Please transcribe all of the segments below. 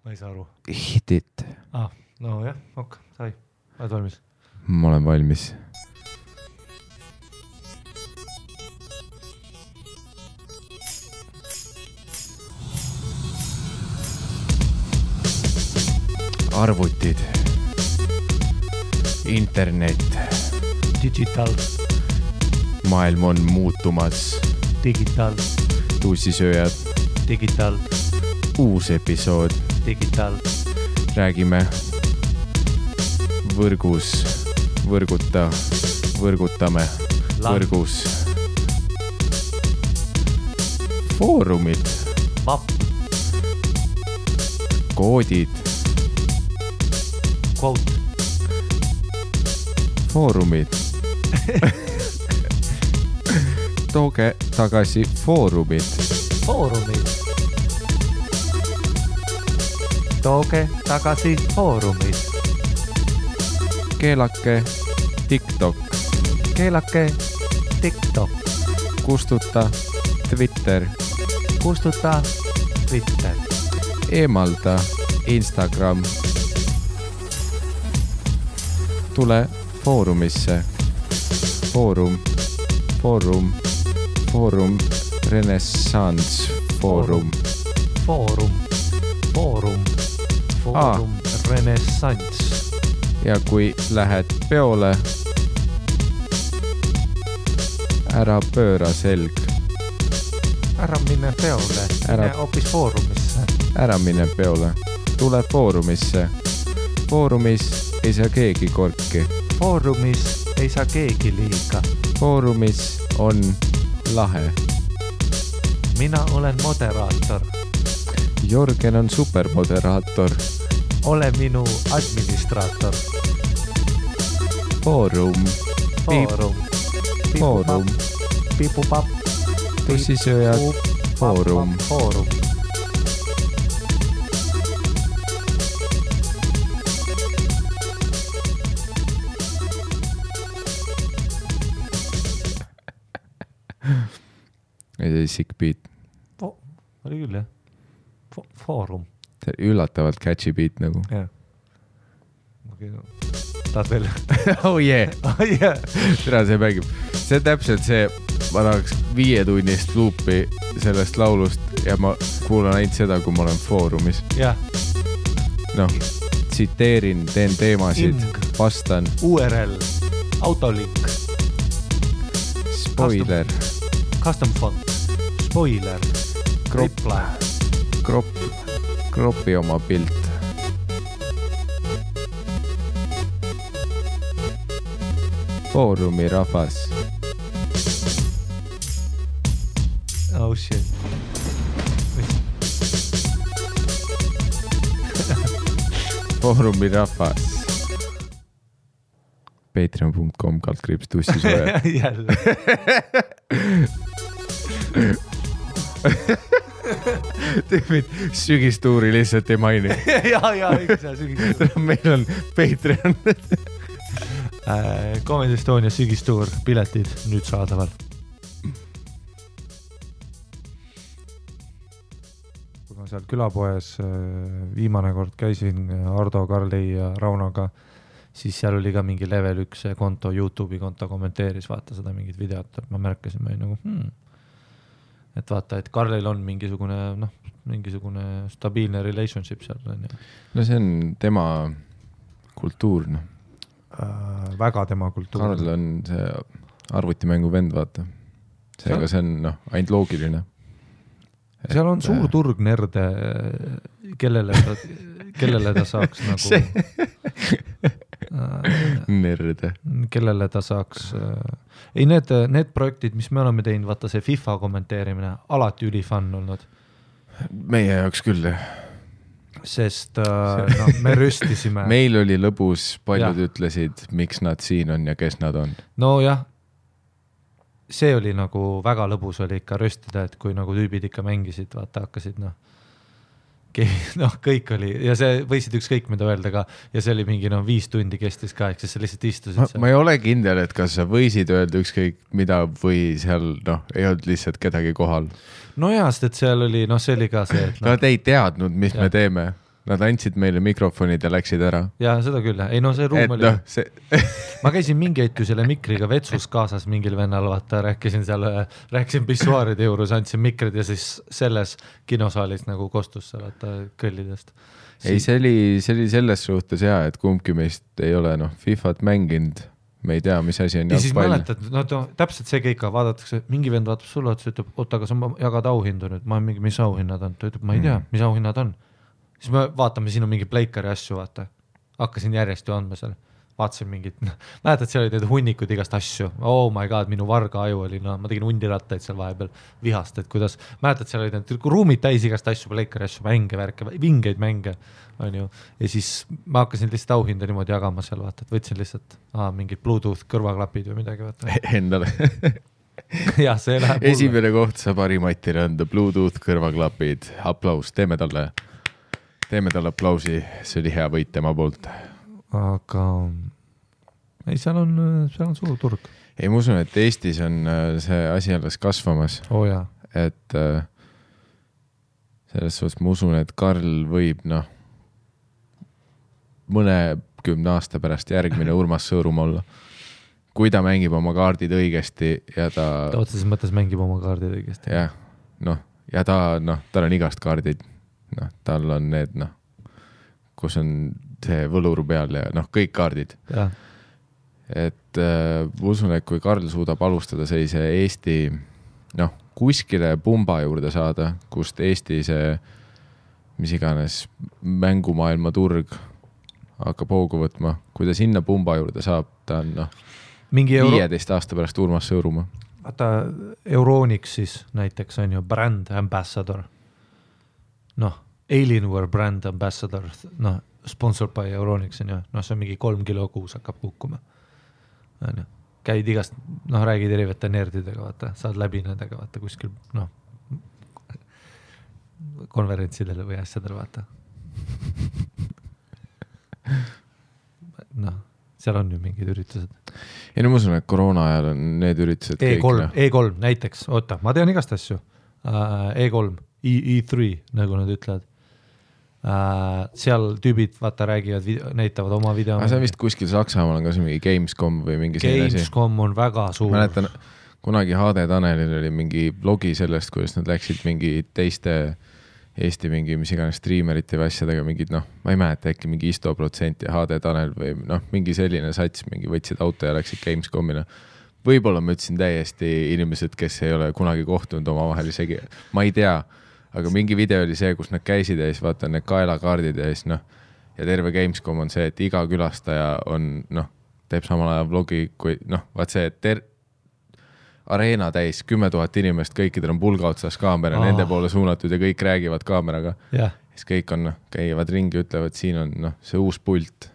Ma ei saa aru. Hit it. No jah, sai. Oled valmis? Ma olen valmis. Arvutid. Internet. Digital. Maailm on muutumas. Digital. Tussisööjad. Digital. Uus episood. Digital. Räägime võrgus, võrgutame, võrgus. Foorumid. Vapp. Koodid. Quote. Foorumid. Tooge tagasi foorumid. Foorumid. Tooge tagasi foorumid. Keelake TikTok. Keelake TikTok. Kustuta Twitter. Kustuta Twitter. Eemalda Instagram. Tule foorumisse. Foorum Renaissance Foorum. Foorum Renaissance. Ja kui lähed peole, ära pööra selg. Ära mine peole, mine hoopis foorumisse. Ära mine peole, tule foorumisse. Foorumis ei saa keegi korki. Foorumis ei saa keegi liiga. Foorumis on lahe. Mina olen moderaator. Jorgen on supermoderaator. Ole minu administraator. Foorum. Pipupapp. Tussisööjad. Foorum. See sick beat. Oli küll jah. Foorum. Üllatavalt catchy beat nagu. Jah. Okay, no. Tahad veel? Oh yeah. Tere, see mängib. See on täpselt see, ma tahaks 5 tunnist luupi sellest laulust ja ma kuulan ainult seda, kui ma olen foorumis. Jah. Noh, tsiteerin, teen teemasid, vastan. URL, autolink. Spoiler. Custom font. Spoiler. Reply. Kropi oma pilt. Foorumi rahvas. Oh shit. Foorumi rahvas. Patreon.com/tussisööjad. Jälle. Tüübid sügistuuri lihtsalt ei maini. Ja, sügistuur. Meil on Patreon. Comedy Estonia sügistuur, piletid nüüd saadaval. Kui ma seal külapoes viimane kord käisin Ardo, Karli ja Raunoga, siis seal oli ka mingi level 1 konto, YouTube'i konto kommenteeris, vaata seda mingit videot, et ma märkasin, ma nagu et vaata, et Karlil on mingisugune stabiilne relationship seal. No see on tema kultuur, noh. Väga tema kultuur. Karl on see arvutimängu vend, vaata. Seega see on ainult loogiline. Seal on suur turg nerde, kellele ta saaks nagu... Nerde. Kellele ta saaks... Ei, need projektid, mis me oleme teinud, vaata see FIFA kommenteerimine, alati ülifun olnud. Meie jaoks küll, Sest me rüstisime. Meil oli lõbus, paljud ütlesid, miks nad siin on ja kes nad on. No jah, see oli nagu väga lõbus oli ikka rüstida, et kui nagu tüübid ikka mängisid, vaata hakkasid, kõik oli, ja see võisid ükskõik mida öelda ka, ja see oli mingi 5 tundi kestis ka, eks sa lihtsalt istusid. Ma ei ole kindel, et kas sa võisid öelda ükskõik mida või seal ei olnud lihtsalt kedagi kohal. No jaa, sest et seal oli, see oli ka see, et Nad ei teadnud, mis me teeme. Nad andsid meile mikrofonid ja läksid ära. Ja seda küll, ei no see ruum oli ma käisin mingi hetk ju selle mikriga vetsus kaasas mingil vennal, vaata, rääkisin pissuaaride juures, andsin mikrid ja siis selles kinosaalis nagu kostus seal, vaata, kõllidest. Ei, see oli selles suhtes hea, et kumbki meist ei ole FIFAt mänginud, me ei tea, mis asi on ja siis mäletad, täpselt see kõik vaadatakse, mingi vend vaatab sulle, ütleb, oota, aga sa jagad auhindu nüüd, ma mingi, mis auhinnad on, ta ütleb, ma ei tea, mis auhinnad on. Siis me vaatame, siin on mingi pleikari asju, vaata, hakkasin järjest ju andma seal, vaatasin mingit, mäletad, seal olid need hunnikud igast asju, oh my god, minu varga aju oli, ma tegin hundirattaid seal vahepeal vihast, et kuidas, mäletad, seal olid need ruumid täis igast asju, pleikari asju, mänge, värke, vingeid mänge, on ju, ja siis ma hakkasin lihtsalt auhinda niimoodi jagama seal, vaata, et võtsin lihtsalt mingid Bluetooth kõrvaklapid või midagi, vaata. Endale. Jah, see läheb esimene koht saab Harimatile anda Bluetooth kõrvaklapid, aplaus, teeme talle aplausi, see oli hea võit tema poolt. Aga ei, seal on suur turg. Ei, ma usun, et Eestis on see asi alles kasvamas. Jaa. Et selles suhtes ma usun, et Karl võib, mõne 10 aasta pärast järgmine Urmas Sõõrum olla. Kui ta mängib oma kaardid õigesti ja ta otseses mõttes mängib oma kaardid õigesti. Jah, ja tal on igast kaardid. Tal on need, kus on see võlur peal ja kõik kaardid. Ja. Et usun, et kui Karl suudab alustada sellise Eesti, kuskile pumba juurde saada, kust Eesti see, mis iganes mängumaailma turg hakkab hoogu võtma, kui ta sinna pumba juurde saab, ta on 15 aasta pärast Urmas Sõõruma. Vaata, Euronics siis näiteks on ju brand ambassador. Alienware brand ambassador, sponsored by Euronics on ju, see on mingi 3 kilo kuus hakkab kukkuma. Käid igast, räägid erivate nerdidega, vaata, saad läbi nendega, vaata, kuskil, konverentsidele või asjadele, vaata. Seal on ju mingid üritused. Ei, ma usun, et koroona ajal on need üritused E3 näiteks, oota, ma tean igast asju. E3, E3, nagu nad ütlevad. Seal tüübid, vaata, räägivad, näitavad oma video. See on vist kuskil Saksamaal on ka see mingi Gamescom või mingi selline asi. Gamescom on väga suur. Mäletan, kunagi HD Tanelil oli mingi blogi sellest, kuidas nad läksid mingi teiste Eesti mingi, mis iganes streamerite või asjadega mingid, ma ei mäleta, äkki mingi Isto% ja HD Tanel või mingi selline sats, mingi võtsid auto ja läksid Gamescomina. Võib-olla ma ütlesin täiesti inimesed, kes ei ole kunagi kohtunud oma vahel isegi, ma ei tea, aga mingi video oli see, kus nad käisid ja siis vaata need kaelakaardid ja siis ja terve Gamescom on see, et iga külastaja on, teeb samal ajal vlogi, kui vaat see, et areena täis 10 000 inimest, kõikidel on pulga otsas kaamera, nende poole suunatud ja kõik räägivad kaameraga. Yeah. Siis kõik on, käivad ringi, ütlevad, siin on see uus pult.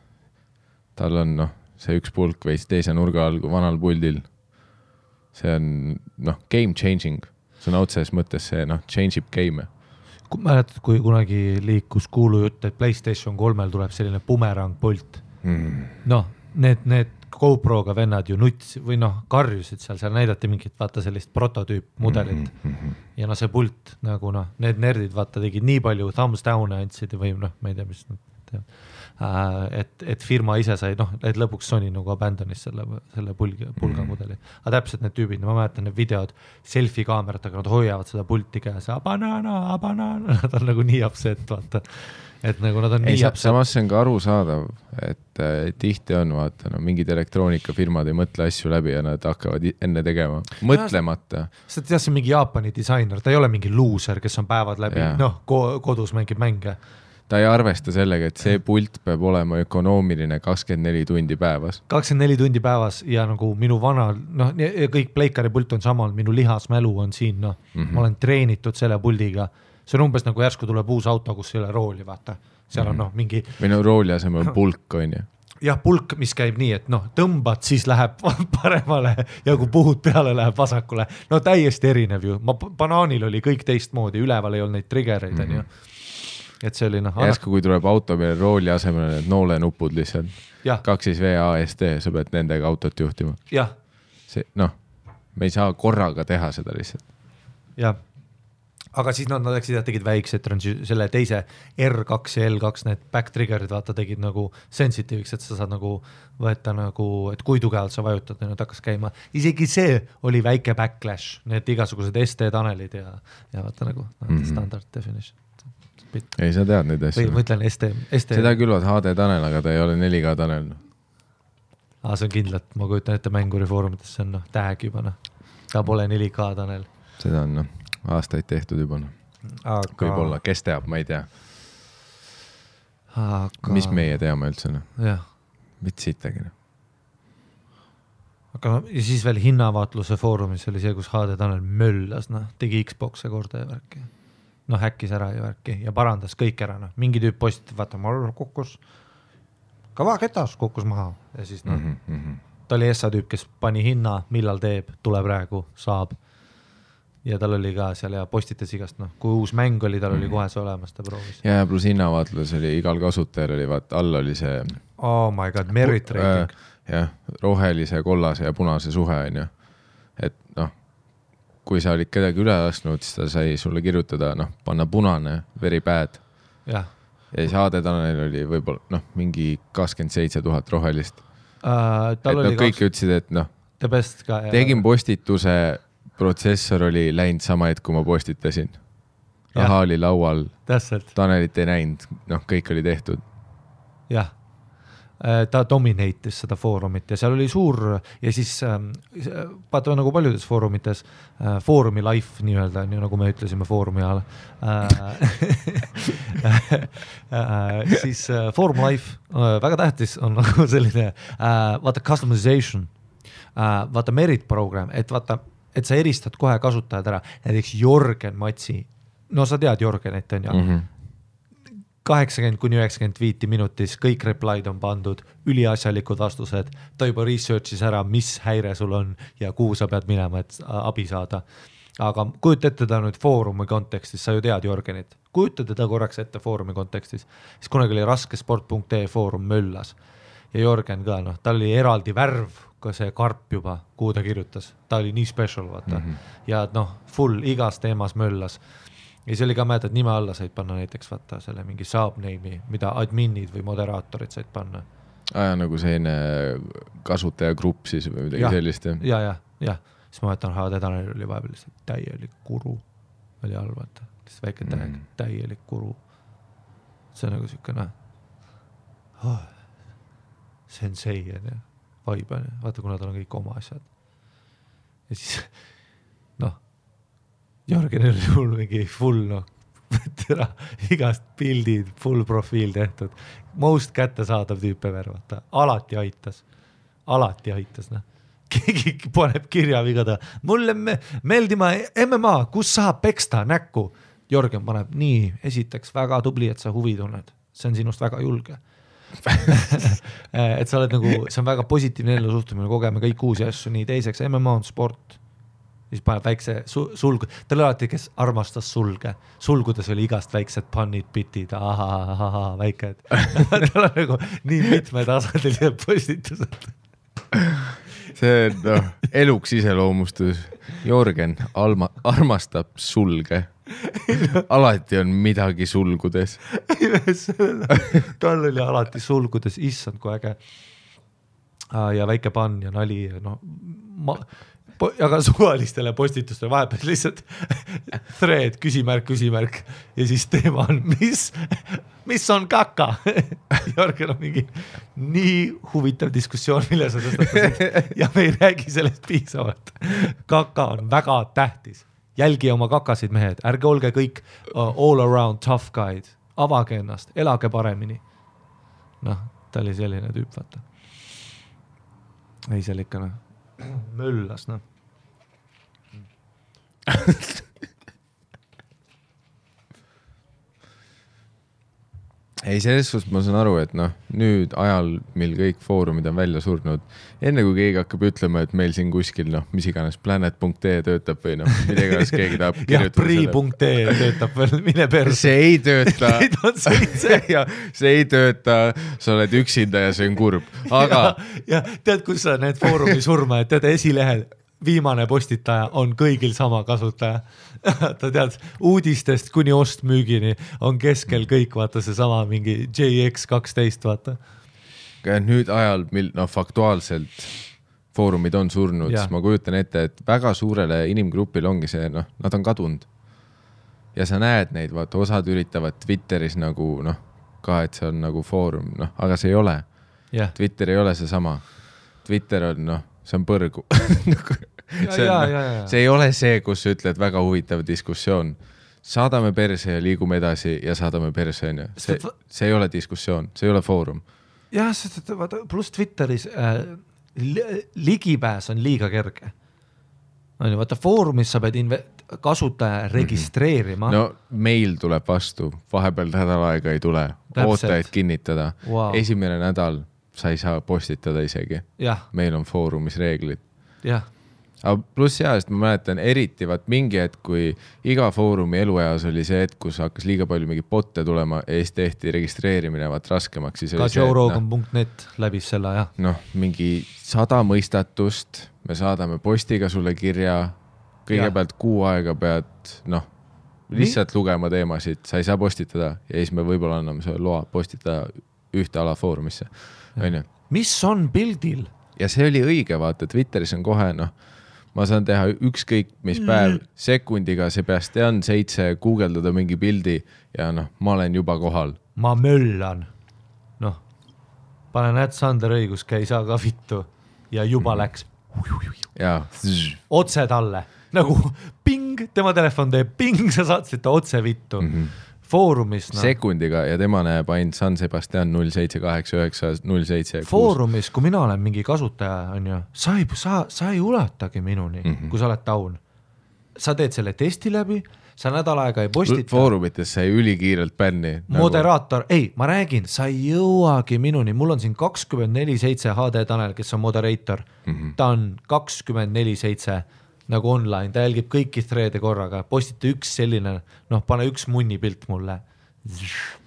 Tal on see üks pulk või teise nurga all vanal puldil. See on game changing. See on otses mõttes see change ib game. Mäletad, kui kunagi liikus kuulu jutt, et PlayStation 3 tuleb selline bumerang pult. Need GoProga vennad ju nuts või karjusid seal näidati mingit, vaata sellist prototüüp mudelit ja see pult nagu need nerdid vaata tegid nii palju thumbs down andsid või ma ei tea, mis et firma ise sai, et lõpuks Sony nagu abandonis selle pulga mudeli. Aga täpselt need tüübid, ma mäletan need videod selfie kaameratega, nad hoiavad seda pulti käes, abanana, nad on nagu nii upset, vaata. Et nagu nad on nii upset. Samas see on ka arusaadav, et tihti on, vaata, mingid elektroonikafirmad ei mõtle asju läbi ja nad hakkavad enne tegema. Mõtlemata. Sa tead, see on mingi Jaapani disainer, ta ei ole mingi loser, kes on päevad läbi, kodus mängib mänge. Ta ei arvesta sellega, et see pult peab olema ökonoomiline 24 tundi päevas. 24 tundi päevas ja nagu minu vana, kõik pleikari pult on samal, minu lihasmälu on siin, ma olen treenitud selle puldiga. See on umbes nagu järsku tuleb uus auto, kus ei ole rooli, vaata. Seal on mingi... Või rooli asemel pulk, on ju. Jah, pulk, mis käib nii, et tõmbad, siis läheb paremale ja kui puhud peale, läheb vasakule. Täiesti erinev ju. Banaanil oli kõik teistmoodi, üleval ei olnud neid triggereid, on ju. Et see oli Järsku, kui tuleb auto peale rooli asemel need noolenupud lihtsalt. 2V ASD, sa pead nendega autot juhtima. Jah. Me ei saa korraga teha seda lihtsalt. Jah. aga siis nad läksid ja tegid väiksed selle teise R2 ja L2 need back trigger'id vaata tegid nagu sensitiiviks, et sa saad nagu võtta nagu, et kui tugevalt sa vajutad ja nüüd hakkas käima. Isegi see oli väike backlash, need igasugused ST tanelid ja vaata nagu standard definition. Ei, sa tead neid asju. Või ma ütlen ST. Seda külvad HD tanel, aga ta ei ole 4K tanel. See on kindlalt, ma kujutan ette mänguri foorumites, see on tag juba. Ta pole 4K tanel. Seda on aastaid tehtud juba. Võib-olla, kes teab, ma ei tea. Mis meie teame üldse? Jah. Vitsitagi. Aga ja siis veel hinnavaatluse foorumis oli see, kus HD tanel möllas, tegi Xbox'e korda ja värki. Häkkis ära ja värki ja parandas kõik ära. Mingi tüüp postitab, vaata, ma kukkus kava ketas, kukkus maha. Ja siis ta oli ESA tüüp, kes pani hinna, millal teeb, tule praegu, saab. Ja tal oli ka seal ja postitas igast, kui uus mäng oli, tal oli kohe see olemas, ta proovis. Ja pluss hinnavaatlus oli, igal kasutajal oli, vaata, all oli see oh my god, merit rating. Jah, rohelise, kollase ja punase suhe on ju. Et kui sa olid kedagi üle lasknud, siis ta sai sulle kirjutada, panna punane, very bad. Ja siis HD tanel oli võib-olla mingi 27 000 rohelist. Kõik ütlesid, et tegin postituse, protsessor oli läinud sama hetk, kui ma postitasin. Raha oli laual, tanelit ei näinud, kõik oli tehtud. Jah, ta dominate'is seda foorumit ja seal oli suur ja siis vaata nagu paljudes foorumites foorumi life nii-öelda, nii nagu me ütlesime foorumi ajal siis forum life väga tähtis on nagu selline vaata customization, vaata merit program, et vaata, et sa eristad kohe kasutajad ära, näiteks Jorgen Matsi, sa tead Jorgenit on ju 80-95 minutis, kõik replied on pandud, üliasjalikud vastused, ta juba researchis ära, mis häire sul on ja kuhu sa pead minema, et abi saada. Aga kujuta ette ta nüüd foorumi kontekstis, sa ju tead Jorgenit, kujuta teda korraks ette foorumi kontekstis, siis kunagi oli raskesport.ee foorum möllas ja Jorgen ka, ta oli eraldi värv, ka see karp juba, kuhu ta kirjutas, ta oli nii special, vaata. Ja full igas teemas möllas. Ja see oli ka mäed, et nime alla said panna näiteks vaata selle mingi subname'i, mida adminid või moderaatorid said panna. Nagu selline kasutaja-grupp siis või midagi sellist. Ja. Siis ma võtan HD tanel oli vahepeal täielik kuru. Oli all, vaata. Väike tag, täielik kuru. See on nagu siukene sensei on ja vibe on ja vaata, kuna tal on kõik oma asjad. Ja siis Jorgen oli sul mingi full, igast pildid, full profiil tehtud. Most kättesaadav tüüpe värvata. Alati aitas. Keegi paneb kirja vigada. Mulle meeldima MMA, kus saab peksta näkku. Jorgen paneb nii, esiteks väga tubli, et sa huvi tunned. See on sinust väga julge. Et sa oled nagu, see on väga positiivne ellu suhtumine, kogeme kõik uusi asju, nii teiseks MMA on sport. Siis paneb väikse sulgu, tal alati, kes armastas sulge, sulgudes oli igast väiksed pannid, bitid, väiked. Tal on nagu nii mitme tasandilised postitused. See on eluks iseloomustus. Jorgen armastab sulge. Alati on midagi sulgudes. Tal oli alati sulgudes, issand kui äge. Ja väike pann ja nali. Aga suvalistele postitustele vahepeal lihtsalt thread, küsimärk ja siis teema on, mis on kaka? Jorgen on mingi nii huvitav diskussioon, mille sa tõstatasid ja me ei räägi sellest piisavalt. Kaka on väga tähtis. Jälgi oma kakasid mehed, ärge olge kõik all around tough guide, avage ennast, elage paremini. Ta oli selline tüüp, vaata. Ei, seal ikka möllas, Ei, selles suhtes ma saan aru, et nüüd ajal, mil kõik foorumid on välja surnud, enne kui keegi hakkab ütlema, et meil siin kuskil, mis iganes planet.ee töötab või midagi, keegi tahab kirjutada. Pri.ee töötab veel, mine perse. See ei tööta. See ei tööta, sa oled üksinda ja see on kurb. Aga... Ja tead, kus sa need foorumi surma, et tead esilehel viimane postitaja on kõigil sama kasutaja. Ta tead, uudistest kuni ostmüügini on keskel kõik, vaata see sama mingi JX12, vaata. Nüüd ajal, mil faktuaalselt foorumid on surnud, siis ma kujutan ette, et väga suurele inimgrupil ongi see, nad on kadunud. Ja sa näed neid, vaata, osad üritavad Twitteris nagu, ka, et see on nagu foorum, aga see ei ole. Twitter ei ole see sama. Twitter on, see on põrgu. See ei ole see, kus sa ütled väga huvitav diskussioon. Saadame perse ja liigume edasi ja saadame perse. See ei ole diskussioon, see ei ole foorum. Jah, pluss Twitteris ligipääs on liiga kerge. Vaata, foorumis sa pead kasutaja registreerima. No meil tuleb vastu, vahepeal nädal aega ei tule. Oota, et kinnitada. Esimene nädal sa ei saa postitada isegi. Meil on foorumis reeglid. Aga pluss sest ma mäletan eriti mingi hetk, kui iga foorumi elueas oli see hetk, kus hakkas liiga palju mingi botte tulema ja siis tehti registreerimine raskemaks. Ka joerogan.net läbis selle, jah. Mingi 100 mõistatust, me saadame postiga sulle kirja, kõigepealt kuu aega pead, lihtsalt lugema teemasid, sa ei saa postitada ja siis me võib-olla anname selle loa postitada ühte ala foorumisse. Mis on pildil? Ja see oli õige, vaata, Twitteris on kohe, ma saan teha ükskõik mis päev sekundiga, Sebastian 7 guugeldada mingi pildi ja ma olen juba kohal. Ma möllan. Panen Sander õigus, käi saa ka vittu ja juba läks. Otse talle. Nagu ping, tema telefon teeb ping, sa saatsid ta otse vittu. Foorumis. Sekundiga ja tema näeb ainult San Sebastian 078907. Foorumis, kui mina olen mingi kasutaja, on ju, sa ei ulatagi minuni, kui sa oled taun. Sa teed selle testi läbi, sa nädal aega ei postita. Foorumites sai ülikiirelt bänni. Moderaator, ma räägin, sa ei jõuagi minuni. Mul on siin 24/7 HD Tanel, kes on moderator. Ta on 24/7 nagu online, ta jälgib kõiki threade korraga, postita üks selline, pane üks munni pilt mulle.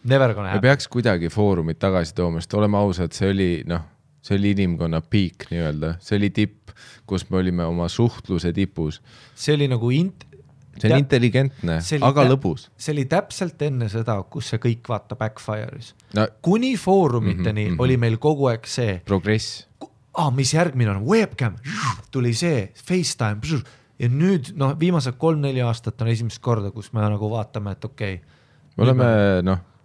Never gonna happen. Me peaks kuidagi foorumit tagasi tooma, sest oleme ausad, see oli inimkonna peak nii-öelda, see oli tipp, kus me olime oma suhtluse tipus. See oli nagu see on intelligentne, aga lõbus. See oli täpselt enne seda, kus see kõik vaata backfire'is. Kuni foorumiteni oli meil kogu aeg see progress. Mis järgmine on? Webcam, tuli see, FaceTime ja nüüd viimased 3-4 aastat on esimest korda, kus me nagu vaatame, et okei. Me oleme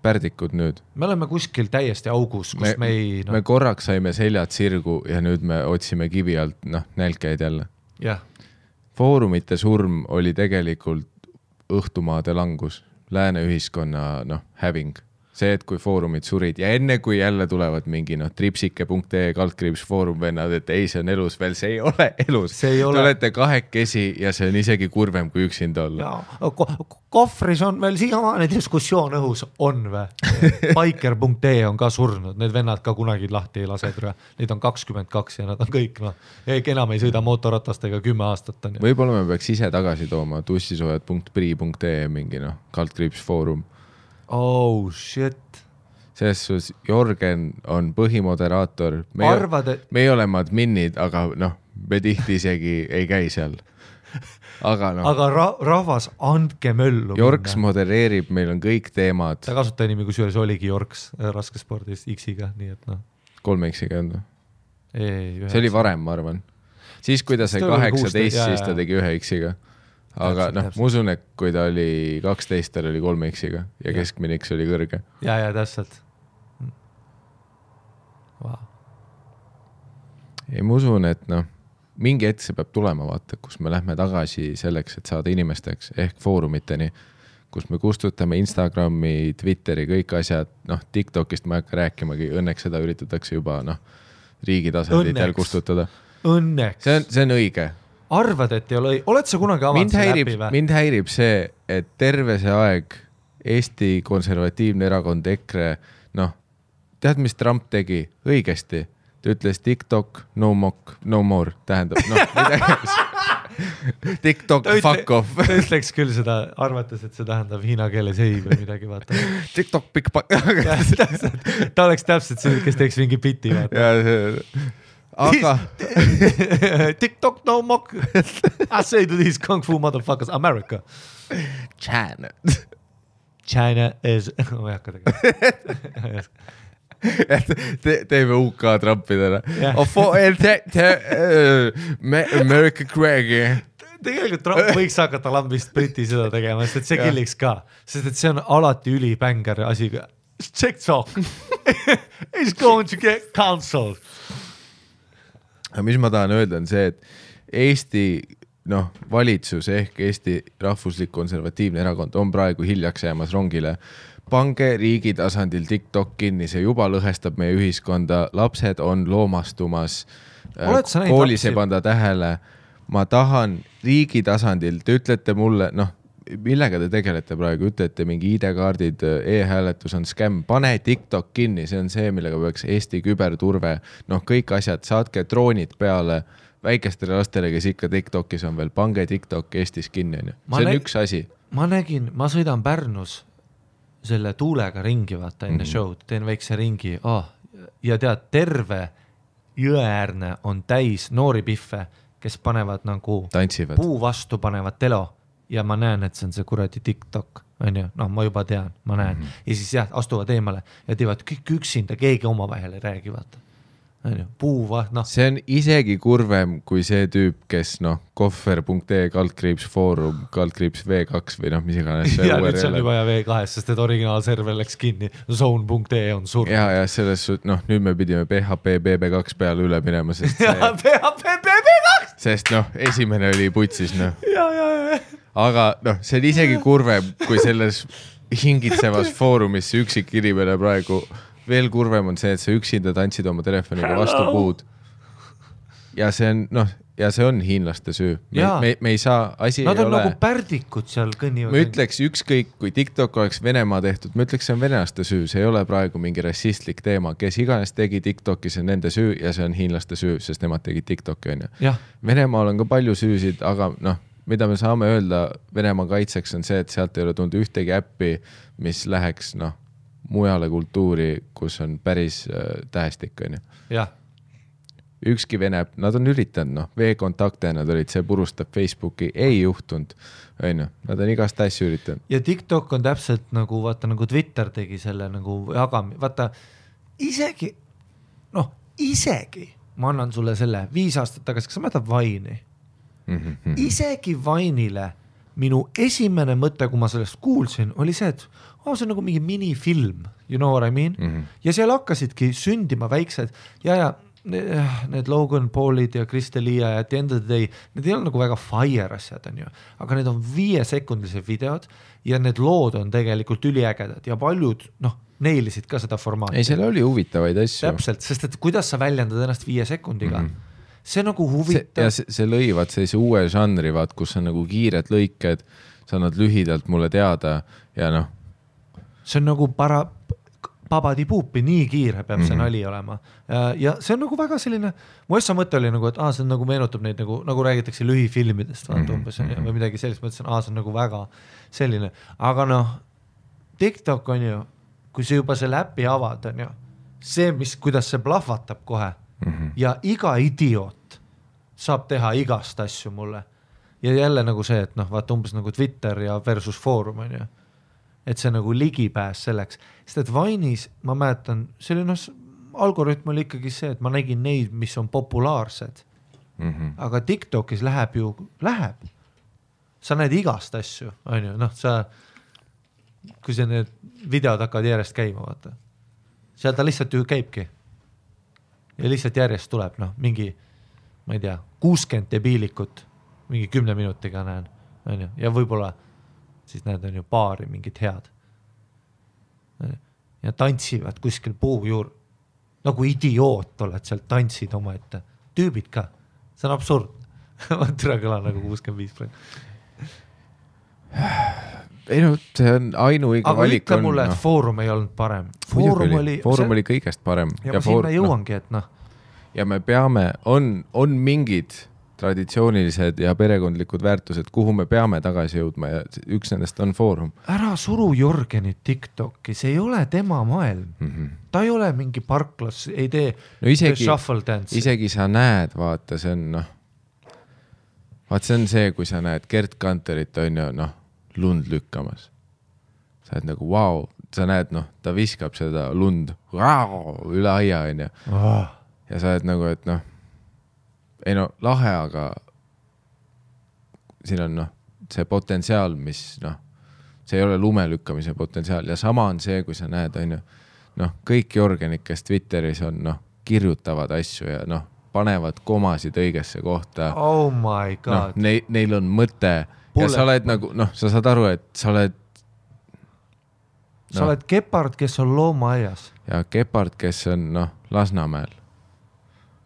pärdikud nüüd. Me oleme kuskil täiesti augus, kus me ei... Me korraks saime seljad sirgu ja nüüd me otsime kivi alt nälkeid jälle. Foorumite surm oli tegelikult õhtumaade langus, lääne ühiskonna häving. See, et kui foorumid surid ja enne kui jälle tulevad mingi tripsike.ee /foorum vennad, et ei, see on elus veel, see ei ole elus. Te olete kahekesi ja see on isegi kurvem kui üksinda olla. Kohvris on veel siiamaani diskussioon õhus, on või? Biker.ee on ka surnud, need vennad ka kunagi lahti ei lase. Neid on 22 ja nad on kõik, enam ei sõida mootorratastega 10 aastat. On, võib-olla me peaks ise tagasi tooma tussisoojad.pri.ee mingi /foorum. Oh shit. Selles suus Jorgen on põhimoderaator. Me ei ole adminid, aga me tihti isegi ei käi seal. Aga rahvas, andke möllu. Jorks modereerib, meil on kõik teemad. Ta kasuta nimi, kus juures oligi Jorks raskespordis X-iga, nii et 3 X-iga on. See oli varem, ma arvan. Siis, kui ta sai 18, siis ta tegi 1 X-iga. Aga ma usun, et kui ta oli 12, ta oli 3 X-iga ja keskmine X oli kõrge. Ja, täpselt. Wow. Ei, ma usun, et mingi hetk see peab tulema, vaata, kus me lähme tagasi selleks, et saada inimesteks ehk foorumiteni, kus me kustutame Instagrami, Twitteri, kõik asjad, TikTokist ma ei hakka rääkimagi, õnneks seda üritatakse juba riigi tasanditel kustutada. Õnneks. See on õige. Arvad, et ei ole, oled sa kunagi avanud see läbi või? Mind häirib see, et terve see aeg Eesti konservatiivne erakond EKRE, tead, mis Trump tegi? Õigesti. Ta ütles TikTok, no more, tähendab, TikTok, fuck off. Ta ütleks küll seda, arvates, et see tähendab hiina keeles ei või midagi, vaata. TikTok, big fuck. Ta oleks täpselt see, kes teeks mingi piti, vaata. aga TikTok no mock. I say to these kung fu motherfuckers, America. China is... ma ei hakka tegema. teeme UK Trumpidele. America Craigie. Tegelikult Trump võiks hakata lambist Briti seda tegema, sest et see killiks ka. Sest et see on alati ülibänger asi. TikTok is going to get cancelled. Aga mis ma tahan öelda on see, et Eesti valitsus ehk Eesti rahvuslik konservatiivne erakond on praegu hiljaks jäämas rongile. Pange riigi tasandil TikTok kinni, see juba lõhestab meie ühiskonda, lapsed on loomastumas, koolis ei panda tähele. Ma tahan riigi tasandil, te ütlete mulle, millega te tegelete praegu, ütlete mingi ID-kaardid, e-hääletus on skämm, pane TikTok kinni, see on see, millega peaks Eesti küberturve, kõik asjad, saatke droonid peale väikestele lastele, kes ikka TikTokis on veel, pange TikTok Eestis kinni, see on üks asi. Ma sõidan Pärnus selle tuulega ringi, vaata enne show'd, teen väikse ringi ja tead, terve jõeäärne on täis noori pihve, kes panevad nagu tantsivad. Puu vastu panevad telo ja ma näen, et see on see kuradi TikTok, on ju, ma juba tean, ma näen. Ja siis astuvad eemale ja teevad kõik üksinda, keegi oma vahel ei räägi, vaata. Puu See on isegi kurvem kui see tüüp, kes kohver.ee /foorum /v2 või mis iganes. Ja nüüd see on juba V2, sest et originaalserver läks kinni. Zone.ee on surnud. Ja selles nüüd me pidime PHP BB2 peale üle minema, sest PHP BB2! Sest esimene oli putsis. Aga see on isegi kurvem kui selles hingitsevas foorumis see üksik inimene praegu. Veel kurvem on see, et sa üksinda tantsid oma telefoniga vastu puud. Ja see on hiinlaste süü. Me ei saa, asi Nad ei on ole. Nagu pärdikud seal kõnnivad. Ma ütleks ükskõik, kui TikTok oleks Venemaa tehtud, ma ütleks, see on venelaste süü, see ei ole praegu mingi rassistlik teema. Kes iganes tegi TikToki, see on nende süü ja see on hiinlaste süü, sest nemad tegid TikToki, on ju. Venemaal on ka palju süüsid, aga mida me saame öelda Venemaa kaitseks on see, et sealt ei ole tulnud ühtegi äppi, mis läheks mujale kultuuri, kus on päris tähestik, on ju. Ükski Vene, nad on üritanud, V-kontakte nad olid, see purustab Facebooki, ei juhtunud, on ju. Nad on igast asju üritanud. Ja TikTok on täpselt nagu, vaata, nagu Twitter tegi selle nagu jagami, vaata, isegi, ma annan sulle selle 5 aastat tagasi, kas sa mäletad Vine'i? Isegi Vine'ile minu esimene mõte, kui ma sellest kuulsin, oli see, et see on nagu mingi minifilm, you know what I mean? Ja seal hakkasidki sündima väiksed ja need Logan Paulid ja Kristelia ja at the end of the day, need ei ole nagu väga fire asjad, on ju. Aga need on 5-sekundilised videod ja need lood on tegelikult üliägedad ja paljud, neilisid ka seda formaati. Ei, seal oli huvitavaid asju. Täpselt, sest et kuidas sa väljendad ennast 5 sekundiga? See nagu huvitav. See lõivad sellise uue žanri, kus on nagu kiired lõiked, sa annad lühidalt mulle teada ja see on nagu babadi-puupi, nii kiire peab see nali olema. Ja see on nagu väga selline, mu essa mõte oli nagu, et see nagu meenutab neid nagu räägitakse lühifilmidest umbes, või midagi sellist, mõtlesin, see on nagu väga selline. Aga TikTok on ju, kui see juba selle äppi avad, on ju, see, kuidas see plahvatab kohe ja iga idioot saab teha igast asju mulle. Ja jälle nagu see, et vaata umbes nagu Twitter ja versus foorum, on ju. Et see nagu ligipääs selleks. Sest et Vine'is, ma mäletan, see oli algoritm oli ikkagi see, et ma nägin neid, mis on populaarsed. Aga TikTokis läheb. Sa näed igast asju, on ju. Kui see need videod hakkavad järjest käima, vaata. Seal ta lihtsalt ju käibki. Ja lihtsalt järjest tuleb, mingi, ma ei tea, 60 debiilikut, mingi 10 minutiga näen, on ju. Ja võib-olla siis näed on ju paari mingid head. Ja tantsivad kuskil puu juur. Nagu idioot oled seal, tantsid oma ette. Tüübid ka. See on absurd. Ma türa kõla nagu 65%. Ei see on ainuõige valik. Aga ütle mulle, et foorum ei olnud parem. Foorum oli kõigest parem. Ja ma sinna jõuangi, et Ja me peame, on mingid traditsioonilised ja perekondlikud väärtused, kuhu me peame tagasi jõudma ja üks nendest on Foorum. Ära suru Jorgenit TikTok'i, see ei ole tema maailm. Ta ei ole mingi parklas, ei tee shuffle dance. Isegi sa näed, vaata, see on see on see, kui sa näed Gert Kanterit on ju lund lükkamas. Sa oled nagu vau, sa näed, ta viskab seda lund üle aia on ju. Ja sa oled nagu, et ei lahe, aga siin on see potentsiaal, mis see ei ole lume lükkamise potentsiaal ja sama on see, kui sa näed on ju, kõik Jorgenid, kes Twitteris on kirjutavad asju ja panevad komasid õigesse kohta. Oh my god. Neil on mõte ja sa oled nagu, sa saad aru, et sa oled sa oled Gepard, kes on loomaaias. Ja Gepard, kes on Lasnamäel.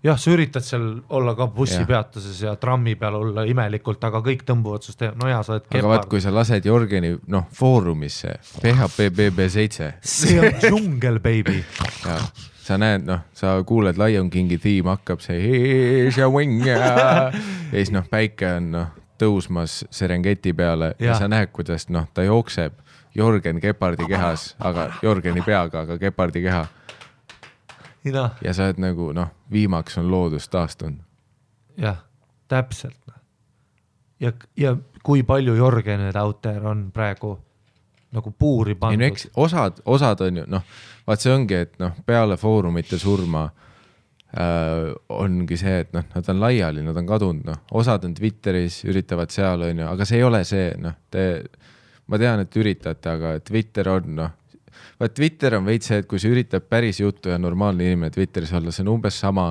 Jah, sa üritad seal olla ka bussipeatuses ja trammi peal olla imelikult, aga kõik tõmbuvad sust sa oled Gepard. Aga vaat, kui sa lased Jorgeni Foorumisse, PHPBB7. See on džungel, baby. Ja sa näed, sa kuuled Lion Kingi tiim hakkab see here's your wing ja siis päike on tõusmas Serengeti peale ja sa näed, kuidas ta jookseb Jorgen Gepardi kehas, aga Jorgeni peaga, aga Gepardi keha. Ja sa oled nagu, viimaks on loodus taastunud. Jah, täpselt. Ja kui palju Jorgenid out there on praegu nagu puuri pandud. Osad on ju, vaat see ongi, et peale Foorumite surma ongi see, et nad on laiali, nad on kadunud, osad on Twitteris, üritavad seal on ju, aga see ei ole see, ma tean, et üritate, aga Twitter on, Twitter on veits see, et kui sa üritab päris juttu ja normaalne inimene Twitteris olla, see on umbes sama,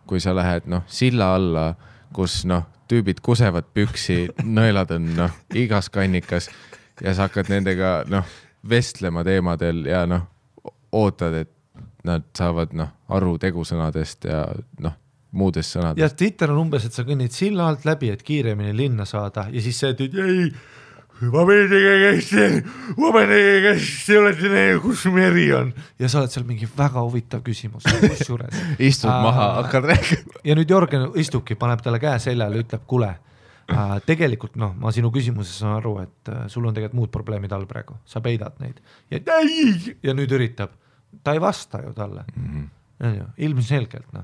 kui sa lähed silla alla, kus tüübid kusevad püksi, nõelad on igas kannikas ja sa hakkad nendega vestlema teemadel ja ootad, et nad saavad aru tegusõnadest ja muudest sõnadest. Ja Twitter on umbes, et sa kõnnid silla alt läbi, et kiiremini linna saada ja siis see, et ei, ma meenegi käest ei olete neil, kus meri on. Ja sa oled seal mingi väga huvitav küsimus. Istud maha, hakkad rääkima. Ja nüüd Jorgen istubki, paneb talle käe seljale, ütleb, kule. Tegelikult ma sinu küsimuses saan aru, et sul on tegelikult muud probleemid all praegu, sa peidad neid ja nüüd üritab, ta ei vasta ju talle ilmselgelt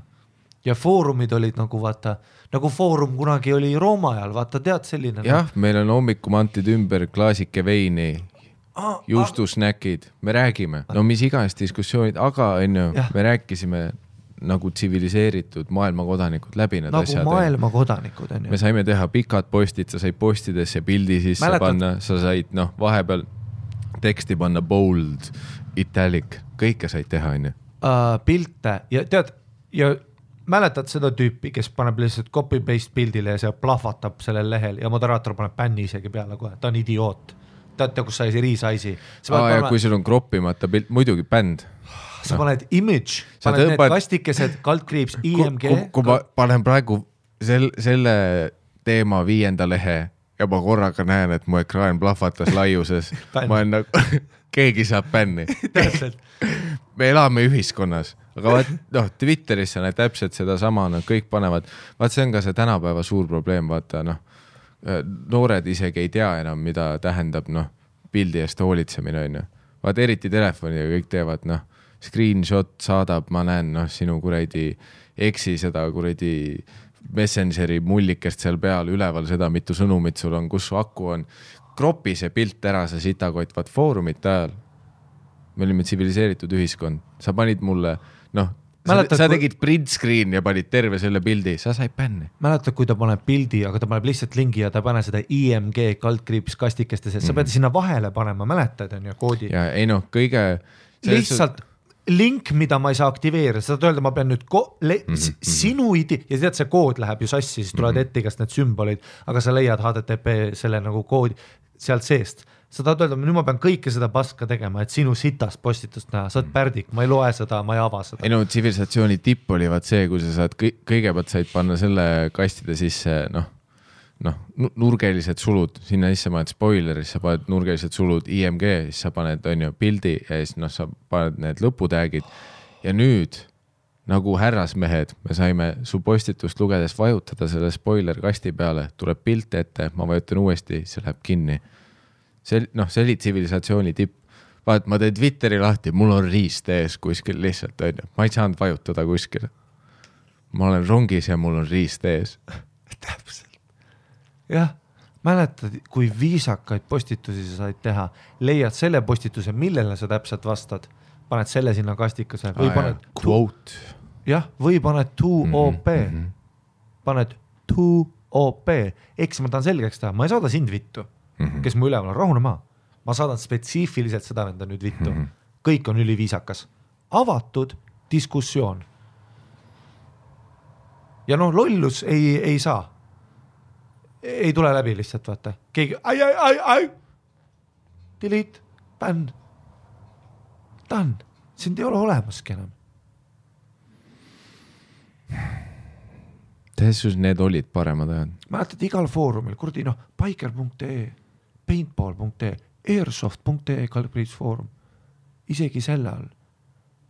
ja Foorumid olid nagu vaata, nagu Foorum kunagi oli Rooma ajal, vaata tead selline jah, meil on hommikumantid ümber klaasike veini juustusnäkid, me räägime mis iganes diskussioonid, aga me rääkisime nagu tsiviliseeritud maailmakodanikud läbi need nagu asjad. Nagu maailmakodanikud on ju. Me saime teha pikad postid, sa said postidesse pildi sisse panna, sa said vahepeal teksti panna bold, italic, kõike said teha on ju. Pilte ja tead, ja mäletad seda tüüpi, kes paneb lihtsalt copy-paste pildile ja see plahvatab sellel lehel ja moderaator paneb bänni isegi peale kohe, ta on idioot. Teate, kus sai see riisaisi. Ja kui sul on kroppimata pilt, muidugi bänd. Sa paned image, paned need kastikesed, kaldkriips, IMG. Kui ma panen praegu selle teema 5. lehe ja ma korraga näen, et mu ekraan plahvatas laiuses, ma olen nagu, keegi saab bänni. Me elame ühiskonnas, aga Twitteris sa näed täpselt seda sama, kõik panevad, see on ka see tänapäeva suur probleem, vaata noored isegi ei tea enam, mida tähendab pildi eest hoolitsemine on ju. Vaat eriti telefoni ja kõik teevad screenshot saadab, ma näen sinu kuradi eksi seda kuradi Messengeri mullikest seal peal, üleval seda, mitu sõnumit sul on, kus su aku on. Kropi see pilt ära, sa sitakott, vaat Foorumite ajal. Me olime tsiviliseeritud ühiskond. Sa panid mulle, sa tegid print screen ja panid terve selle pildi, sa said bänni. Mäletad, kui ta paneb pildi, aga ta paneb lihtsalt lingi ja ta pane seda IMG kaldkriips kastikestes, sa pead sinna vahele panema, mäletad on ju koodi. Ja ei kõige... Lihtsalt link, mida ma ei saa aktiveerida, seda öelda, ma pean nüüd sinu ja tead, see kood läheb ju sassi, siis tulevad ette igast need sümbolid, aga sa leiad HTTP selle nagu koodi sealt seest. Sa tahad öelda, nüüd ma pean kõike seda paska tegema, et sinu sitast postitust näha, sa oled pärdik, ma ei loe seda, ma ei ava seda. Ei tsivilisatsiooni tipp oli vaat see, kui sa saad kõigepealt said panna selle kastide sisse, nurgelised sulud, sinna sisse paned spoileris, sa paned nurgelised sulud IMG, siis sa paned pildi ja siis sa paned need lõputäägid ja nüüd nagu härrasmehed, me saime su postitust lugedes vajutada selle spoiler kasti peale, tuleb pilt ette, ma vajutan uuesti, see läheb kinni. See oli tsivilisatsiooni tipp. Vaat, ma teen Twitteri lahti, mul on riist ees kuskil lihtsalt, ma ei saanud vajutada kuskil. Ma olen rongis ja mul on riist ees. Täpselt. Jah, mäletad, kui viisakaid postitusi sa said teha, leiad selle postituse, millele sa täpselt vastad, paned selle sinna kastikase või paned quote. Jah, või paned 2OP. Paned 2OP. Eks ma tahan selgeks teha, ma ei saada sind vittu, kes mu üleval on, rahune maa. Ma saadan spetsiifiliselt seda venda nüüd vittu. Kõik on üliviisakas. Avatud diskussioon. Ja lollus ei saa. Ei tule läbi lihtsalt, vaata. Keegi, ai. Delete, bänn. Done. Sind ei ole olemaski enam. Teesus need olid paremad ajad. Mäletad igal foorumil, kurdi, biker.ee, paintball.ee, airsoft.ee kalbriitsfoorum. Isegi selle all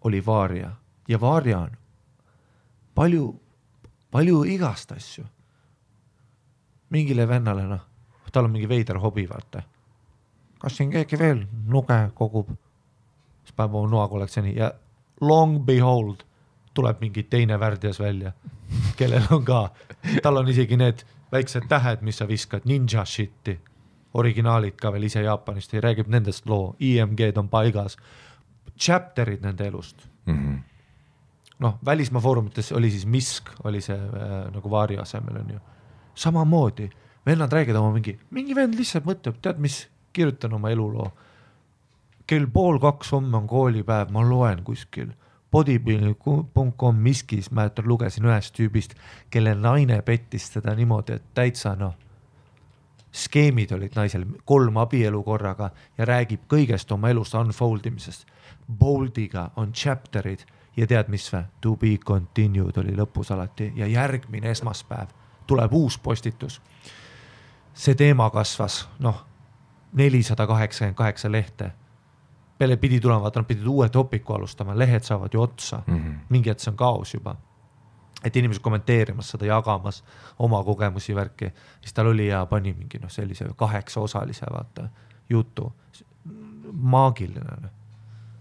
oli Vaaria. Ja Vaaria on palju igast asju. Mingile vennale, tal on mingi veider hobi, vaata. Kas siin keegi veel nuge kogub? Siis päev on noakollektsiooni ja long behold tuleb mingi teine värdjas välja, kellel on ka, tal on isegi need väiksed tähed, mis sa viskad, ninja shitti, originaalid ka veel ise Jaapanist ja räägib nendest loo, IMG-d on paigas, chapterid nende elust. Välismaa foorumites oli siis Misk, oli see nagu Vaari asemel on ju. Samamoodi, vennad räägid oma mingi vend lihtsalt mõtleb, tead mis, kirjutan oma eluloo. Kell 1:30 homme on koolipäev, ma loen kuskil. Bodybuilding.com Miskis, ma lugesin ühest tüübist, kelle naine pettis teda niimoodi, et täitsa skeemid olid naisel 3 abielu korraga ja räägib kõigest oma elust unfoldimisest. Boldiga on chapterid ja tead mis või? To be continued oli lõpus alati ja järgmine esmaspäev tuleb uus postitus. See teema kasvas, 488 lehte. Peale pidi tulema, vaata, nad pidid uue topiku alustama, lehed saavad ju otsa. Mingi et see on kaos juba. Et inimesed kommenteerimas seda, jagamas oma kogemusi värki. Siis tal oli ja pani mingi sellise 8 osalise vaata, jutu. Maagiline.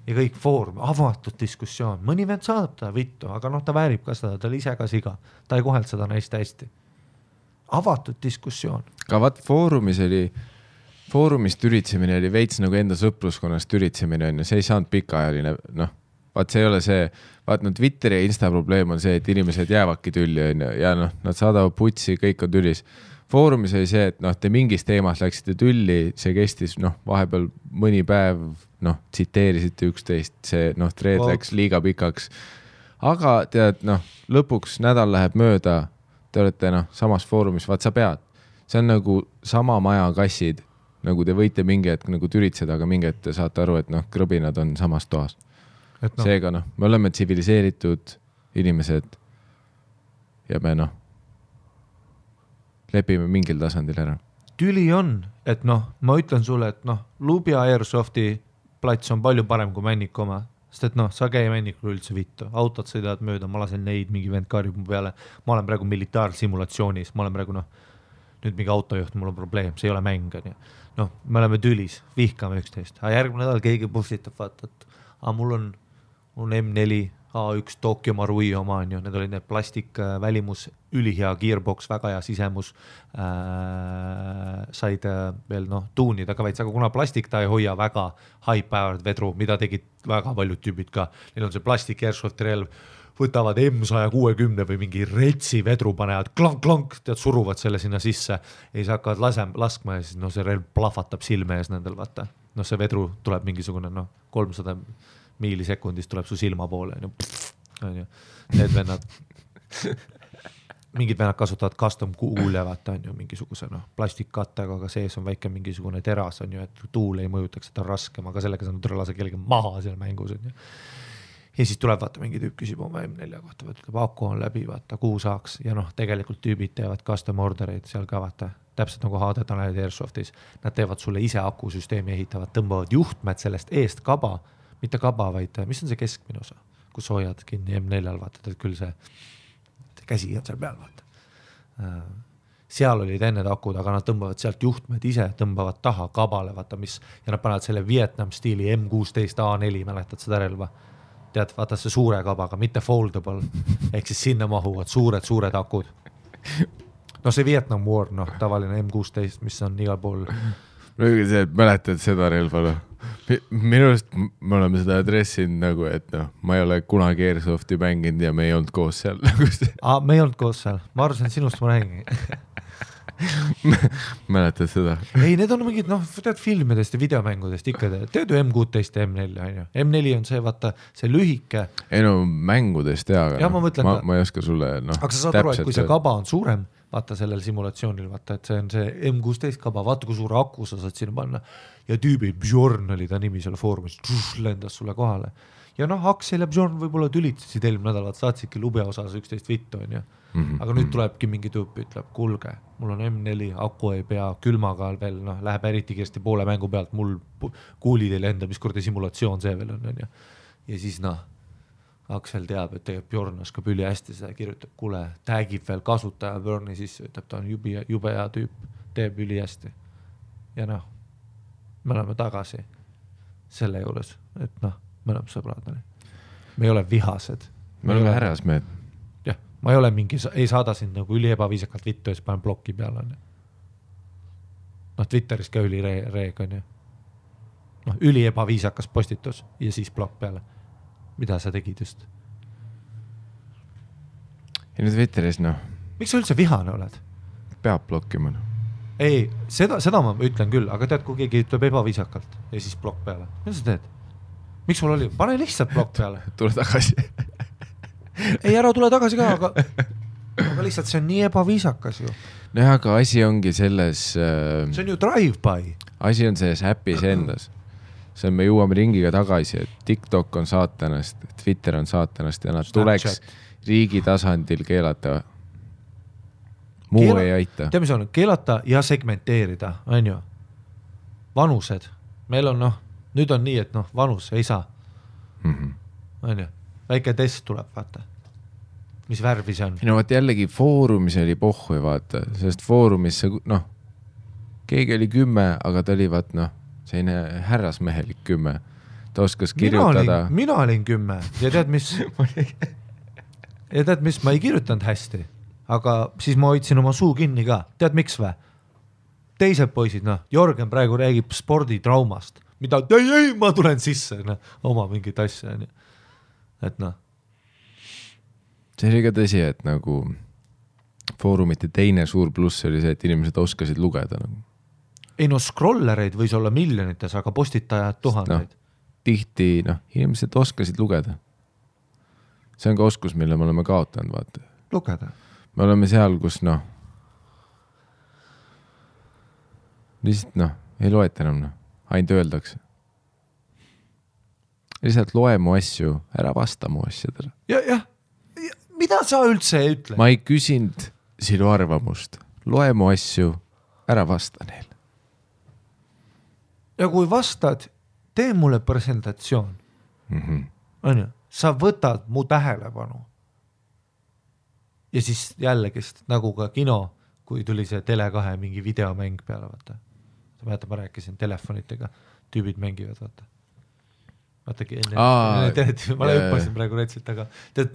Ja kõik foorum, avatud diskussioon. Mõni vend saadab ta vittu, aga ta väärib ka seda, ta oli ise ka siga. Ta ei koheld seda naist hästi. Avatud diskussioon. Ka vaat foorumist üritsemine oli veits nagu enda sõpruskonnast üritsemine on ja see ei saanud pikaajaline, vaat see ei ole see, vaat Twitteri ja Insta probleem on see, et inimesed jäävadki tülli ja nad saadavad putsi, kõik on tülis. Foorumis oli see, et te mingis teemas läksite tülli, see kestis vahepeal mõni päev, tsiteerisite üksteist, see thread läks liiga pikaks. Aga tead, lõpuks nädal läheb mööda, te olete samas foorumis, vaat sa pead. See on nagu sama maja kassid, nagu te võite mingi hetk nagu türitseda, aga mingi hetk te saate aru, et krõbinad on samas toas. Seega me oleme tsiviliseeritud inimesed ja me lepime mingil tasandil ära. Tüli on, et ma ütlen sulle, et Lubja Airsofti plats on palju parem kui Männiku oma, sest et sa käi Männikul üldse vittu, autod sõidavad mööda, ma lasen neid, mingi vend karjub mu peale, ma olen praegu militaarsimulatsioonis, ma olen praegu nüüd mingi autojuht, mul on probleem, see ei ole mäng, me oleme tülis, vihkame üksteist, aga järgmine nädal keegi pustitab, vaata, et mul on M4 A1 Tokyo Marui oma, need olid need plastik välimus, ülihea gearbox, väga hea sisemus, said veel tuunida ka veits, aga kuna plastik ta ei hoia väga high-powered vedru, mida tegid väga paljud tüübid ka, neil on see plastik airsofti relv, võtavad M160 või mingi retsi vedru panevad, klank, tead, suruvad selle sinna sisse ja siis hakkavad laskma ja siis see relv plahvatab silme ees nendel, vaata. See vedru tuleb mingisugune 300 miilisekundist tuleb su silma poole. Need vennad, mingid vennad kasutavad custom kuule, vaata, mingisuguse plastikkattega, aga sees on väike mingisugune teras, et tuul ei mõjutaks, et on raskem, aga sellega saanud lase kellegi maha seal mängus. Ja siis tuleb, vaata, mingi tüüp küsib oma M4 kohta, ütleb, aku on läbi, vaata, kuhu saaks. Ja tegelikult tüübid teevad custom ordereid seal ka, vaata, täpselt nagu HD Tanelid Airsoftis. Nad teevad sulle ise akusüsteemi ehitavad, tõmbavad juhtmed sellest eest kaba, mitte kaba, vaid mis on see keskmine osa? kus hoiad kinni M4-l, vaatad, et küll see käsi on seal peal, vaata. Seal olid enne akud, aga nad tõmbavad sealt juhtmed ise, tõmbavad taha kabale, vaata mis, ja nad panevad selle Vietnam stiili M16 A4, mäletad seda relva? Tead, vaata see suure kabaga, mitte foldable, ehk siis sinna mahuvad suured akud. No see Vietnam War, tavaline M16, mis on igal pool. Mäletad seda relva, Minust me oleme seda adressinud nagu, et ma ei ole kunagi Airsoft'i mänginud ja me ei olnud koos seal. Me ei olnud koos seal, ma arvasin, sinust ma räägin. Mäletad seda? Ei, need on mingid, tead filmidest ja videomängudest ikka, tead ju M16 ja M4 on ju. M4 on see, vaata, see lühike. Ei mängudest ja ma ei oska sulle, Aga sa saad aru, et kui see kaba on suurem, vaata sellel simulatsioonil, vaata, et see on see M16 kaba, vaata kui suure aku sa saad sinna panna ja tüübi Bjorn oli ta nimi seal foorumis, lendas sulle kohale. Ja Aksel ja Bjorn võib-olla tülitasid eelmine nädal, saatsidki lube osas 11 vittu on ju. Aga nüüd tulebki mingi tüüp, ütleb, kulge, mul on M4, aku ei pea, külmaga veel, läheb eriti kiiresti poole mängu pealt, mul kuulid ei lenda, mis kordi simulatsioon see veel on ju. Ja siis Aksel teab, et tegelikult Bjorn oskab üli hästi seda kirjutab, kuule, tagib veel kasutaja Bjorni sisse, ütleb, ta on jube hea tüüp, teeb üli hästi. Ja me oleme tagasi selle juures, et me oleme sõbrad. Me ei ole vihased. Me oleme härrasmehed. Jah, ma ei ole mingi, ei saada sind nagu üli ebaviisakalt vittu ja siis panen blokki peale. Twitteris ka üli reeg on ju. Üli ebaviisakas postitus ja siis blokk peale. Mida sa tegid just? Ja nüüd Twitteris, Miks sa üldse vihane oled? Peab blokkima. Ei, seda ma ütlen küll, aga tead, kui keegi ütleb ebaviisakalt ja siis blokk peale. Mida sa teed? Miks sul oli? Pane lihtsalt blokk peale. Tule tagasi. Ei, ära tule tagasi ka, aga lihtsalt see on nii ebaviisakas ju. Aga asi ongi selles... See on ju drive-by. Asi on selles äpis endas. See on, me jõuame ringiga tagasi, et TikTok on saatanast, Twitter on saatanast ja nad tuleks riigi tasandil keelata. Muu ei aita. Tead, mis on? Keelata ja segmenteerida, on ju? Vanused. Meil on, nüüd on nii, et vanus ei saa. On ju? Väike test tuleb, vaata. Mis värvi see on? Vaat jällegi foorumis oli pohhu, vaata. Sest foorumis see, keegi oli 10, aga ta oli, vaat, selline härrasmehelik 10. Ta oskas kirjutada. Mina olin 10 ja tead, mis ma ei kirjutanud hästi, aga siis ma hoidsin oma suu kinni ka. Tead, miks vä? Teised poisid, Jorgen praegu räägib sporditraumast, mida, ei, ma tulen sisse, oma mingit asja. Et See oli ka tõsi, et nagu foorumite teine suur pluss oli see, et inimesed oskasid lugeda. Ei scrollereid võis olla miljonites, aga postitajad tuhandeid. Tihti, inimesed oskasid lugeda. See on ka oskus, mille me oleme kaotanud, vaata. Lugeda. Me oleme seal, kus, lihtsalt, ei loeta enam, ainult öeldakse. Lihtsalt loe mu asju, ära vasta mu asjadele. Jah. Mida sa üldse ütle? Ma ei küsinud sinu arvamust. Loe mu asju, ära vasta neil. Ja kui vastad, tee mulle presentatsioon. On ju? Sa võtad mu tähelepanu. Ja siis jällegist, nagu ka kino, kui tuli see Tele2 mingi videomäng peale, vaata. Sa mäletad, ma rääkisin telefonitega, tüübid mängivad, vaata. Vaatagi enne, ma hüppasin praegu retsilt, aga tead,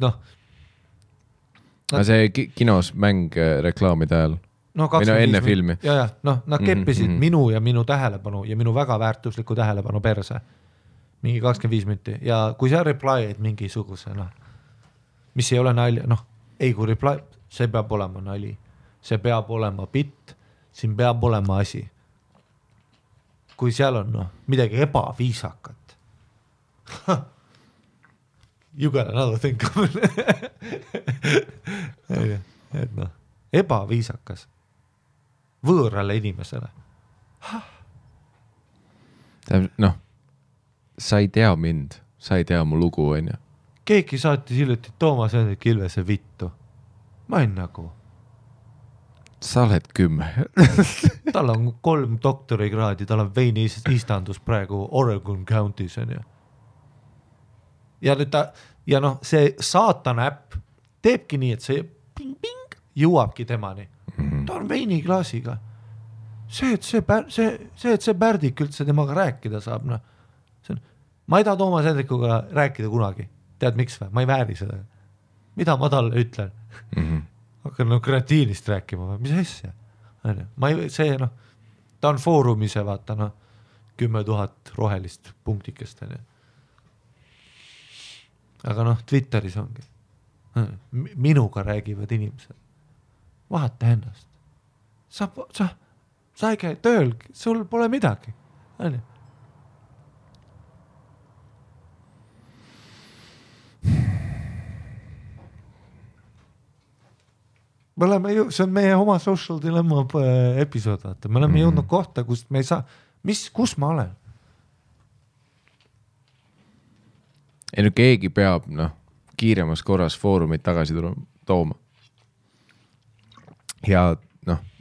Aga see kinos mäng reklaamide ajal? Minu enne filmi. Ja, nad keppisid minu ja minu tähelepanu ja minu väga väärtusliku tähelepanu perse. Mingi 25 minti. Ja kui sa reply'id mingisuguse, mis ei ole nali, ei kui reply, see peab olema nali. See peab olema bitt, siin peab olema asi. Kui seal on midagi ebaviisakat. You got another thing coming. Et ebaviisakas võõrale inimesele. Sa ei tea mind, sa ei tea mu lugu, on ju. Keegi saatis hiljuti Toomas Hendrik Ilvese vittu. Ma olen nagu. Sa oled 10. Tal on 3 doktorikraadi, tal on veini istandus praegu Oregon County's, on ju. Ja nüüd ja noh, see saatana äpp teebki nii, et see ping-ping jõuabki temani. Ta on veiniklaasiga. See, et see Pärdik üldse temaga rääkida saab, noh. Ma ei taha Toomas Hendrikuga rääkida kunagi. Tead miks või? Ma ei vääri seda. Mida ma talle ütlen? Hakkan kreatiinist rääkima või? Mis asja? See, noh, ta on foorumise, vaata, noh, 10 000 rohelist punktikest. Aga noh, Twitteris ongi. Minuga räägivad inimesed. Vahata ennast. Sa ei käi tööl, sul pole midagi. Me oleme see on meie oma Social Dilemma episood, vaata. Me oleme jõudnud kohta, kust me ei saa, kus ma olen? Ei no keegi peab, kiiremas korras foorumit tagasi tooma. Ja,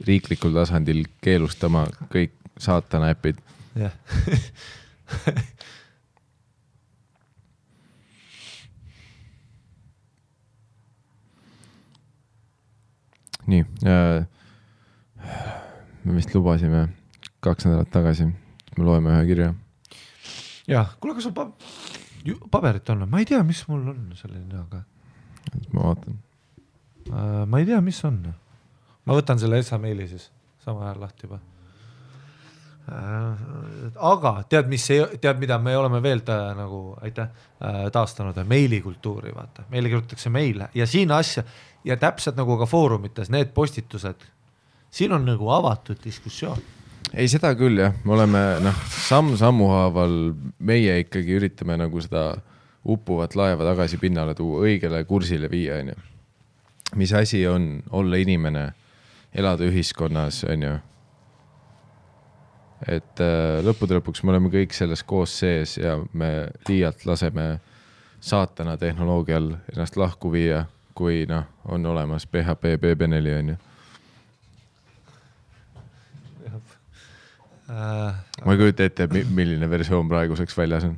riiklikul tasandil keelustama kõik saatana äpid. Jah. Nii, me vist lubasime 2 nädalat tagasi, me loeme ühe kirja. Jah, kuule, kas sul paberit on? Ma ei tea, mis mul on selline, aga... Ma vaatan. Ma ei tea, mis on. Ma võtan selle SA-meili siis, sama ajal lahti juba. Aga tead, mida me oleme veel taastanud meilikultuuri, vaata. Meile kirjutatakse meile ja siin asja ja täpselt nagu ka foorumites, need postitused, siin on nagu avatud diskussioon. Ei, seda küll, jah. Me oleme, sammu haaval meie ikkagi üritame nagu seda uppuvat laeva tagasi pinnale tuua, õigele kursile viia, on ju. Mis asi on olla inimene, elada ühiskonnas, on ju. Et lõppude lõpuks me oleme kõik selles koos sees ja me liialt laseme saatana tehnoloogial ennast lahku viia, kui on olemas PHP BB4, on ju. Ma ei kujuta ette, milline versioon praeguseks väljas on.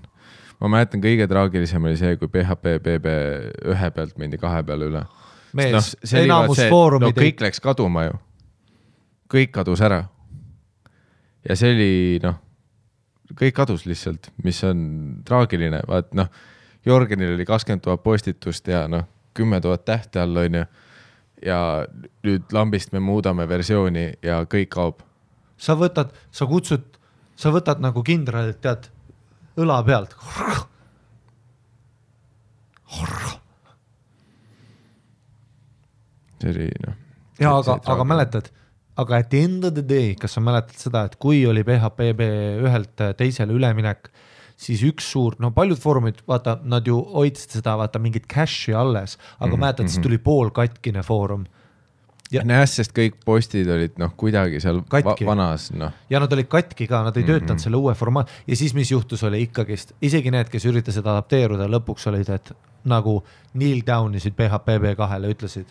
Ma mäletan, kõige traagilisem oli see, kui PHP BB1 pealt mindi 2 peale üle. Mees, enamus foorumid... kõik läks kaduma ju. Kõik kadus ära. Ja see oli, kõik kadus lihtsalt, mis on traagiline. Vaat, Jorgenil oli 20 000 postitust ja 10 000 tähte all, on ju. Ja nüüd lambist me muudame versiooni ja kõik kaob. Sa võtad nagu kindralit, tead, õla pealt. See oli, Ja, aga mäletad, aga at the end of the day, kas sa mäletad seda, et kui oli PHP ühelt teisele üleminek, siis üks suur, paljud foorumid, vaata, nad ju hoidsid seda, vaata, mingit cache'i alles, aga mäletad, siis tuli pool katkine foorum. Sest kõik postid olid kuidagi seal vanas. Ja nad olid katki ka, nad ei töötanud selle uue formaat. Ja siis mis juhtus oli ikkagist, isegi need, kes üritasid adapteeruda, lõpuks olid, et nagu kneel down isid PHP B2-le, ütlesid,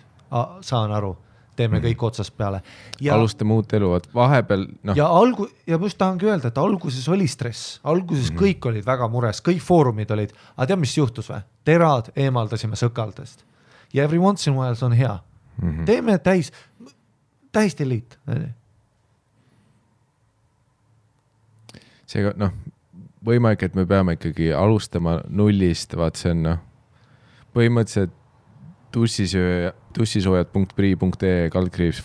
saan aru, teeme kõik otsast peale. Ja, alustame uut elu, vahepeal... Ja ma just tahangi öelda, et alguses oli stress, alguses kõik olid väga mures, kõik foorumid olid, aga tead, mis juhtus või? Terad eemaldasime sõkaldest. Ja every once in a while on hea. Teeme täis delete. Seega, võimalik, et me peame ikkagi alustama nullist, vaat see on, põhimõtteliselt tussisoojad.pri.ee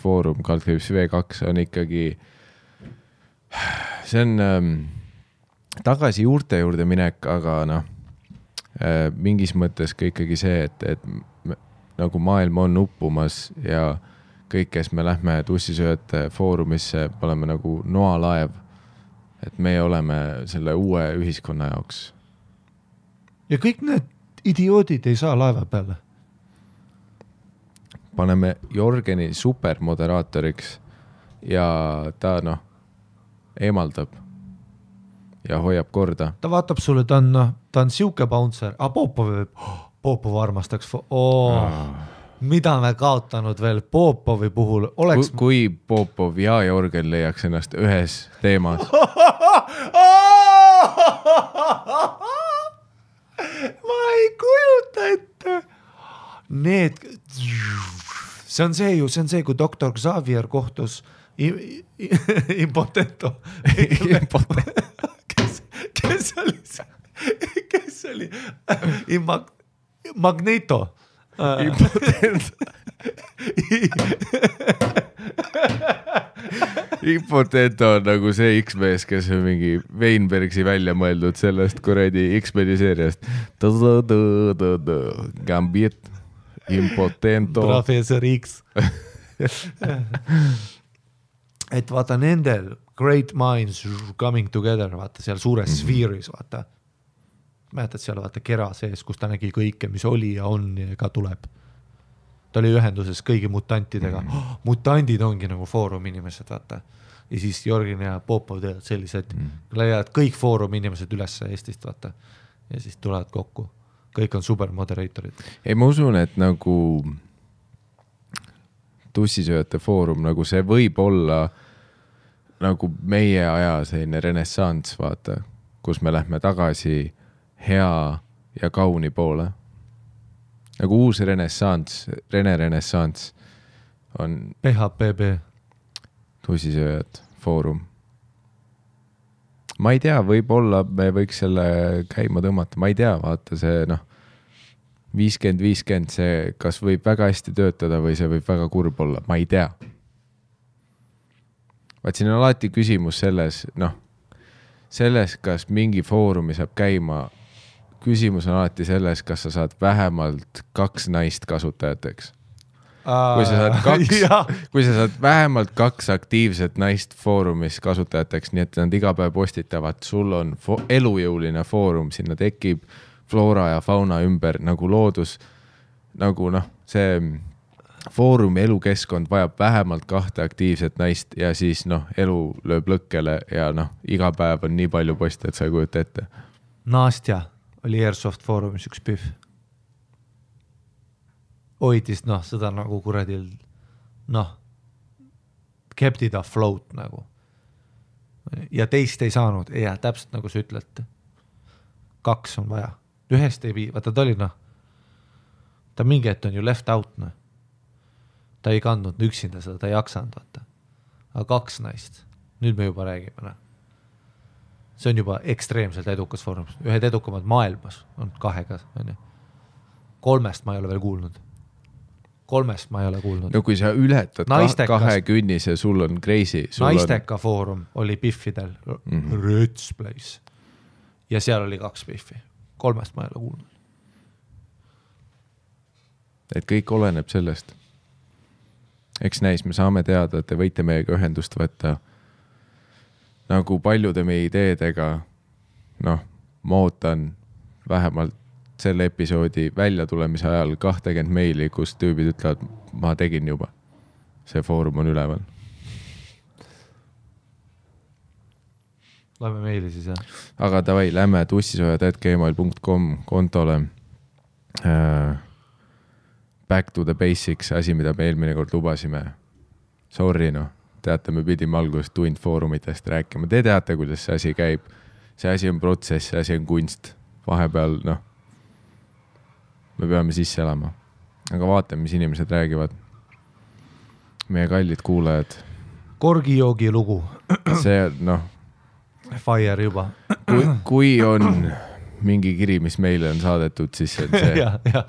/foorum /v2 on ikkagi see on tagasi juurte juurde minek, aga mingis mõttes ka ikkagi see, et nagu maailm on uppumas ja kõik, kes me lähme tussisööjate foorumisse, oleme nagu noalaev, et me oleme selle uue ühiskonna jaoks. Ja kõik need idioodid ei saa laeva peale. Paneme Jorgeni supermoderaatoriks ja ta eemaldab ja hoiab korda. Ta vaatab sulle, ta on siuke bouncer, Popov armastaks. Mida me kaotanud veel Popovi puhul oleks... Kui Popov ja Jorgen leiaks ennast ühes teemas. ma ei kujuta ette. Need, see on see, kui doktor Xavier kohtus Impotento. Kes oli Magneto. Impotento. Impotento on nagu see X-mees, kes on mingi Weinbergsi välja mõeldud sellest kuradi X-meni seeriast. Gambit, Impotento. Professor X. Et vaata nendel great minds coming together, vaata seal suures sfeeris, vaata. Mäletad seal vaata kera sees, kus ta nägi kõike, mis oli ja on ja ka tuleb. Ta oli ühenduses kõigi mutantidega. Mutandid ongi nagu foorum inimesed, vaata. Ja siis Jorgin ja Popov teevad sellised, leiavad kõik foorum inimesed üles Eestist, vaata. Ja siis tulevad kokku. Kõik on super moderaatorid. Ei, ma usun, et nagu tussisööjate foorum, nagu see võib olla nagu meie aja selline renessants, vaata, kus me lähme tagasi hea ja kauni poole. Nagu uus renessants, renessants on PHPB tussisööjad foorum. Ma ei tea, võib-olla me võiks selle käima tõmmata, ma ei tea, vaata see 50-50, see kas võib väga hästi töötada või see võib väga kurb olla, ma ei tea. Vaat siin on alati küsimus selles, selles, kas mingi foorumi saab käima, küsimus on alati selles, kas sa saad vähemalt 2 naist kasutajateks. Kui sa saad vähemalt 2 aktiivset naist foorumis kasutajateks, nii et nad iga päev postitavad, sul on elujõuline foorum, sinna tekib floora ja fauna ümber nagu loodus, nagu see foorumi elukeskkond vajab vähemalt 2 aktiivset naist ja siis elu lööb lõkkele ja iga päev on nii palju poste, et sa ei kujuta ette. Nastja oli Airsoft foorumis üks pühv. Hoidis seda nagu kuradil kept it afloat nagu. Ja teist ei saanud, ja täpselt nagu sa ütled. 2 on vaja. Ühest ei vii, vaata ta oli ta mingi hetk on ju left out ta ei kandnud üksinda seda, ta ei jaksanud vaata. Aga 2 naist, nüüd me juba räägime see on juba ekstreemselt edukas foorum, ühed edukamad maailmas on 2 on ju. 3 ma ei ole veel kuulnud. 3 ma ei ole kuulnud. No kui sa ületad 2 künnise, sul on crazy. Naisteka foorum oli Biffidel, Röts Place ja seal oli 2 Biffi. 3 ma ei ole kuulnud. Et kõik oleneb sellest. Eks näis, me saame teada, et te võite meiega ühendust võtta nagu paljude meie ideedega. Ma ootan vähemalt selle episoodi välja tulemise ajal 20 meili, kus tüübid ütlevad, ma tegin juba. See foorum on üleval. Lähme meili siis, jah. Aga davai, lähme tussisojad@gmail.com kontole. Back to the basics, asi, mida me eelmine kord lubasime. Sorry, teate, me pidime alguses tund foorumitest rääkima. Te teate, kuidas see asi käib. See asi on protsess, see asi on kunst. Vahepeal, me peame sisse elama. Aga vaatame, mis inimesed räägivad. Meie kallid kuulajad. Korgijoogi lugu. See, Fire juba. Kui on mingi kiri, mis meile on saadetud, siis see on see. Ja.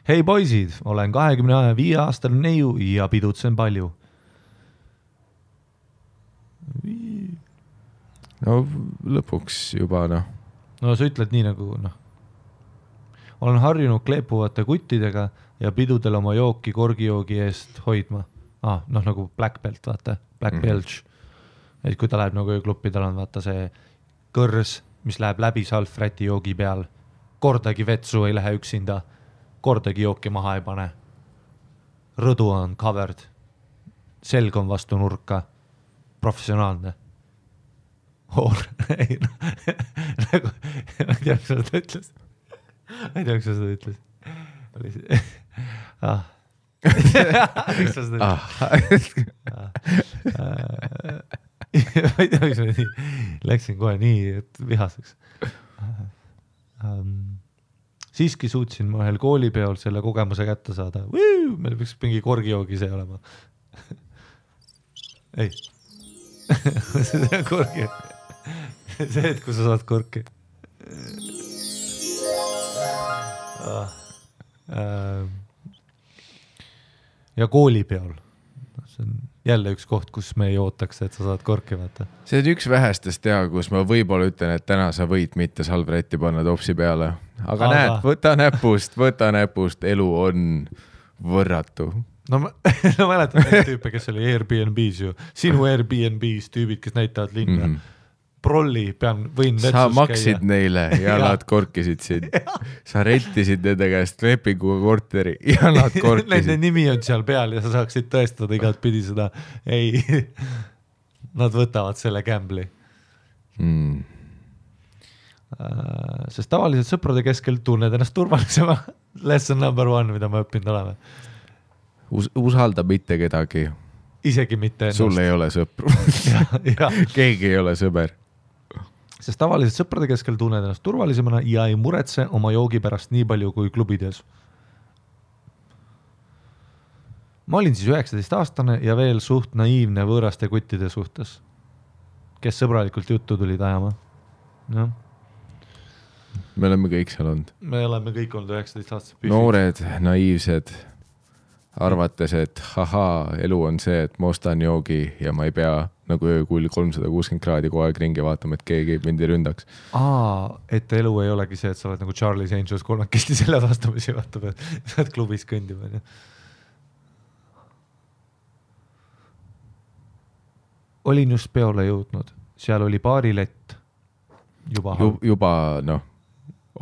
Hei poisid, olen 25 aastane neiu ja pidutsen palju. Lõpuks juba, sa ütled nii nagu, olen harjunud kleepuvate kuttidega ja pidudel oma jooki korgijoogi eest hoidma. Nagu Black Belt, vaata, Black Belch. Et kui ta läheb nagu öökluppi, tal on vaata see kõrs, mis läheb läbi salfräti joogi peal. Kordagi vetsu ei lähe üksinda, kordagi jooki maha ei pane. Rõdu on covered, selg on vastu nurka, professionaalne. Ei, nagu, ma ei tea, kas seda ütles. Miks sa seda ütles? Miks sa seda ütles? Ma ei tea, läksin kohe nii vihaseks. siiski suutsin ma ühel koolipeol selle kogemuse kätte saada. Meil peaks mingi korgijoogi see olema. Ei. See on korgi. See, et kui sa saad korki. Ja koolipeol. See on jälle üks koht, kus me ei ootaks, et sa saad korki vaata. See on üks vähestest teha, kus ma võib-olla ütlen, et täna sa võid mitte salvretti panna topsi peale. Aga näed, võta näpust, elu on võrratu. No mäletan neid tüüpe, kes oli Airbnb's ju. Sinu Airbnb's tüübid, kes näitavad linna. Prolli, võin vetsus käia. Sa maksid neile ja nad korkisid sind. Sa rentisid nende käest lepinguga korteri ja nad korkisid. Nende nimi on seal peal ja sa saaksid tõestada igat pidi seda. Ei, nad võtavad selle gambli. Sest tavaliselt sõprade keskel tunned ennast turvalisema. Lesson number 1, mida ma õppinud oleme. Usalda mitte kedagi. Isegi mitte ennast. Sul ei ole sõpru. Keegi ei ole sõber. Sest tavaliselt sõprade keskel tunned ennast turvalisemana ja ei muretse oma joogi pärast nii palju kui klubides. Ma olin siis 19-aastane ja veel suht naiivne võõraste kuttide suhtes, kes sõbralikult juttu tulid ajama. No. Me oleme kõik seal olnud. Me oleme kõik olnud 19-aastased. Noored, naiivsed, arvates, et elu on see, et ma ostan joogi ja ma ei pea nagu öökull 360 kraadi kogu aeg ringi vaatama, et keegi mind ei ründaks. Et elu ei olegi see, et sa oled nagu Charlie's Angels kolmekesti selle vastamisi vaatab, et sa oled klubis kõndima. Olin just peole jõudnud. Seal oli baarilett. Juba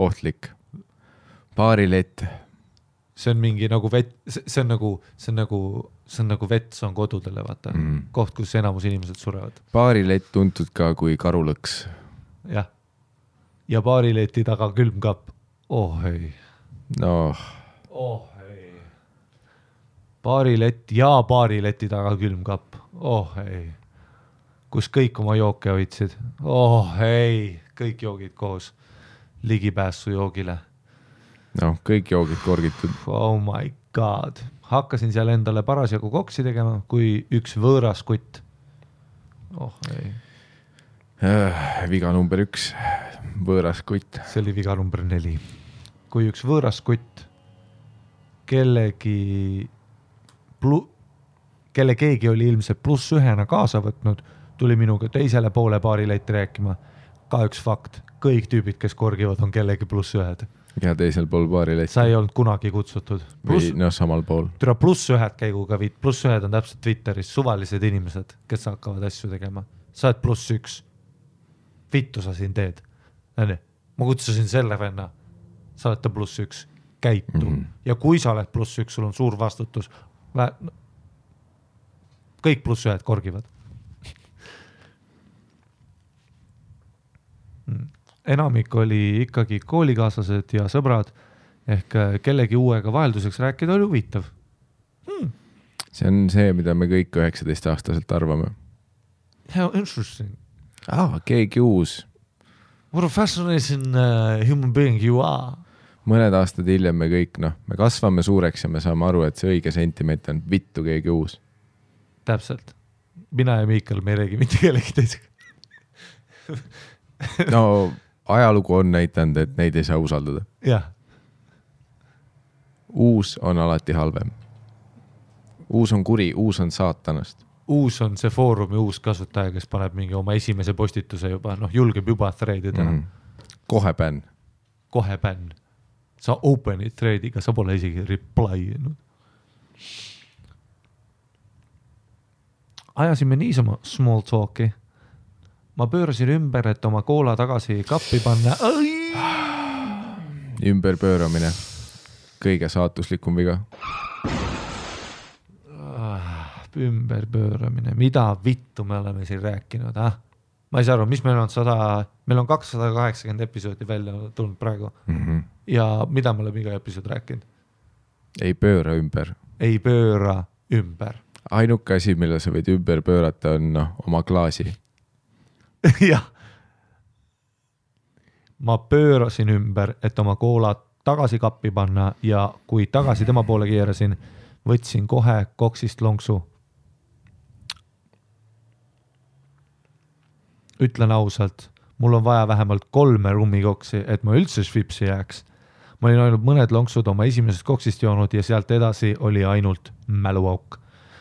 ohtlik. Baarilett. See on mingi nagu vett, see on nagu vett, see on kodudele, vaata. Koht, kus enamus inimesed surevad. Baarilett tuntud ka kui karulõks. Jah. Ja baarileti taga külmkapp. Ei. Ei. Baarilett ja baarileti taga külmkapp. Ei. Kus kõik oma jooke hoidsid. Ei. Kõik joogid koos. Ligipääsu joogile. Kõik joogid korgitud. Oh my god. Hakkasin seal endale parasjagu koksi tegema, kui üks võõras kutt. Ei. Viga number 1. Võõras kutt. See oli viga number 4. Kui üks võõras kutt kelle keegi oli ilmselt +1 kaasa võtnud, tuli minuga teisele poole baarileiti rääkima. Ka üks fakt. Kõik tüübid, kes korgivad, on kellegi +1. Ja teisel pool baarileiti. Sa ei olnud kunagi kutsutud. Või samal pool. Türa +1 käiguga +1 on täpselt Twitteris suvalised inimesed, kes hakkavad asju tegema. Sa oled +1. Vittu sa siin teed. Ma kutsusin selle venna. Sa oled ta +1. Käitu. Ja kui sa oled +1, sul on suur vastutus. Kõik +1 korgivad. Enamik oli ikkagi koolikaaslased ja sõbrad ehk kellegi uuega vahelduseks rääkida oli huvitav. See on see, mida me kõik 19-aastaselt arvame. How interesting. Keegi uus. What a fascinating human being you are. Mõned aastad hiljem me kõik, me kasvame suureks ja me saame aru, et see õige sentiment on vittu keegi uus. Täpselt. Mina ja Miikal me ei räägi mitte kellegi teisega. Ajalugu on näitanud, et neid ei saa usaldada. Jah. Uus on alati halvem. Uus on kuri, uus on saatanast. Uus on see foorumi uus kasutaja, kes paneb mingi oma esimese postituse juba, julgeb juba threadida. Kohe bänn. Sa open'id threadiga, sa pole isegi reply'inud. Ajasime niisama small talki. Ma pöörasin ümber, et oma koola tagasi kappi panna. Ümberpööramine. Kõige saatuslikum viga. Ümberpööramine. Mida vittu me oleme siin rääkinud? Ma ei saa aru, mis meil on meil on 280 episoodi välja tulnud praegu. Ja mida me oleme iga episood rääkinud? Ei pööra ümber. Ei pööra ümber. Ainuke asi, mille sa võid ümber pöörata, on oma klaasi. Jah. Ma pöörasin ümber, et oma koolat tagasi kappi panna ja kui tagasi tema poole keerasin, võtsin kohe koksist lonksu. Ütlen ausalt, mul on vaja vähemalt 3 rummikoksi, et ma üldse švipsi jääks. Ma olin ainult mõned lonksud oma esimesest koksist joonud ja sealt edasi oli ainult mäluauk.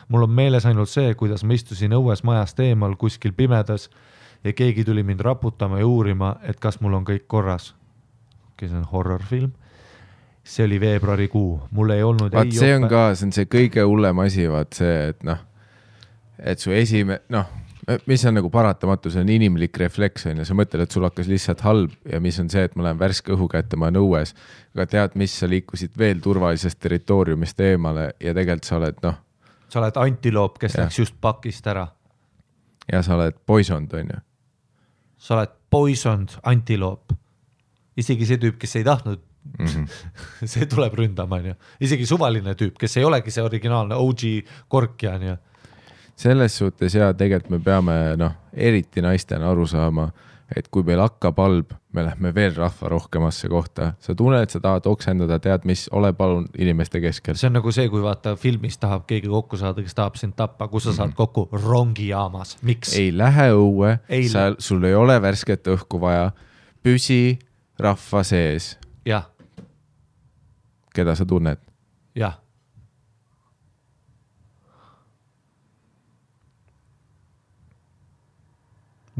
Mul on meeles ainult see, kuidas ma istusin õues majast eemal kuskil pimedas ja keegi tuli mind raputama ja uurima, et kas mul on kõik korras. See on horrorfilm. See oli veebruarikuu. Mul ei olnud... Vaat see on ka, see on see kõige hullem asi, vaat see, et et su mis on nagu paratamatu, see on inimlik refleks, ja sa mõtled, et sul hakkas lihtsalt halb ja mis on see, et ma lähen värske õhu kätte, ma olen õues, aga tead, mis sa liikusid veel turvalisest territooriumist eemale ja tegelikult sa oled, sa oled antiloop, kes läks just pakist ära. Ja sa oled poisond, on ju? Sa oled poisond antiloop. Isegi see tüüp, kes ei tahtnud, see tuleb ründama, on ju. Isegi suvaline tüüp, kes ei olegi see originaalne OG korkja, on ju. Selles suhtes tegelikult me peame, eriti naistena aru saama, et kui meil hakkab halb, me lähme veel rahva rohkemasse kohta. Sa tunned, et sa tahad oksendada, tead, mis, ole palun inimeste keskel. See on nagu see, kui vaata filmis tahab keegi kokku saada, kes tahab sind tappa, kus sa saad kokku rongijaamas. Miks? Ei lähe õue, sul ei ole värsket õhku vaja, püsi rahva sees. Jah. Keda sa tunned? Jah.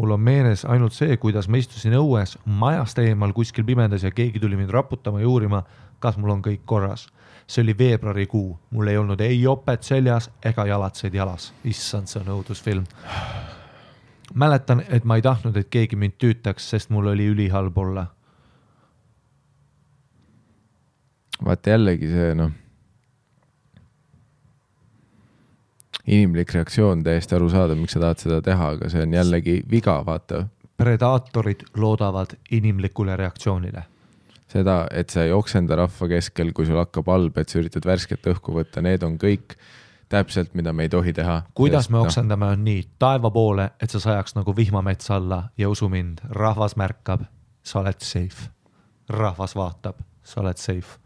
Mul on meeles ainult see, kuidas ma istusin õues majast eemal kuskil pimendas ja keegi tuli mind raputama ja uurima, kas mul on kõik korras. See oli veebruarikuu. Mul ei olnud ei jopet seljas ega jalatseid jalas. Issand, see on õudusfilm. Mäletan, et ma ei tahtnud, et keegi mind tüütaks, sest mul oli ülihalb olla. Vaata jällegi see, inimlik reaktsioon täiesti aru saada, miks sa tahad seda teha, aga see on jällegi viga, vaata. Predaatorid loodavad inimlikule reaktsioonile. Seda, et sa ei oksenda rahva keskel, kui sul hakkab halb, et sa üritad värsket õhku võtta, need on kõik täpselt, mida me ei tohi teha. Kuidas me oksendame on nii taeva poole, et sa sajaks nagu vihmamets alla ja usu mind, rahvas märkab, sa oled safe. Rahvas vaatab, sa oled safe.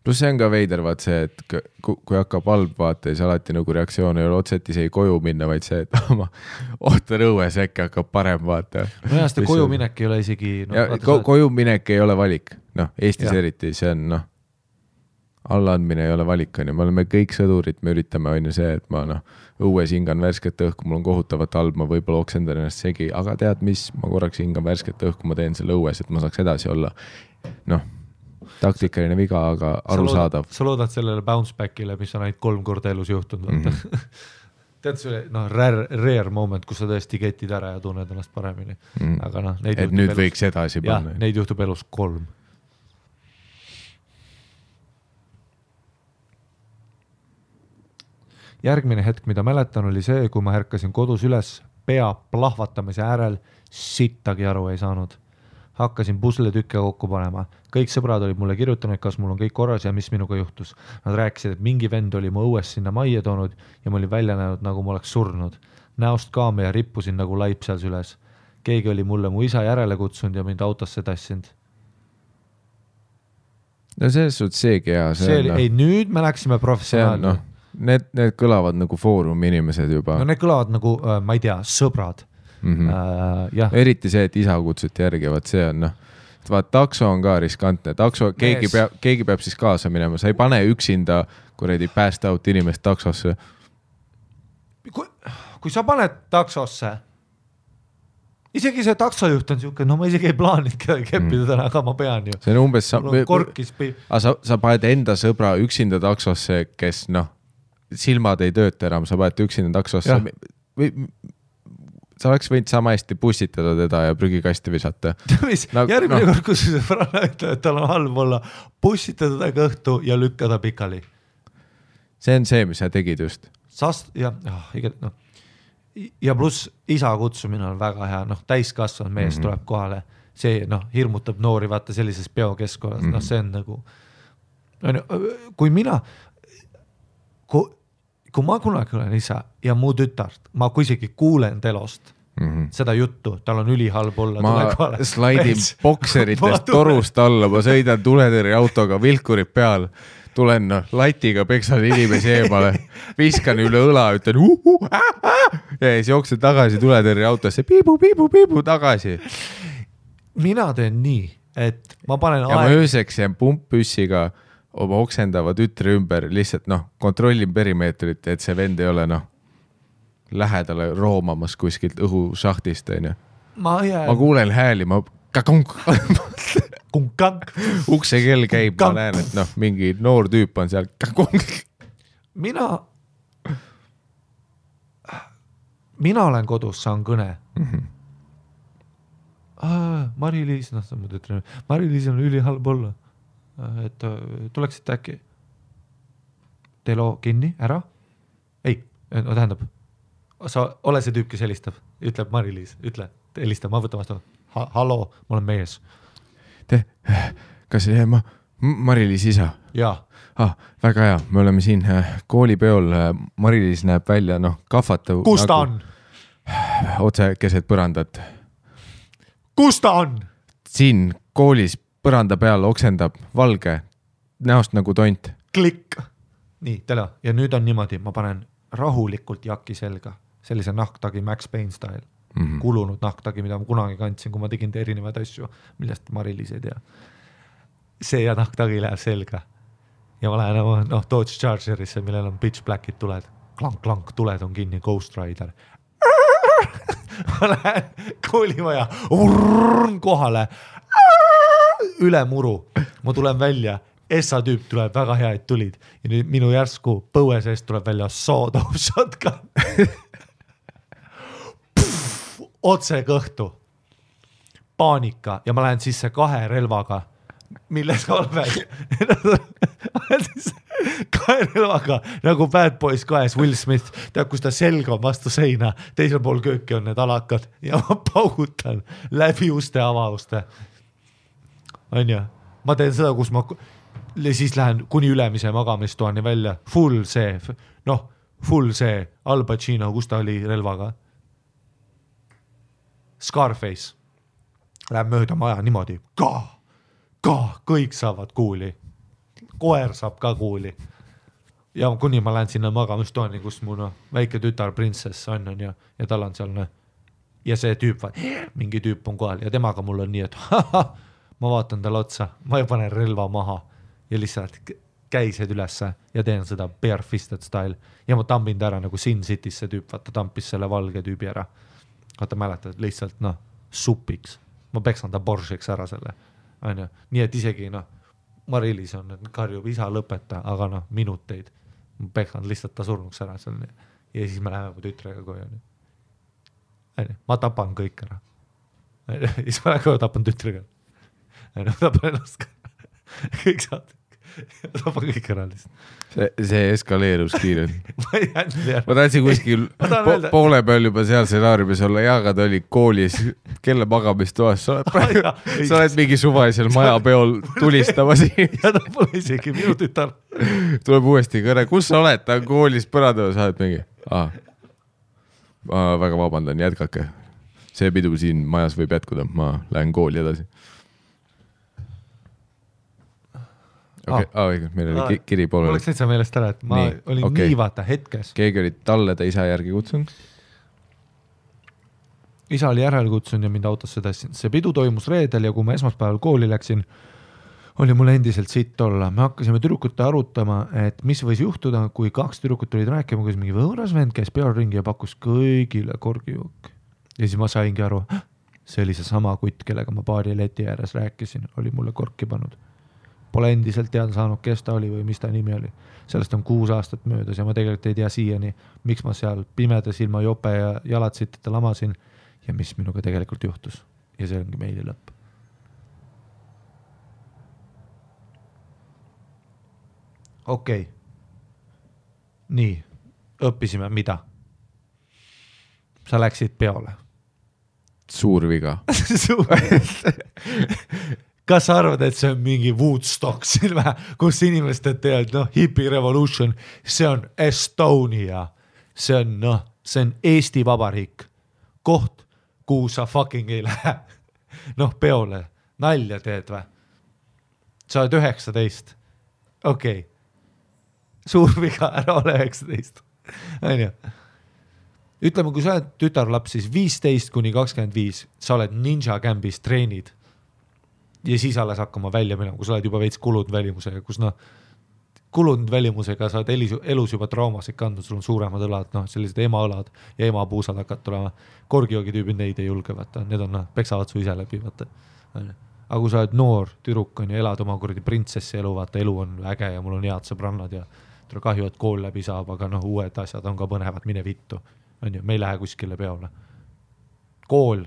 Plus see on ka veider, vaat see, et kui hakkab halb vaata, siis alati nagu reaktsioon ei ole otseselt isegi koju minna, vaid see, et ma ootan õues, äkki hakkab parem vaata. No jah, seda koju minek ei ole isegi... Koju minek ei ole valik. Eestis eriti, see on allaandmine ei ole valik. Me oleme kõik sõdurid, me üritame on ju see, et ma õues hingan värsket õhku, mul on kohutavat halb, ma võib-olla oksendan ennast segi, aga tead mis, ma korraks hingan värsket õhku, ma teen selle õues, et ma saaks edasi olla. Taktikaline viga, aga arusaadav. Sa loodad sellele bounce backile, mis on ainult 3 korda elus juhtunud. Tead see rare moment, kus sa tõesti ketid ära ja tunned ennast paremini. Aga et nüüd elus, võiks edasi panna. Jah, neid juhtub elus 3. Järgmine hetk, mida mäletan, oli see, kui ma ärkasin kodus üles pea plahvatamise äärel, sittagi aru ei saanud. Hakkasin pusle tükke kokku panema. Kõik sõbrad olid mulle kirjutanud, kas mul on kõik korras ja mis minuga juhtus. Nad rääkisid, et mingi vend oli mu õues sinna majja toonud ja ma olin välja näinud, nagu ma oleks surnud. Näost kaame ja rippusin nagu laip seal süles. Keegi oli mulle mu isa järele kutsunud ja mind autosse tassinud. No selles suhtes seegi hea. Ei, nüüd me läksime professionaalne. Need kõlavad nagu foorumi inimesed juba. No need kõlavad nagu, ma ei tea, sõbrad. Eriti see, et isa kutsuti järgi, vaat see on vaat takso on ka riskantne, keegi peab siis kaasa minema, sa ei pane üksinda kuredi pääst out inimest taksosse. Kui sa paned taksosse, isegi see taksojuht on siuke, ma isegi ei plaanid keppida täna, aga ma pean ju. See on umbes, sa paned enda sõbra üksinda taksosse, kes silmad ei tööta enam, sa paned üksinda taksosse sa oleks võinud sama hästi pussitada teda ja prügikasti visata. Järgmine kord, kus see Franna ütleb, et tal on halb olla, pussitada ta kõhtu ja lükkada pikali. See on see, mis sa tegid just. Ja pluss isa kutsumine on väga hea, täiskasvanud mees tuleb kohale. See hirmutab noori vaata sellises peokeskkonnas, see on nagu... Kui ma kunagi olen isa ja mu tütart, ma kui isegi kuulen telost, seda juttu, tal on ülihalb olla. Ma slaidin bokseritest torust alla, ma sõidan tuletõrje autoga, vilkurid peal, tulen latiga, peksan inimesi eemale, viskan üle õla, ütlen ja siis jooksen tagasi tuletõrje autosse, piibu tagasi. Mina teen nii, et ma panen ja ma ööseks jään pumppüssiga oma oksendava tütre ümber, lihtsalt kontrollin perimeetrit, et see vend ei ole lähedale roomamas kuskilt õhušahtist, ma kuulen hääli, ma ukse kell käib, ma näen, et mingi noor tüüp on seal. Mina olen kodus, saan kõne. Mari-Liis, Mari-Liis on ülihalb olla, et tuleksite äkki teelo kinni, ära? Ei, tähendab, sa ole see tüüp, kes helistab, ütleb Mari-Liis, ütle, helista, ma võtan vastu. Hallo, ma olen mees. Kas Mari-Liis isa? Jaa. Väga hea, me oleme siin koolipeol, Mari-Liis näeb välja, kahvatav. Kus ta on? Otse keset põrandat. Kus ta on? Siin koolis põranda peal oksendab valge, näost nagu tont. Klikk. Nii, tele. Ja nüüd on niimoodi, ma panen rahulikult jakki selga, sellise nahktagi Max Payne style. Kulunud nahktagi, mida ma kunagi kandsin, kui ma tegin erinevaid asju, millest Mari-Liis ei tea. See ja nahktagi läheb selga. Ja ma lähen Dodge Chargerisse, millel on pitch blackid tuled. Klank, tuled on kinni, Ghost Rider. Ma lähen koolimaja kohale üle muru. Ma tulen välja, Essa tüüp tuleb, väga hea, et tulid. Ja nüüd minu järsku põue seest tuleb välja sawed-off shotgun. Otse kõhtu. Paanika. Ja ma lähen sisse 2 relvaga, milles oled 2 relvaga, nagu Bad Boys 2, Will Smith, tead, kus ta selg on vastu seina, teisel pool kööki on need alakad ja ma paugutan läbi uste avauste. On ju? Ma teen seda, kus ma siis lähen kuni ülemise magamistoani välja, full see, Al Pacino, kus ta oli relvaga. Scarface. Läheb mööda maja niimoodi. Kõik saavad kuuli. Koer saab ka kuuli. Ja kuni ma lähen sinna magamistoani, kus mu väike tütar prinsess on ja tal on seal ja see tüüp, mingi tüüp on kohal ja temaga mul on nii, et ma vaatan talle otsa, ma ei pane relva maha ja lihtsalt käised ülesse ja teen seda bare-fisted style ja ma tambin ta ära nagu Sin City's see tüüp, vaata tampis selle valge tüübi ära. Vaata mäletad, lihtsalt supiks. Ma peksan ta Boršeks ära selle. Nii et isegi Mari-Liis on, karjub isa lõpeta, aga minuteid. Ma peksan lihtsalt ta surnuks ära selle. Ja siis me läheme mu tütrega koju. Ma tapan kõik ära. Siis ma lähen koju, tapan tütrega. Ma tapan ennast ka. Kõik saad. Tapan kõik ära lihtsalt. See eskaleerus kiirelt. Ma tahtsin kuskil poole peal juba seal stsenaariumis olla, aga ta oli koolis kelle magamistoas. Sa oled mingi suvalisel majapeol tulistamas. Ja ta pole isegi minu tütar. Tuleb uuesti kõne. Kus sa oled? Ta on koolis põrandava, sa oled mingi. Ma väga vabandan, jätkake. See pidu siin majas võib jätkuda. Ma lähen kooli edasi. Meil oli kiri poole. Mul oleks täitsa meelest ära, et ma olin nii vaata hetkes. Keegi oli talle ta isa järgi kutsunud? Isa oli järel kutsunud ja mind autosse tassin. See pidu toimus reedel ja kui ma esmaspäeval kooli läksin, oli mul endiselt sitt olla. Me hakkasime tüdrukute arutama, et mis võis juhtuda, kui 2 tüdrukut olid rääkima, kus mingi võõras vend käis peal ringi ja pakkus kõigile korgijook. Ja siis ma saingi aru, see oli see sama kutt, kellega ma baari leti ääres rääkisin, oli mulle korki pannud. Pole endiselt teada saanud, kes ta oli või mis ta nimi oli. Sellest on 6 aastat möödas ja ma tegelikult ei tea siiani, miks ma seal pimedas ilma jope ja jalad sitteta lamasin ja mis minuga tegelikult juhtus. Ja see ongi meili lõpp. Okei. Nii, õppisime mida? Sa läksid peole. Suur viga. Kas sa arvad, et see on mingi Woodstock silme, kus inimesed teevad, hippie revolution, see on Estonia, see on Eesti Vabariik, koht, kuhu sa fucking ei lähe. Noh, peole, nalja teed või? Sa oled 19. Okei. Suur viga, ära ole 19. Aine. Ütleme, kui sa oled tütarlaps, siis 15-25, sa oled ninja campis, treenid ja siis alles hakkama välja minema, kui sa oled juba veits kulunud välimusega, kus kulunud välimusega sa oled elus juba traumasid kandnud, sul on suuremad õlad, sellised emaõlad ja emapuusad hakkad tulema. Korgijoogi tüübid neid ei julge, vaata. Need on, peksavad su ise läbi, vaata. Aga kui sa oled noor tüdruk on ja elad oma kuradi printsessi elu, vaata, elu on äge ja mul on head sõbrannad ja tule kahju, et kool läbi saab, aga uued asjad on ka põnevad, mine vittu. Me ei lähe kuskile peole. Kool,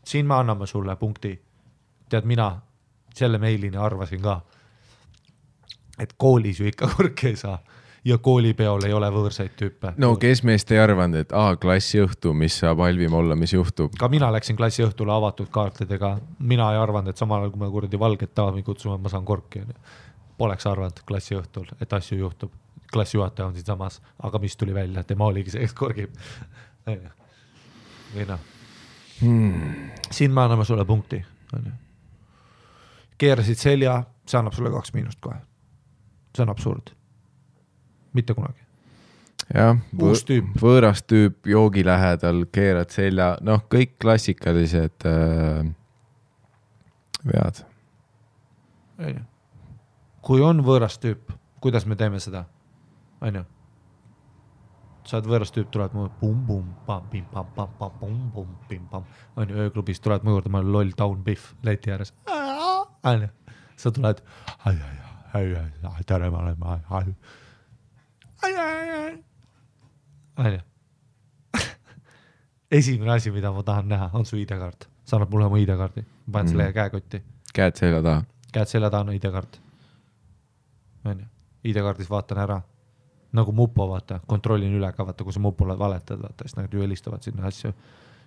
siin me anname sulle punkti. Tead, mina selle meilini arvasin ka, et koolis ju ikka korke ei saa ja koolipeol ei ole võõrsaid tüüpe. No kes meist ei arvanud, et klassi õhtu, mis saab halvim olla, mis juhtub? Ka mina läksin klassi õhtule avatud kaartidega. Mina ei arvanud, et samal ajal, kui me kuradi valget daami kutsume, ma saan korki. Poleks arvanud klassi õhtul, et asju juhtub. Klassi juhataja on siin samas, aga mis tuli välja, tema oligi see, kes korgib. Siin me anname sulle punkti. Keerasid selja, see annab sulle 2 miinust kohe. See on absurd. Mitte kunagi. Jah, uus tüüp. Võõras tüüp, joogi lähedal, keerad selja, kõik klassikalised vead. Kui on võõras tüüp, kuidas me teeme seda? Aine. Sa oled võõras tüüp, tuled mu bum-bum, pam-pim-pam-pam-pam-pum, pim-pam. Aine, ööklubis tuled mu juurde, ma olen loll Town Biff leti ääres. Aine. Sa tuled, tere, ma olen, Aine. Esimene asi, mida ma tahan näha, on su ID-kaart. Sa annad mulle mu ID-kaardi. Ma panen selle käekotti. Käed selja taha. Käed selja taha on ID-kaart. ID-kaardis vaatan ära. Nagu mupo, vaata. Kontrollin üle ka, vaata, kui sa mupole valetad, vaata. Siis nad ju helistavad sinna asju,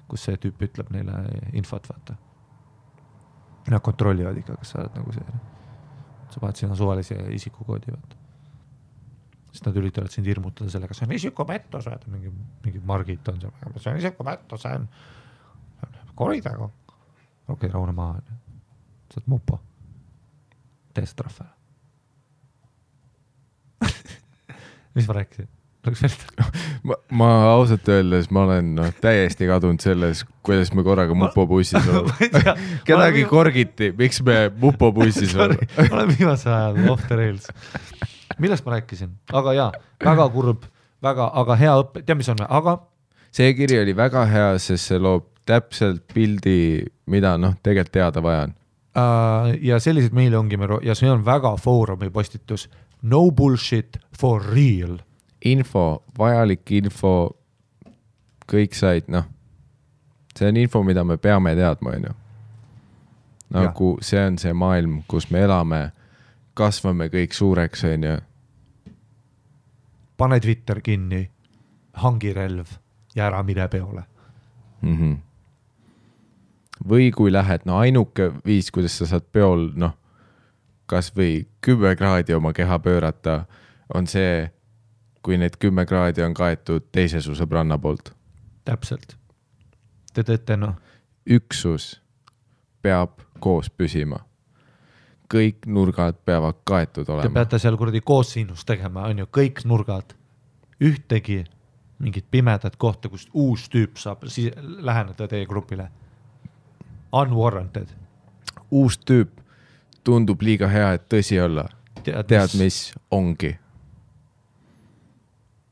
kus see tüüp ütleb neile infot, vaata. Nad kontrollivad ikka, kas sa oled nagu see. Sa paned sinna suvalise isikukoodi, vaata. Siis nad üritavad sind hirmutada sellega, see on isikupettus, mingi Margit on see, see on isikupettus, see on koridegu. Okei, raune maha. Sa oled mupo. Tee see trahve. Mis ma rääkisin? Ma ausalt öeldes, ma olen täiesti kadunud selles, kuidas me korraga mupobussis oleme. Kedagi korgiti, miks me mupobussis oleme? Ma olen viimase ajal off the rails. Millest ma rääkisin? Aga jaa, väga kurb, aga hea õppe. Tea, mis on? Aga? See kiri oli väga hea, sest see loob täpselt pildi, mida tegelikult teada vajan. Ja sellised meile ongi, ja see on väga foorumi postitus. No bullshit for real. Info, vajalik info, kõik said, see on info, mida me peame teadma, on ju. Nagu see on see maailm, kus me elame, kasvame kõik suureks, on ju. Pane Twitter kinni, hangi relv ja ära mine peole. Või kui lähed, ainuke viis, kuidas sa saad peol, kas või 10 kraadi oma keha pöörata, on see, kui need 10 kraadi on kaetud teise su sõbranna poolt. Täpselt. Te teete, Üksus peab koos püsima. Kõik nurgad peavad kaetud olema. Te peate seal kuradi koos sinust tegema, on ju, kõik nurgad. Ühtegi mingit pimedat kohta, kust uus tüüp saab läheneda teie grupile. Unwarranted. Uus tüüp tundub liiga hea, et tõsi olla. Tead, mis ongi.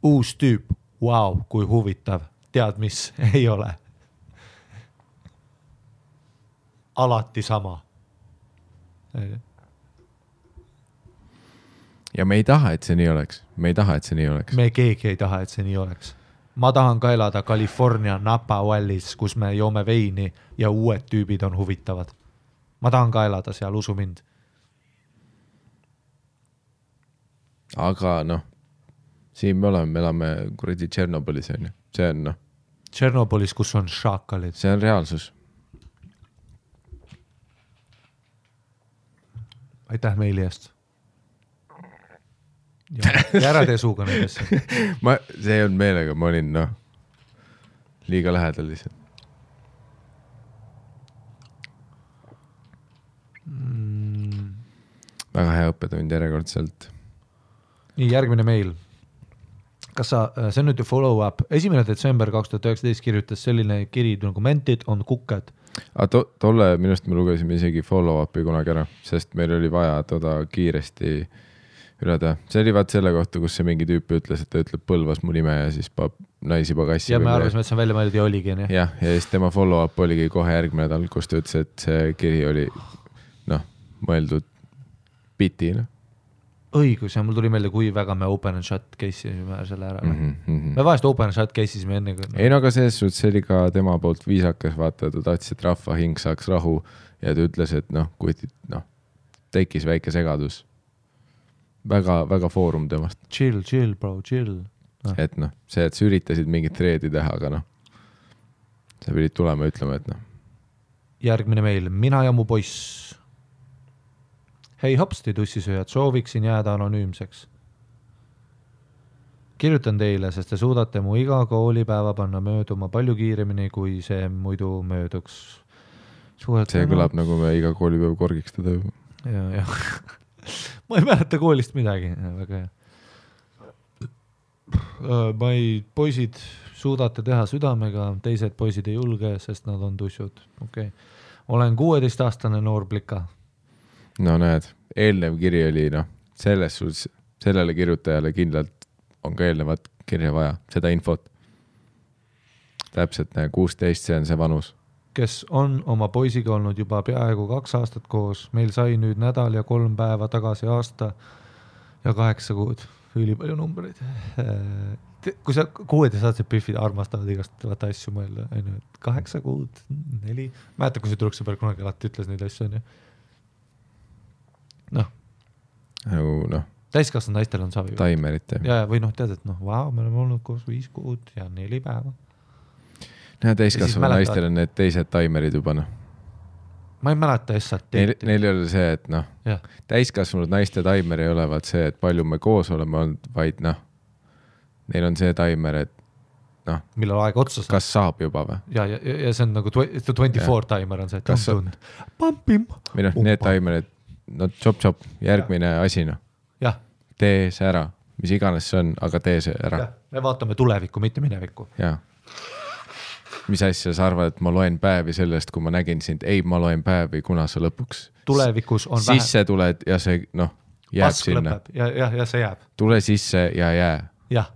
Uus tüüp, wow, kui huvitav. Tead, mis ei ole. Alati sama. Ja me ei taha, et see nii oleks. Me keegi ei taha, et see nii oleks. Ma tahan ka elada California Napa Valleys, kus me joome veini ja uued tüübid on huvitavad. Ma tahan ka elada seal, usu mind. Aga siin me elame kuradi Tšernobylis, on ju. See on Tšernobylis, kus on šaakalid. See on reaalsus. Aitäh meili eest. Ja ära tee suuga nendesse. See on meelega, ma olin liiga lähedal lihtsalt. väga hea õppetund järjekordselt. Nii, järgmine meil. Kas sa, see on nüüd follow-up, 1. detsember 2019 kirjutas selline kiri nagu mentid on kukked. Tolle minust me lugesime isegi follow-upi kunagi ära, sest meil oli vaja toda kiiresti üle teha. See oli vaat selle kohta, kus see mingi tüüp ütles, et ta ütleb Põlvas mu nime ja siis naisi pagassi. Ja me arvasime, et see on välja mõeldud ja oligi. Ja siis tema follow-up oligi kohe järgmine nädal, kus ta ütles, et see kiri oli mõeldud biti. Õigus, ja mul tuli meelde, kui väga me open and shut case'isime selle ära. Me vahest open and shut case'isime enne. Ei, aga selles suhtes see oli ka tema poolt viisakas, vaata, ta tahtis, et rahva hing saaks rahu ja ta ütles, et kui tekkis väike segadus. Väga, väga foorum temast. Chill, bro, chill. Et see, et sa üritasid mingit treedi teha, aga sa pidid tulema ütlema, et Järgmine meil, mina ja mu poiss. Hei hopsti tussisööjad, sooviksin jääda anonüümseks. Kirjutan teile, sest te suudate mu iga koolipäeva panna mööduma palju kiiremini, kui see muidu mööduks. See kõlab nagu me iga koolipäev korgiks teda juba. Ja. Ma ei mäleta koolist midagi. Väga hea. Poisid suudate teha südamega, teised poisid ei julge, sest nad on tussud. Okay. Olen 16-aastane noor plika. No näed, eelnev kiri oli selles suhtes, sellele kirjutajale kindlalt on ka eelnevat kirja vaja, seda infot. Täpselt 16, see on see vanus. Kes on oma poisiga olnud juba peaaegu 2 aastat koos, meil sai nüüd nädal ja 3 päeva tagasi aasta ja 8 kuud. Üli palju numbreid. Kui sa 16-aastased püffid armastavad igast asju mõelda, 8 kuud, 4. Mäeta, kui see Truksõberg kunagi alati ütles neid asju, on ju. Täiskasvanud naistel on savi. Taimerit. Ja, või tead, et vau, me oleme olnud koos 5 kuud ja 4 päeva. Täiskasvanud naistel on need teised taimerid juba. Ma ei mäleta S-at. Neil ei ole see, et täiskasvanud naiste taimer ei ole vaat see, et palju me koos oleme olnud, vaid neil on see taimer, et millal aeg otsa saab. Kas saab juba või? Ja see on nagu 24 taimer on see, et tund. Pampim. Või need taimerid, chop, järgmine asi. Jah. Tee see ära, mis iganes see on, aga tee see ära. Me vaatame tulevikku, mitte minevikku. Jaa. Mis asja sa arvad, et ma loen päevi sellest, kui ma nägin sind? Ei, ma loen päevi, kuna sa lõpuks tulevikus on sisse tuled ja see jääb pask sinna. Ja see jääb. Tule sisse ja jää. Jah.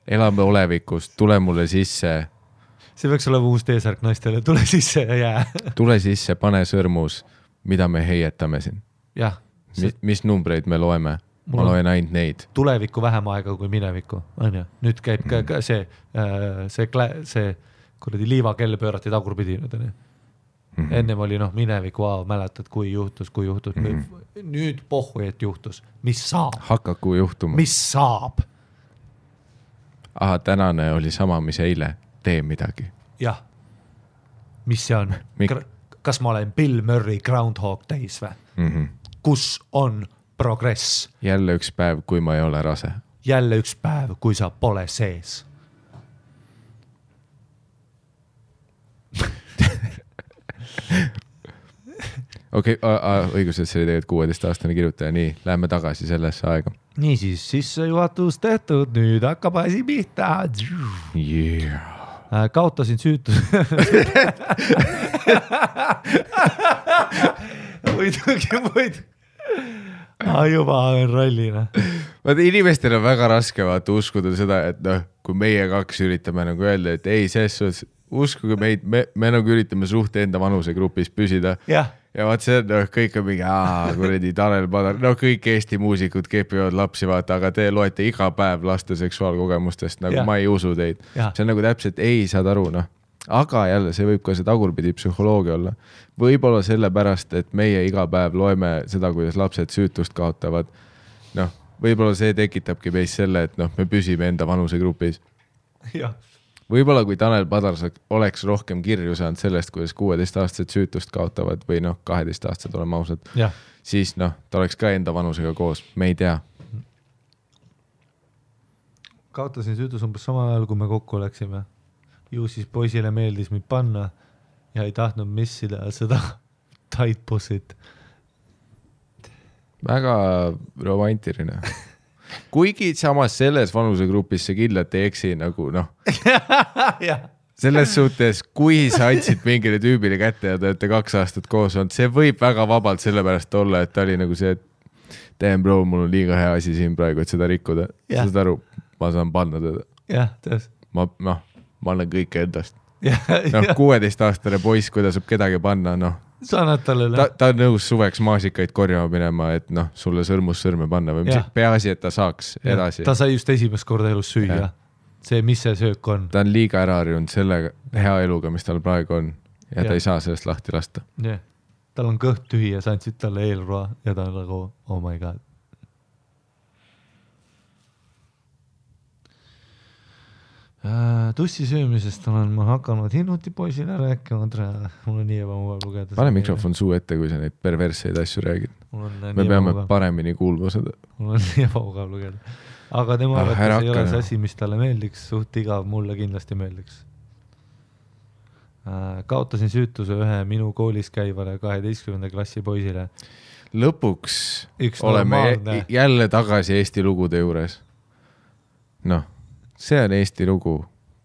Elame olevikus, tule mulle sisse. See võiks olla uus teesärk naistele, tule sisse ja jää. Tule sisse, pane sõrmus, mida me heietame siin. Jah. Mis numbreid me loeme? Ma loen ainult neid. Tulevikku vähem aega kui minevikku. Nüüd käib ka see kuradi liivakell pöörati tagurpidi. Ennem oli minevikku, mäletad, kui juhtus. Nüüd pohhu, et juhtus. Mis saab? Hakaku juhtuma. Mis saab? Aha, tänane oli sama, mis eile. Tee midagi. Jah. Mis see on? Kas ma olen Bill Murray Groundhog Days või? Kus on progress? Jälle üks päev, kui ma ei ole rase. Jälle üks päev, kui sa pole sees. Okei, õigus, et see oli tegelikult 16-aastane kirjutaja. Nii, läheme tagasi sellesse aega. Niisiis, sissejuhatus tehtud, nüüd hakkab asi pihta. Yeah. Kaotasin süütus. Muidugi. Juba on rallina. Vaata, inimestel on väga raske uskuda seda, et kui meie 2 üritame öelda, et ei, selles uskuge meid, me üritame suht enda vanusegrupis püsida. Ja vaat see kõik on mingi, kuredi Tanel Padar, kõik Eesti muusikud kepivad lapsi, vaata, aga te loete iga päev laste seksuaalkogemustest, ma ei usu teid. See on täpselt, ei saad aru, Aga jälle, see võib ka see tagurpidi psühholoogia olla. Võib-olla selle pärast, et meie iga päev loeme seda, kuidas lapsed süütust kaotavad. Võib-olla see tekitabki meis selle, et me püsime enda vanusegrupis. Võib-olla kui Tanel Padar oleks rohkem kirju saanud sellest, kuidas 16-aastased süütust kaotavad või 12-aastased oleme ausad, siis ta oleks ka enda vanusega koos. Me ei tea. Kaotasin süütus umbes samal ajal, kui me kokku oleksime. Ju siis poisile meeldis mind panna ja ei tahtnud missida seda tight pussit. väga romantiline. Kuigi samas selles vanusegrupis see kindlalt ei eksi nagu noh. Selles suhtes, kui sa andsid mingile tüübile kätte ja te olete 2 aastat koos olnud, see võib väga vabalt sellepärast olla, et ta oli nagu see, et damn bro, mul on liiga hea asi siin praegu, et seda rikkuda. Sa saad aru, ma saan panna teda. Jah, tões. Ma annan kõike endast. 16-aastane poiss, kui ta saab kedagi panna, noh. Sa annad talle. Ta on nõus suveks maasikaid korjama minema, et noh, sulle sõrmus sõrme panna või mis peaasi, et ta saaks edasi. Ta sai just esimest korda elus süüa. See, mis see söök on. Ta on liiga ära harjunud selle hea eluga, mis tal praegu on ja ta ei saa sellest lahti lasta. Tal on kõht tühi ja sa andsid talle eelroa ja ta on nagu, oh my god. Tussi söömisest olen ma hakanud hinnuti poisile rääkima, mul on nii ebamugav lugeda. Pane mikrofon suu ette, kui sa neid perverseid asju räägid. Me peame paremini kuulma seda. Mul on nii ebamugav lugeda. Aga tema arvates ei ole see asi, mis talle meeldiks, suht igav, mulle kindlasti meeldiks. Kaotasin süütuse ühe minu koolis käivale 12. klassi poisile. Lõpuks oleme jälle tagasi Eesti lugude juures. Noh, see on Eesti lugu.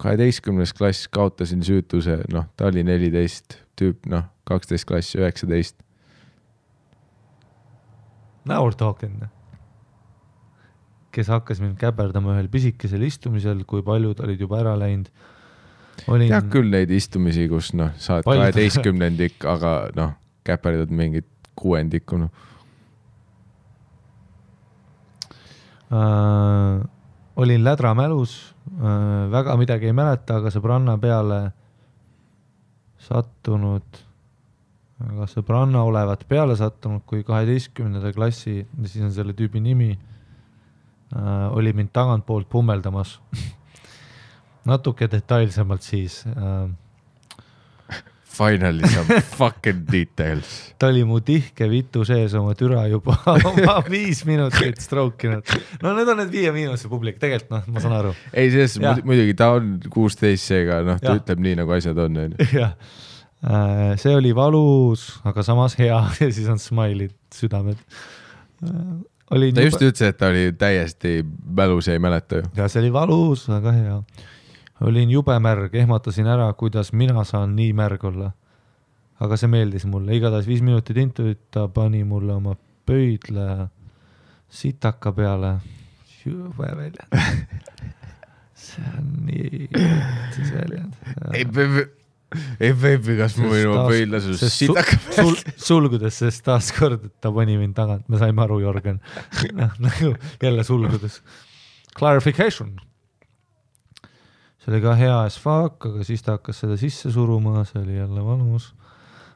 12. klass kaotasin süütuse, noh, ta oli 14 tüüp, noh, 12 klass, 19. Now we're talking. Kes hakkas mind käperdama ühel pisikesel istumisel, kui paljud olid juba ära läinud. Tead küll neid istumisi, kus noh, saad 12-ndik, aga noh, käperdad mingit 6-ndikku. No. Olin lädra mälus, väga midagi ei mäleta, aga sõbranna peale sattunud, peale sattunud, kui 12. klassi, siis on selle tüübi nimi, oli mind tagant poolt pummeldamas. Natuke detailsemalt siis. Finally some fucking details. Ta oli mu tihke vitu sees oma türa juba oma 5 minutit strookinud. No need on need 5 miinuse publik, tegelikult noh, ma saan aru. Ei, selles muidugi ta on 16 seega, noh, ta ütleb nii, nagu asjad on. Jah. See oli valus, aga samas hea ja siis on smileid, südamed. Ta just ütles, et ta oli täiesti mälus ja ei mäleta ju. Ja see oli valus, aga hea. Olin jube märg, ehmatasin ära, kuidas mina saan nii märg olla. Aga see meeldis mulle. Igatahes 5 minutit intuit, ta pani mulle oma pöidle sitaka peale. Jube väljend. See on nii siis väljend. Ei baby, kas mu minu pöidle sul sitaka peale? Sulgudes, sest taas kord, et ta pani mind tagant. Me saime aru, Jorgen. Nagu jälle sulgudes. Clarification. See oli ka hea as fuck, aga siis ta hakkas seda sisse suruma, see oli jälle valus.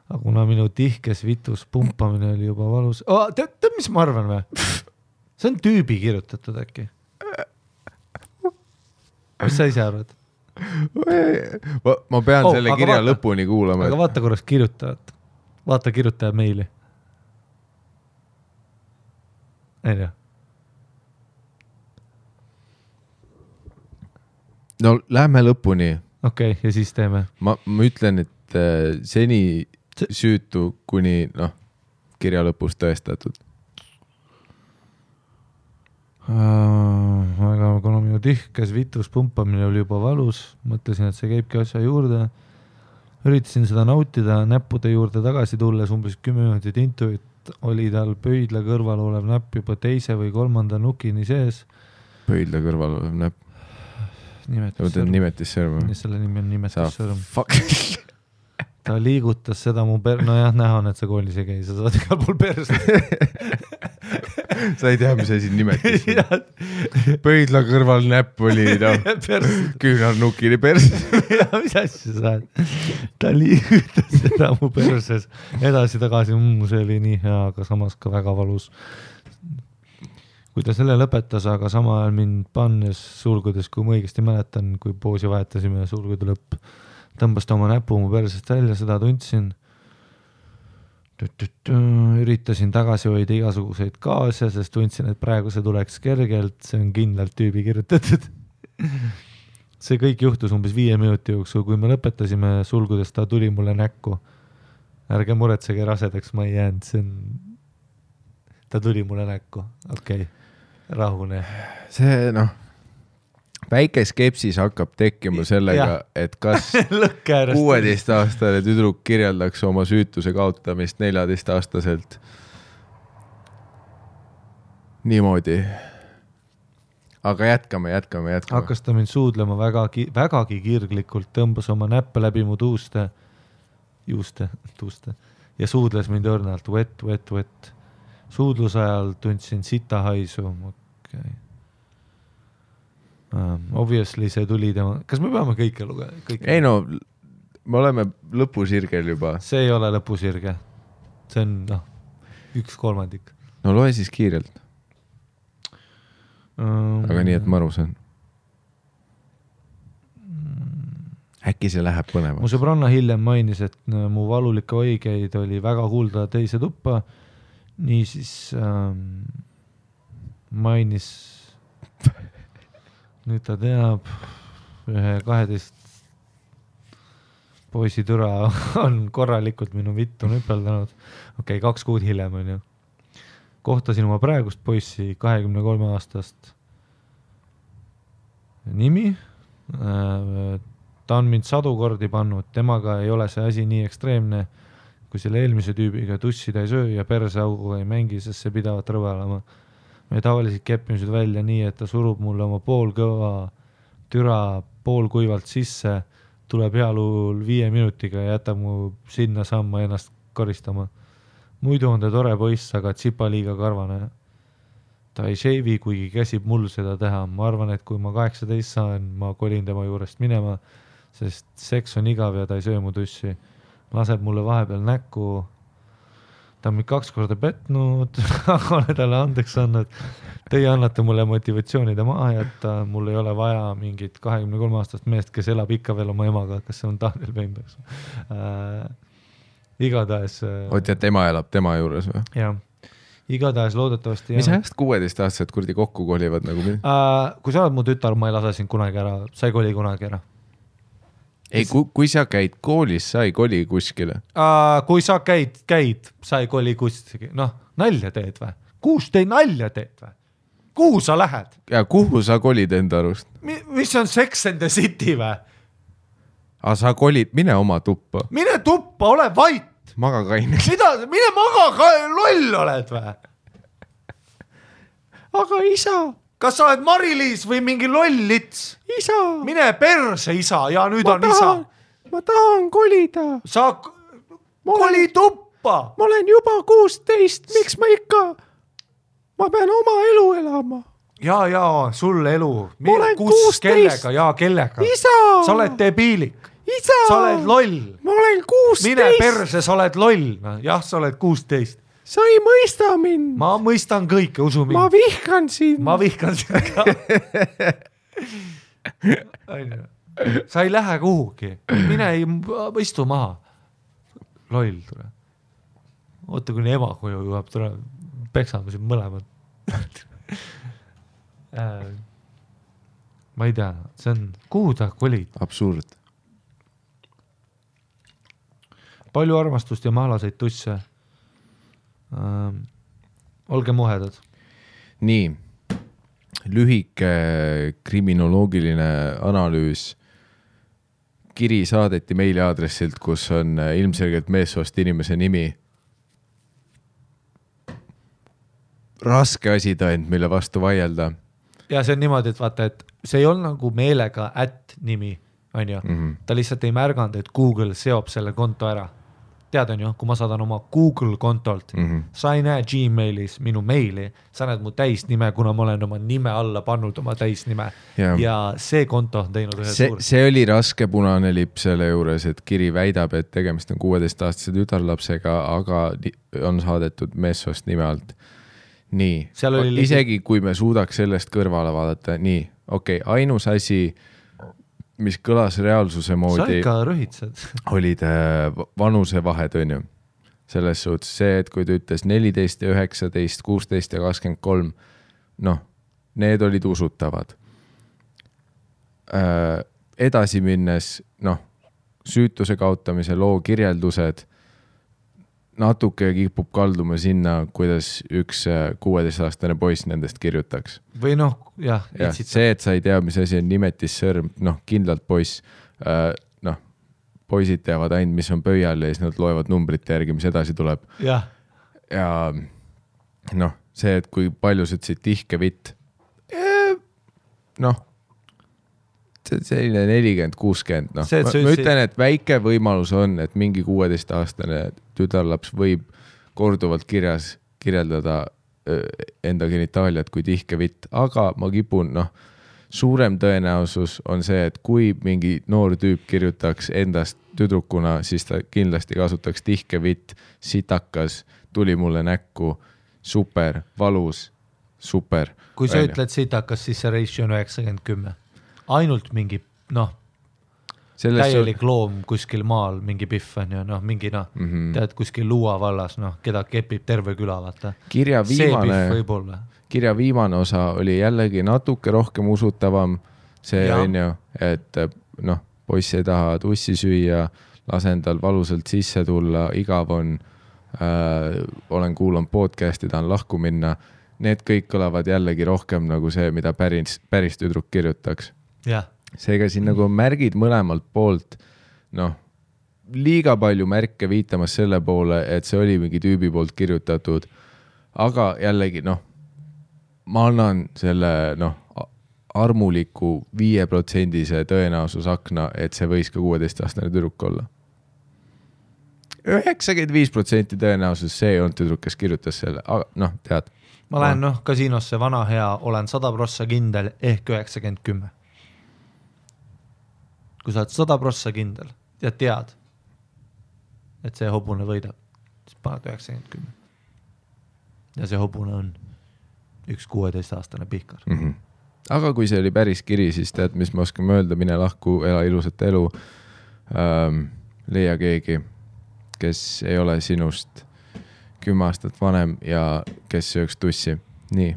Aga kuna minu tihkes vitus pumpamine oli juba valus. Tead, mis ma arvan või? See on tüübi kirjutatud äkki. Mis sa ise arvad? Ma pean selle kirja lõpuni kuulama. Aga vaata korras kirjutajat. Vaata kirjutaja meili. Ei tea. No lähme lõpuni. Okei, ja siis teeme. Ma ütlen, et seni süütu kuni kirja lõpus tõestatud. Aga kuna minu tihkes vitus pumpamine oli juba valus, mõtlesin, et see käibki asja juurde. Üritasin seda nautida, näppude juurde tagasi tulles umbes 10 minutit intuit oli tal pöidla kõrval olev näpp juba 2. või 3. nukini sees. Pöidla kõrval olev näpp? Nimetissõrm. Selle nimi on nimetissõrm. Ta liigutas seda mu näha on, et sa koolis ei käi, sa saad igal pool perse. Sa ei tea, mis asi nimetissõrm. Pöidla kõrval näpp oli küünarnukini perse. Mis asja sa saad? Ta liigutas seda mu perses edasi tagasi, see oli nii hea, aga samas ka väga valus. Kui ta selle lõpetas, aga sama ajal mind pannes sulgudes, kui ma õigesti mäletan, kui poosi vahetasime sulgude lõpp, tõmbas ta oma näpu mu persest välja, seda tundsin. Üritasin tagasi hoida igasuguseid gaase, sest tundsin, et praegu see tuleks kergelt, see on kindlalt tüübi kirjutatud. See kõik juhtus umbes 5 minuti jooksul, kui me lõpetasime sulgudes, ta tuli mulle näkku. Ärge muretsege rasedaks, ma ei jäänud, see on... ta tuli mulle näkku, okei, rahune. See väike skepsis hakkab tekkima sellega, et kas 16-aastane tüdruk kirjeldaks oma süütuse kaotamist 14-aastaselt niimoodi. Aga jätkame. Hakkas ta mind suudlema vägagi kirglikult, tõmbas oma näppe läbi mu juuste ja suudles mind õrnalt, wet. Suudluse ajal tundsin sita haisu. Okay. Obviously see tuli tema... Kas me peame kõike lugeda? Ei no, me oleme lõpusirgel juba. See ei ole lõpusirge. See on 1/3. No loe siis kiirelt. Aga nii, et ma aru saan. Äkki see läheb põnevaks. Mu sõbranna hiljem mainis, et mu valulikke õigeid oli väga kuulda teise tuppa. Niisiis mainis, nüüd ta teab, 12 poisi türa on korralikult minu vittu nüpeldanud. Okei, 2 kuud hiljem on ju. Kohtasin oma praegust poissi 23-aastast nimi. Ta on mind 100 kordi pannud, temaga ei ole see asi nii ekstreemne, kui selle eelmise tüübiga tussida ei söö ja perseaugu ei mängi, sest see pidavat rõvelama. Me tavaliselt keppimised välja nii, et ta surub mulle oma poolkõva türa poolkuivalt sisse, tuleb healuul 5 minutiga ja jätab mu sinna samma ennast koristama. Muidu on ta tore poiss, aga tsipa liiga karvane. Ta ei shave'i, kuigi käsib mul seda teha. Ma arvan, et kui ma 18 saan, ma kolin tema juurest minema, sest seks on igav ja ta ei söö mu tussi. Laseb mulle vahepeal näkku. Ta on mind 2 korda petnud, aga olen talle andeks andnud. Teie annate mulle motivatsioonide maha jätta. Mul ei ole vaja mingit 23-aastast meest, kes elab ikka veel oma emaga. Kas see on Daniel Pembeks? Igatahes... Oot, et ema elab tema juures või? Jah. Igatahes loodetavasti... Mis ajast 16-aastased kurdi kokku kolivad nagu mind? Kui sa oled mu tütar, ma ei lase sind kunagi ära. Sa ei koli kunagi ära. Ei, kui sa käid koolis, sa ei koli kuskile. Kui sa käid, sa ei koli kuskile. Nalja teed või? Kuus te nalja teed või? Kuhu sa lähed? Ja kuhu sa kolid enda arust? Mis on Sex and the City või? Sa kolid, mine oma tuppa. Mine tuppa, ole vait. Maga kaine. Mine maga, loll oled või? Aga isa. Kas sa oled Mari-Liis või mingi lollits? Isa. Mine perse, isa, ja nüüd on isa. Ma tahan kolida. Sa koli tuppa. Ma olen juba 16, miks ma ikka? Ma pean oma elu elama. Ja, sul elu. Ma olen 16. Kellega. Isa. Sa oled debiilik. Isa. Sa oled loll. Ma olen 16. Mine perse, sa oled loll. Jah, sa oled 16. Sa ei mõista mind. Ma mõistan kõike, usu mind. Ma vihkan sind. Ma vihkan sind ka. Sa ei lähe kuhugi. Mine istu maha. Loll tule. Oota, kuni ema koju juhab, tule peksame siin mõlemad. Ma ei tea, see on, kuhu ta kolid? Absurd. Palju armastust ja mahlaseid tusse. Olge muhedad. Nii, lühike kriminoloogiline analüüs. Kiri saadeti meiliaadressilt, kus on ilmselgelt meessoost inimese nimi. Raske asi tõend, mille vastu vaielda. Ja see on niimoodi, et vaata, et see ei olnud nagu meelega @nimi, on ju. Ta lihtsalt ei märganud, et Google seob selle konto ära. Tead on ju, kui ma saadan oma Google kontolt, sa ei näe Gmailis minu meili, sa näed mu täisnime, kuna ma olen oma nime alla pannud oma täisnime. Ja see konto on teinud ühe suur. See oli raske punane lipp selle juures, et kiri väidab, et tegemist on 16-aastase tütarlapsega, aga on saadetud meessoost nime alt. Nii, isegi kui me suudaks sellest kõrvale vaadata, nii, okei, ainus asi, mis kõlas reaalsuse moodi, sa ikka rõhitsed. olid vanuse vahed, on ju. Selles suhtes see, et kui ta ütles 14 ja 19, 16 ja 23, need olid usutavad. Edasi minnes, süütuse kaotamise loo kirjeldused, natuke kipub kalduma sinna, kuidas üks 16-aastane poiss nendest kirjutaks. Või noh, jah. See, et sa ei tea, mis asi on nimetissõrm, noh, kindlalt poiss, noh, poisid teavad ainult, mis on pöial ja siis nad loevad numbrite järgi, mis edasi tuleb. Ja noh, see, et kui palju sa ütlesid tihke vitt, noh, selline 40-60, noh, ma ütlen, et väike võimalus on, et mingi 16-aastane tütarlaps võib korduvalt kirjeldada enda genitaaliat kui tihke vitt, aga ma kipun, noh, suurem tõenäosus on see, et kui mingi noor tüüp kirjutaks endast tüdrukuna, siis ta kindlasti kasutaks tihke vitt, sitakas, tuli mulle näkku, super, valus, super. Kui sa ütled sitakas, siis see ratio on 90-10. Ainult mingi, noh, täielik loom kuskil maal, mingi pihv on ju, noh, mingi, noh, tead kuskil Luua vallas, noh, keda kepib terve küla, vaata. Kirja viimane osa oli jällegi natuke rohkem usutavam. See on ju, et noh, poiss ei taha tussi süüa, lasen tal valusalt sisse tulla, igav on, olen kuulanud podcasti, tahan lahku minna. Need kõik kõlavad jällegi rohkem nagu see, mida päris tüdruk kirjutaks. Seega siin nagu märgid mõlemalt poolt, noh, liiga palju märke viitamas selle poole, et see oli mingi tüübi poolt kirjutatud, aga jällegi, noh, ma annan selle, noh, armuliku 5% tõenäosusakna, et see võis ka 16-aastane tüdruk olla. 95% tõenäosus see on tüdruk, kes kirjutas selle, aga noh, tead. Ma lähen, noh, kasiinosse vana hea, olen 100% kindel ehk 90-10. Kui sa oled 100% kindel ja tead, et see hobune võidab, siis paned 90-10. Ja see hobune on üks 16-aastane pihkar. Aga kui see oli päris kiri, siis tead, mis ma oskan öelda, mine lahku, ela ilusat elu, leia keegi, kes ei ole sinust 10 aastat vanem ja kes sööks tussi. Nii.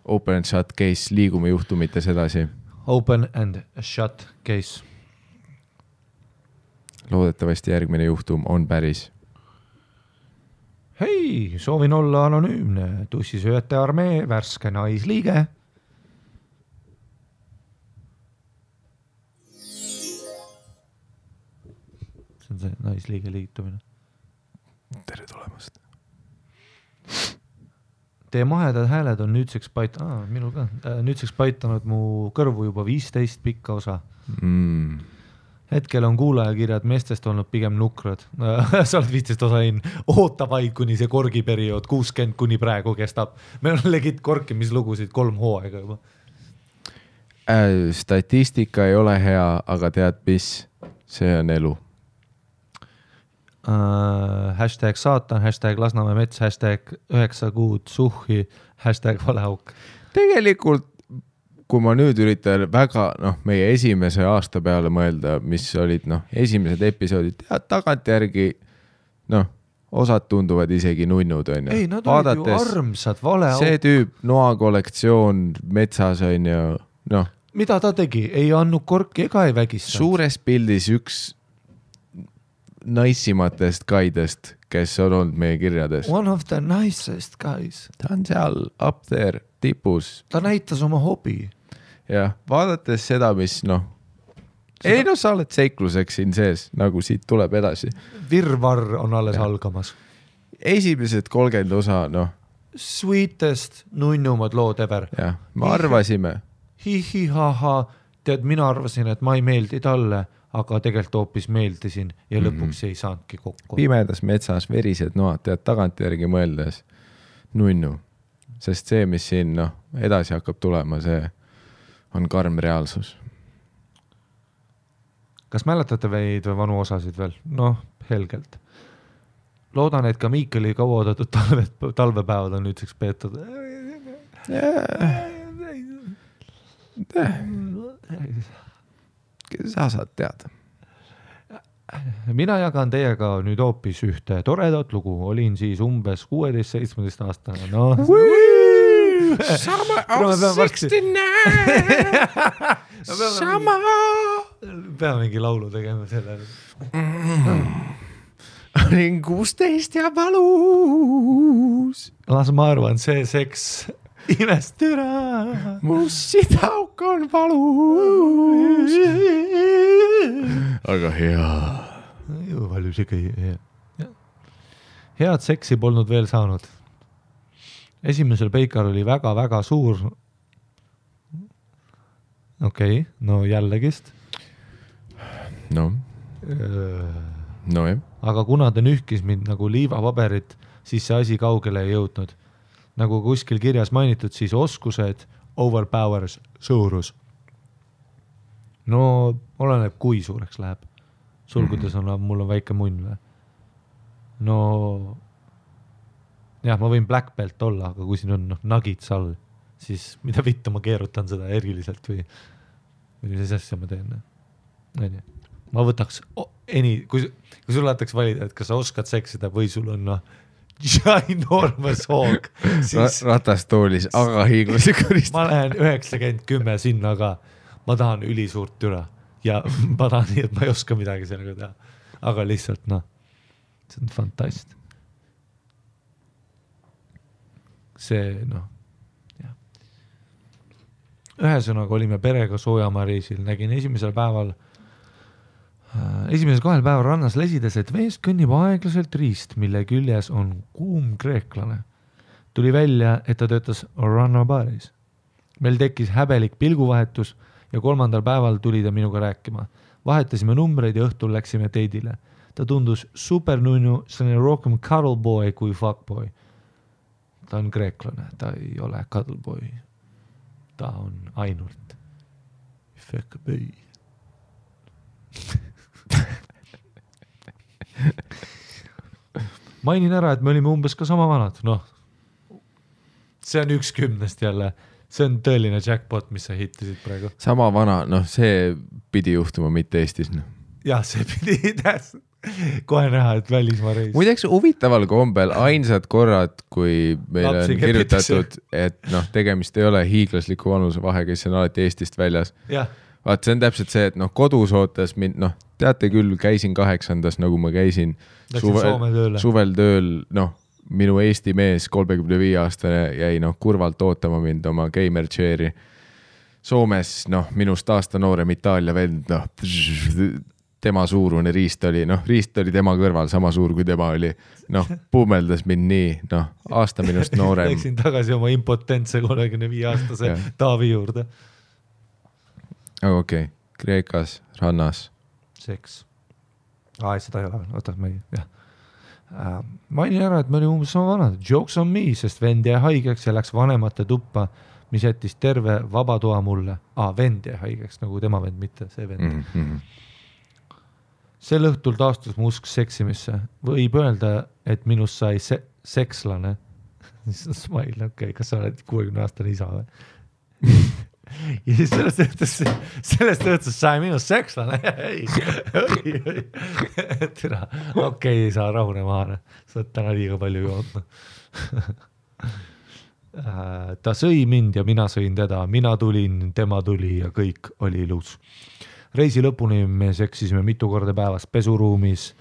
Open and shut case, liigume juhtumites edasi. Open and shut case. Loodetavasti järgmine juhtum on päris. Hei, soovin olla anonüümne. Tussisööjate armee, värske naisliige. See on see naisliige liitumine. Tere tulemast. Teie mahedad hääled on nüüdseks minul ka, nüüdseks paitanud mu kõrvu juba 15 pikka osa. Hetkel on kuulajakirjad meestest olnud pigem nukrad. Sa oled 15 osa oota vaid, kuni see korgiperiood 60 kuni praegu kestab. Meil on legit korkimislugusid 3 hooaega juba. Statistika ei ole hea, aga tead mis? See on elu. Hashtag saatan, hashtag Lasnamäe mets, hashtag 9 kuud suhhi, hashtag valeauk. Tegelikult, kui ma nüüd üritan väga, noh, meie esimese aasta peale mõelda, mis olid, noh, esimesed episoodid, tagantjärgi, noh, osad tunduvad isegi nunnud, on ju. Ei, nad olid ju armsad, valeauk. See tüüp, noa kollektsioon metsas, on ju, noh. Mida ta tegi? Ei andnud korki ega ei vägistanud. Suures pildis üks naisimatest gaidest, kes on olnud meie kirjades. One of the nicest guys. Ta on seal up there, tipus. Ta näitas oma hobi. Ja vaadates seda, mis, noh, ei, noh, sa oled seikluseks siin sees, nagu siit tuleb edasi. Virvarr on alles algamas. Esimesed 30 osa, noh. Sweetest, nunnumad lood ever. Ja, me arvasime. Hihihaha, tead, mina arvasin, et ma ei meeldi talle, aga tegelikult hoopis meeldisin ja lõpuks ei saanudki kokku. Pimedas metsas verised noad, tead tagantjärgi mõeldes nunnu, sest see, mis siin, noh, edasi hakkab tulema, see on karm reaalsus. Kas mäletate veid või vanu osasid veel? Noh, helgelt. Loodan, et ka Miikeli kauaoodatud talvepäevad on nüüdseks peetud. Sa saad teada. Mina jagan teiega nüüd hoopis ühte toredat lugu. Olin siis umbes 16-17 aastane. No. Summer of 69. Peame mingi laulu tegema selle. olin 16 ja valus. Las ma arvan, see seks imest üra. Mu sidauk on valus. Aga hea. Valus ikka hea. Head seksi polnud veel saanud. Esimesel peikal oli väga-väga suur. Okei, no jällegist. No jah. Aga kuna ta nühkis mind nagu liivapaberit, siis see asi kaugele ei jõudnud. Nagu kuskil kirjas mainitud, siis oskused overpowers suurus. No oleneb, kui suureks läheb. Sulgudes on, mul on väike munn või? No jah, ma võin black belt olla, aga kui siin on nuggets all, siis mida vittu ma keerutan seda eriliselt või mis asja ma teen. Ma võtaks kui sul lahtaks valida, et kas sa oskad seksida või sul on ginormous hoog, siis ratastoolis, aga hiiglasi koristada. Ma lähen 90-10 sinna, aga ma tahan ülisuurt türa ja ma tahan nii, et ma ei oska midagi sellega teha, aga lihtsalt see on fantast. See jah. Ühesõnaga olime perega Soojamaa-reisil, nägin esimesel 2 päeval rannas lesides, et veest kõnnib aeglaselt riist, mille küljes on kuum kreeklane. Tuli välja, et ta töötas rannabaaris. Meil tekkis häbelik pilguvahetus ja 3. päeval tuli ta minuga rääkima. Vahetasime numbreid ja õhtul läksime teidile. Ta tundus supernunnu, see on rohkem cuddleboy kui fuckboy. Ta on kreeklane, ta ei ole cuddleboy. Ta on ainult fuckboy. Mainin ära, et me olime umbes ka sama vanad. See on 1/10 jälle. See on tõeline jackpot, mis sa hittisid praegu. Sama vana, see pidi juhtuma mitte Eestis. Jah, see pidi kohe näha, et välismaa reis. Muideks huvitaval kombel ainsad korrad, kui meil on kirjutatud, et tegemist ei ole hiiglasliku vanuse vahe, kes on alati Eestist väljas. Vaat see on täpselt see, et kodus ootas mind, teate küll, käisin 8. nagu ma käisin suvel tööl, minu Eesti mees 35-aastane jäi kurvalt ootama mind oma gamer chairi. Soomes, minust aasta noorem Itaalia vend, tema suurune riist oli tema kõrval sama suur, kui tema oli. Puumeldas mind nii, aasta minust noorem. Läksin tagasi oma impotentse 35-aastase Taavi juurde. Aga okei, Kreekas, rannas. Seks. Seda ei ole veel, oota, ma ei, jah. Mainin ära, et me olime umbes sama vanad. Jokes on me, sest vend jäi haigeks ja läks vanemate tuppa, mis jättis terve vabatoa mulle. Vend jäi haigeks, nagu tema vend, mitte see vend. Sel õhtul taastus mu usk seksimisse. Võib öelda, et minust sai sekslane. Smile, okei, kas sa oled 60-aastane isa või? Ja siis sellest õhtus sai minust sekslane. Okei, saa rahune maha. Sa oled täna liiga palju joodnud. Ta sõi mind ja mina sõin teda. Mina tulin, tema tuli ja kõik oli ilus. Reisi lõpuni me seksisime mitu korda päevas pesuruumis,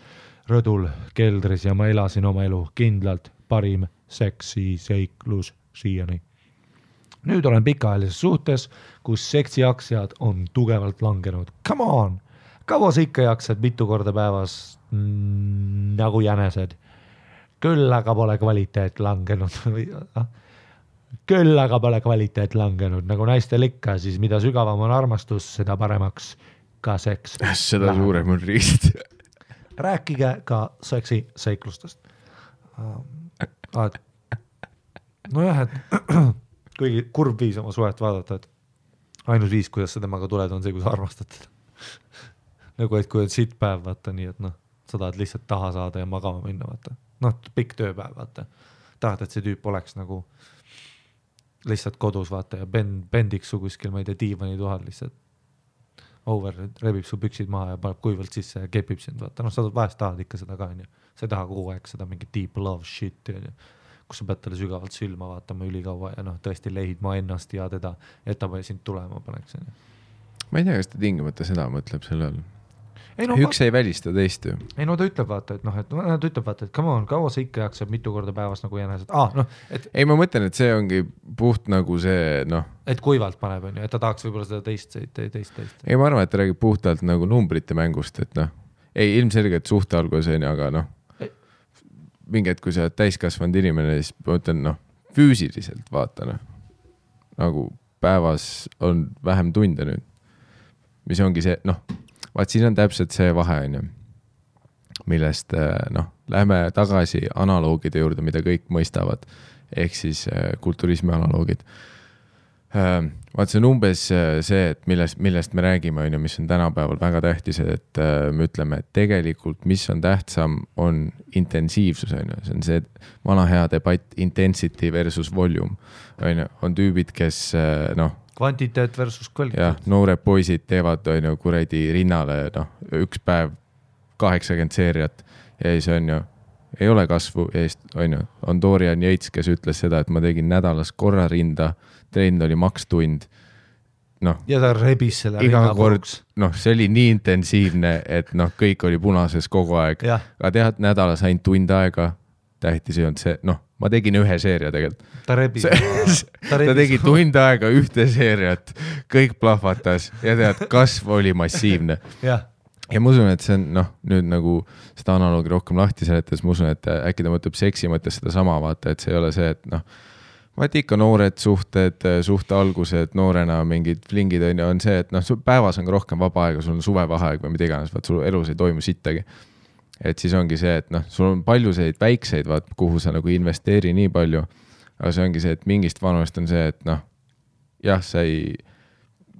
rõdul, keldris ja ma elasin oma elu kindlalt parim seksi seiklus siiani. Nüüd olen pikaajalises suhtes, kus seksijaksjad on tugevalt langenud. Come on! Kaua sa ikka jaksad mitu korda päevas nagu jänesed? Küll aga pole kvaliteet langenud. Küll aga pole kvaliteet langenud. Nagu naistel ikka, siis mida sügavam on armastus, seda paremaks ka seks. Seda suurem on riist. Rääkige ka seksi seiklustest. Nojah, et kuigi kurb viis oma suhet vaadata, et ainus viis, kuidas sa temaga tuled, on see, kui sa armastad teda. Nagu, et kui on siit päev, vaata nii, et sa tahad lihtsalt taha saada ja magama minna, vaata. Pikk tööpäev, vaata. Tahad, et see tüüp oleks nagu lihtsalt kodus, vaata, ja bendiks su kuskil, ma ei tea, diivani tuhal lihtsalt over, rebib su püksid maha ja paneb kuivalt sisse ja kepib sind, vaata. Sa vahest tahad ikka seda ka, sa ei taha kogu aeg seda mingi deep love shit, kus sa pead talle sügavalt sülma vaatama ülikaua ja tõesti leidma ennast ja teda, et ta sind tulema paneks. Ma ei tea, kas ta tingimata seda mõtleb selle all. üks ei välista teist ju. Ei no ta ütleb vaata, et nad ütleb vaata, et come on, kaua sa ikka jaksab mitu korda päevas nagu jänesed. Ei, ma mõtlen, et see ongi puht nagu see, et kuivalt paneb, on ju, et ta tahaks võib-olla seda teist. Ei, ma arvan, et ta räägib puhtalt nagu numbrite mängust, et ei, ilmselgelt suhte algus on, aga mingi hetk, kui sa oled täiskasvanud inimene, siis ma ütlen, füüsiliselt vaata, nagu päevas on vähem tunde nüüd, mis ongi see, vaat siin on täpselt see vahe, on ju, millest, lähme tagasi analoogide juurde, mida kõik mõistavad, ehk siis kulturismi analoogid. Vaat see on umbes see, et millest me räägime, on ju, mis on tänapäeval väga tähtis, et me ütleme, et tegelikult, mis on tähtsam, on intensiivsus, on ju, see on see vana hea debatt intensity versus volume, on tüübid, kes, kvantiteet versus kvaliteet. Jah, noored poisid teevad, on ju, kuredi rinnale, üks päev 80 seeriat ja siis on ju, ei ole kasvu eest, on ju, on Dorian Yates, kes ütles seda, et ma tegin nädalas korra rinda, trend oli makstund, ja ta rebis selle iga kord, see oli nii intensiivne, et kõik oli punases kogu aeg, aga tead, nädalas ainult tund aega, tähtis ei olnud see, ma tegin ühe seeria tegelikult. Ta rebis. Ta tegi tund aega ühte seeriat, kõik plahvatas ja tead, kasv oli massiivne. Ja ma usun, et see on, nüüd nagu seda analoogi rohkem lahti seletas, ma usun, et äkki ta mõtleb seksi mõttes seda sama, vaata, et see ei ole see, et vaat ikka noored suhted, suhte algused, noorena mingid flingid on see, et päevas on ka rohkem vaba aega, sul on suvevaheaeg või mida iganes, vaat sul elus ei toimu sittagi. Et siis ongi see, et sul on palju selliseid väikseid, vaat, kuhu sa nagu investeeri nii palju, aga see ongi see, et mingist vanust on see, et jah, sa ei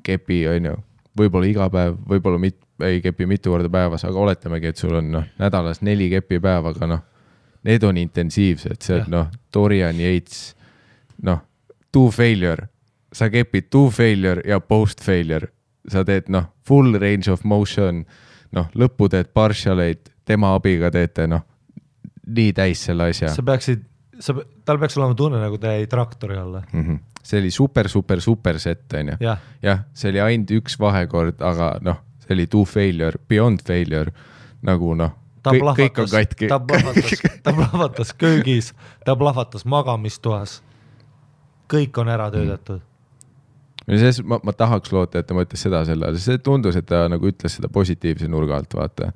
kepi, on ju, võib-olla iga päev, võib-olla ei kepi mitu korda päevas, aga oletamegi, et sul on nädalas 4 kepi päev, aga need on intensiivsed, see on Dorian Yates, to failure, sa kepid to failure ja post failure, sa teed full range of motion, lõppu teed partialeid, tema abiga teete, nii täis selle asja. Tal peaks olema tunne, nagu ta jäi traktori alla. See oli super set, on ju. Jah, see oli ainult üks vahekord, aga see oli to failure, beyond failure, nagu kõik on katki. Ta plahvatas köögis, ta plahvatas magamistoas. Kõik on ära töödatud. Ma tahaks loota, et ta mõtles seda selle, see tundus, et ta nagu ütles seda positiivse nurga alt, vaata.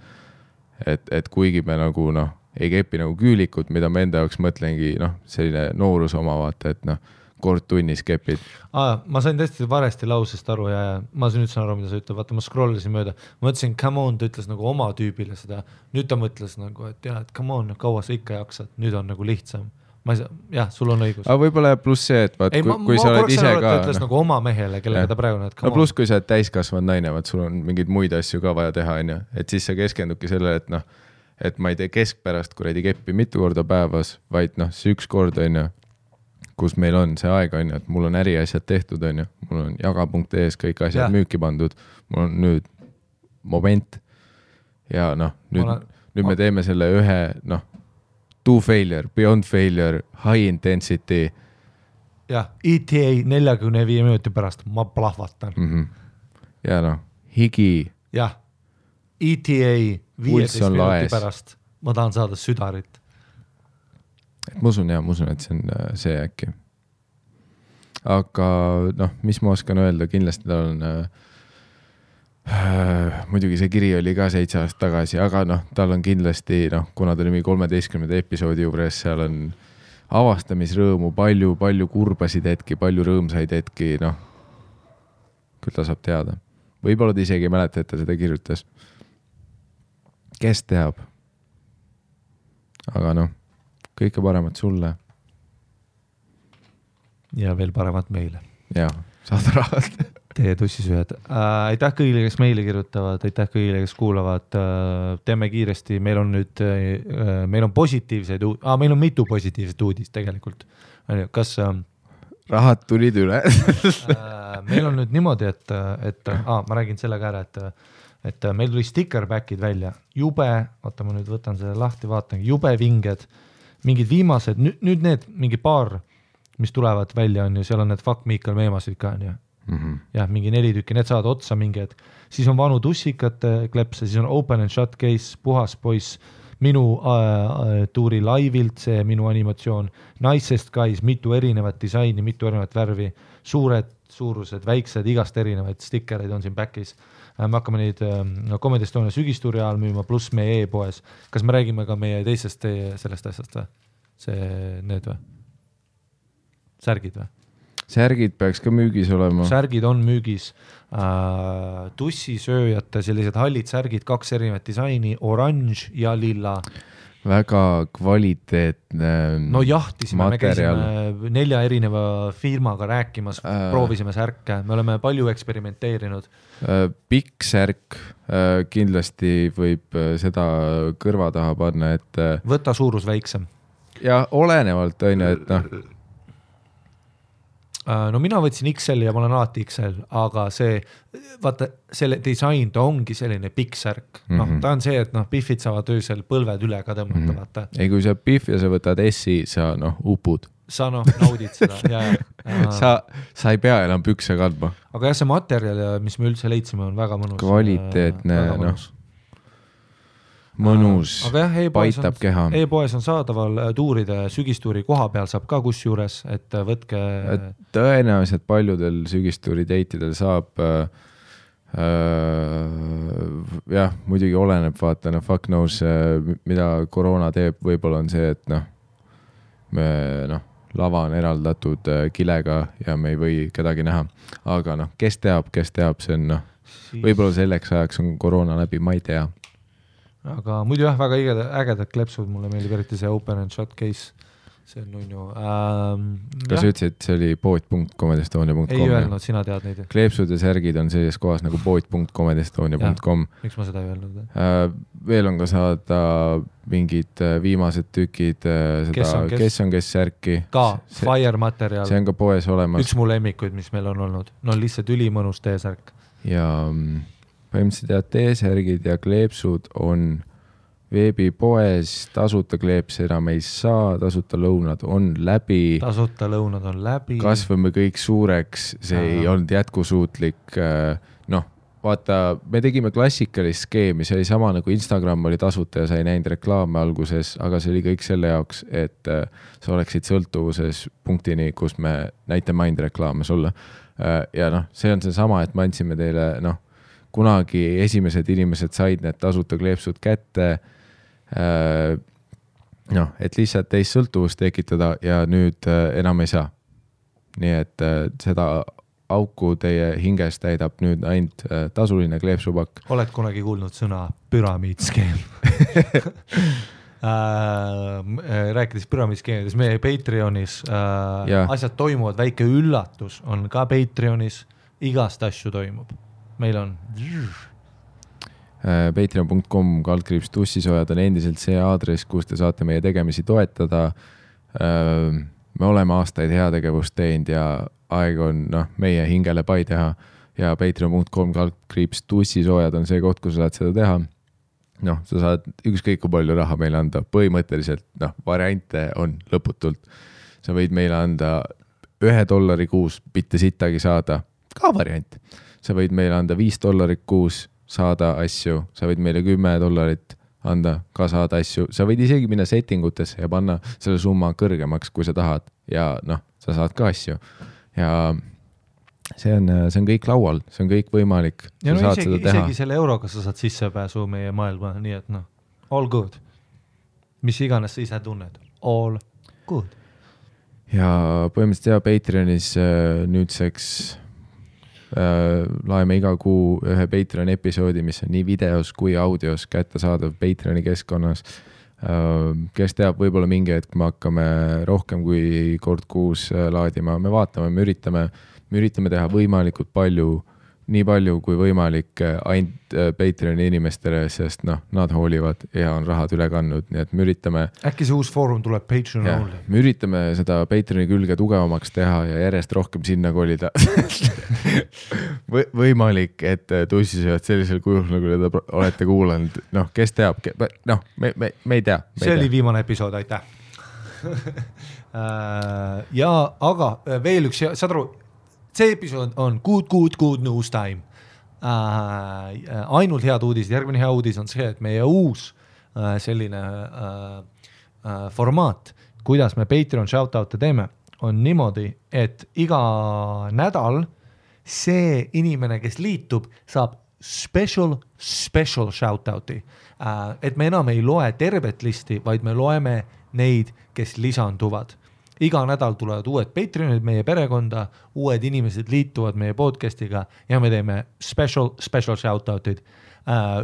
Et kuigi me nagu ei kepi nagu küülikut, mida ma enda jaoks mõtlengi, selline noorus oma, vaata, et kord tunnis kepid. Ma sain tõesti varesti lausest aru ja ma nüüd saan aru, mida sa ütled, vaata ma scrollisin mööda, ma mõtlesin, come on, ta ütles nagu oma tüübile seda, nüüd ta mõtles nagu, et jah, et come on, kaua sa ikka jaksad, nüüd on nagu lihtsam. Jah, sul on õigus. Aga võib-olla pluss see, et vaat, kui sa oled ise ka... Ta ütles nagu oma mehele, kellega ta praegu näed. Pluss kui sa oled täiskasvanud naine, vaat sul on mingeid muid asju ka vaja teha, et siis sa keskendubki sellele, et ma ei tee keskpärast kuradi keppi mitu korda päevas, vaid see üks kord, kus meil on see aeg, et mul on äriasjad tehtud, mul on jaga.es kõik asjad müüki pandud, mul on nüüd moment ja nüüd me teeme selle ühe, to failure, beyond failure, high intensity. Jah, ETA 45 minuti pärast, ma plahvatan. Ja higi. Jah, ETA 15 minuti pärast, ma tahan saada südarit. Ma usun, et see on see äkki. Aga mis ma oskan öelda, kindlasti tal on... muidugi see kiri oli ka 7 aastat tagasi, aga tal on kindlasti, kuna ta oli 13. episoodi juures, seal on avastamisrõõmu, palju kurbasid hetki, palju rõõmsaid hetki, küll ta saab teada. Võib-olla ta isegi ei mäleta, et ta seda kirjutas. Kes teab? Aga kõike paremat sulle. Ja veel paremat meile. Ja, saada rahalt. Teie tussisühed. Aitäh kõigile, kes meile kirjutavad, aitäh kõigile, kes kuulavad. Teeme kiiresti, meil on positiivseid, meil on mitu positiivset uudist tegelikult. Kas... Rahad tulid üle. Meil on nüüd niimoodi, et ma räägin selle ka ära, et meil tuli stickerbackid välja. Jube, oota ma nüüd võtan selle lahti, vaatan, jube vinged, mingid viimased, nüüd need mingi paar, mis tulevad välja on ju, seal on need Fuck Miikal meemasid ka on ju. jah, mingi 4 tükki, need saavad otsa mingi hetk. Siis on vanu tussikate klepse, siis on open and shut case, puhas poiss, minu tuuri laivilt, see minu animatsioon, Nicest Guys, mitu erinevat disaini, mitu erinevat värvi, suured suurused, väiksed, igast erinevaid stikereid on siin back'is. Me hakkame neid Comedy Estonia sügistuuri ajal müüma, pluss meie e-poes. Kas me räägime ka meie teisest sellest asjast või? Need või? Särgid või? Särgid peaks ka müügis olema. Särgid on müügis. Tussisööjate sellised hallid särgid, 2 erinevat disaini, oranž ja lilla. Väga kvaliteetne no jahtisime, materjal. Me käisime 4 erineva firmaga rääkimas, proovisime särke, me oleme palju eksperimenteerinud. Pikk särk, kindlasti võib seda kõrva taha panna, et võta suurus väiksem. Ja olenevalt on, et noh. No mina võtsin XL ja ma olen alati XL, aga vaata, selle disain, ta ongi selline pikk särk. Ta on see, et Biffid saavad öösel põlved üle ka tõmmata, vaata. Ei, kui sa Biff ja sa võtad S-i, sa upud. Sa naudid seda. Sa ei pea enam pükse kandma. Aga jah, see materjal, mis me üldse leitsime, on väga mõnus. Kvaliteetne, mõnus, paitab keha. E-poes on saadaval tuuride, sügistuuri koha peal saab ka kus juures, et võtke... Tõenäoliselt paljudel sügistuuri deitidel saab, jah, muidugi oleneb, vaata, fuck knows, mida koroona teeb, võib-olla on see, et lava on eraldatud kilega ja me ei või kedagi näha. Aga kes teab, see on, võib-olla selleks ajaks on koroona läbi, ma ei tea. Aga muidu jah, väga ägedad klepsud, mulle meeldib eriti see open and shut case, see on nunnu. Kas ütlesid, see oli pood.comedestonia.com? Ei öelnud, sina tead neid. Kleepsud ja särgid on selles kohas nagu pood.comedestonia.com. Miks ma seda ei öelnud? Veel on ka saada mingid viimased tükid, kes on kes särki. Ka, fire materjal. See on ka poes olemas. Üks mu lemmikuid, mis meil on olnud. No lihtsalt ülimõnus T-särk. Ja... põhimõtteliselt T-särgid ja kleepsud on veebipoes, tasuta kleepse enam ei saa, tasuta lõunad on läbi. Kasvame kõik suureks, see ei olnud jätkusuutlik. Vaata, me tegime klassikalist skeemi, see oli sama nagu Instagram oli tasuta ja sa ei näinud reklaame alguses, aga see oli kõik selle jaoks, et sa oleksid sõltuvuses punktini, kus me näitame ainult reklaame sulle. Ja see on see sama, et me andsime teile, kunagi esimesed inimesed said need tasuta kleepsud kätte, et lihtsalt teist sõltuvust tekitada ja nüüd enam ei saa. Nii et seda auku teie hinges täidab nüüd ainult tasuline kleepsupakk. Oled kunagi kuulnud sõna püramiidskeem? Rääkides püramiidskeemides, meie Patreonis asjad toimuvad, väike üllatus on ka Patreonis, igast asju toimub. Meil on patreon.com/tussisojad on endiselt see aadress, kus te saate meie tegemisi toetada. Me oleme aastaid heategevust teinud ja aeg on meie hingele pai teha ja patreon.com/tussisojad on see koht, kus sa saad seda teha. Sa saad ükskõik kui palju raha meile anda. Põhimõtteliselt variante on lõputult. Sa võid meile anda $1 kuus, mitte sittagi saada. Ka variant. Sa võid meile anda $5 kuus, saada asju. Sa võid meile $10 anda, ka saada asju. Sa võid isegi minna settingutesse ja panna selle summa kõrgemaks, kui sa tahad. Ja sa saad ka asju. Ja see on kõik laual, see on kõik võimalik. Ja isegi selle euroga sa saad sissepääsu meie maailma, nii et all good. Mis iganes sa ise tunned, all good. Ja põhimõtteliselt Patreonis nüüdseks laeme iga kuu ühe Patreon episoodi, mis on nii videos kui audios kättesaadav Patreoni keskkonnas. Kes teab, võib-olla mingi hetk me hakkame rohkem kui kord kuus laadima. Me vaatame, me üritame teha võimalikult palju, nii palju kui võimalik ainult Patreoni inimestele, sest nad hoolivad ja on rahad üle kandnud, nii et me üritame... Äkki see uus foorum tuleb Patreon only? Me üritame seda Patreoni külge tugevamaks teha ja järjest rohkem sinna kolida. Võimalik, et tussisööd sellisel kujul, nagu te olete kuulanud. Kes teab? Me ei tea. See oli viimane episood, aitäh. Ja, aga veel üks, saad aru, see episood on good news time. Ainult head uudised, järgmine hea uudis on see, et meie uus selline formaat, kuidas me Patreon shoutout'e teeme, on niimoodi, et iga nädal see inimene, kes liitub, saab special shoutout'i. Et me enam ei loe tervet listi, vaid me loeme neid, kes lisanduvad. Iga nädal tulevad uued Patreonid meie perekonda, uued inimesed liituvad meie podcastiga ja me teeme special shoutout'id.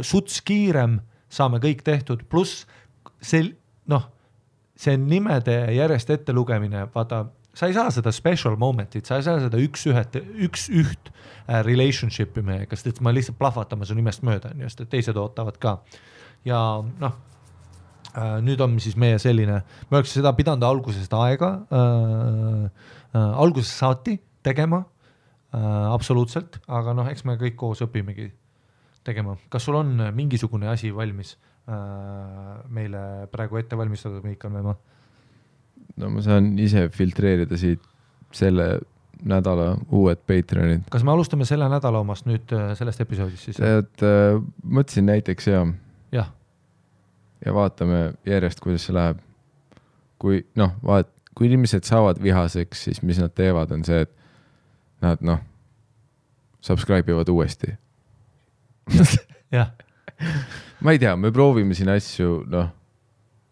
Suts kiirem, saame kõik tehtud, pluss see nimede järjest ette lugemine, vaata, sa ei saa seda special momentit, sa ei saa seda üks üht relationship'i meiega, sest ma lihtsalt plahvatame su nimest mööda, just, et teised ootavad ka. Ja nüüd on siis meie selline, me oleks seda pidanud algusest aega, algusest saati tegema, absoluutselt, aga eks me kõik koos õpimegi tegema. Kas sul on mingisugune asi valmis meile praegu ette valmistatud, Miikal Meemaa? No ma saan ise filtreerida siit selle nädala uued Patreonid. Kas me alustame selle nädala omast nüüd sellest episoodist siis? Mõtlesin näiteks ja vaatame järjest, kuidas see läheb. Kui inimesed saavad vihaseks, siis mis nad teevad, on see, et nad subscribe ivad uuesti. Jah. Ma ei tea, me proovime siin asju,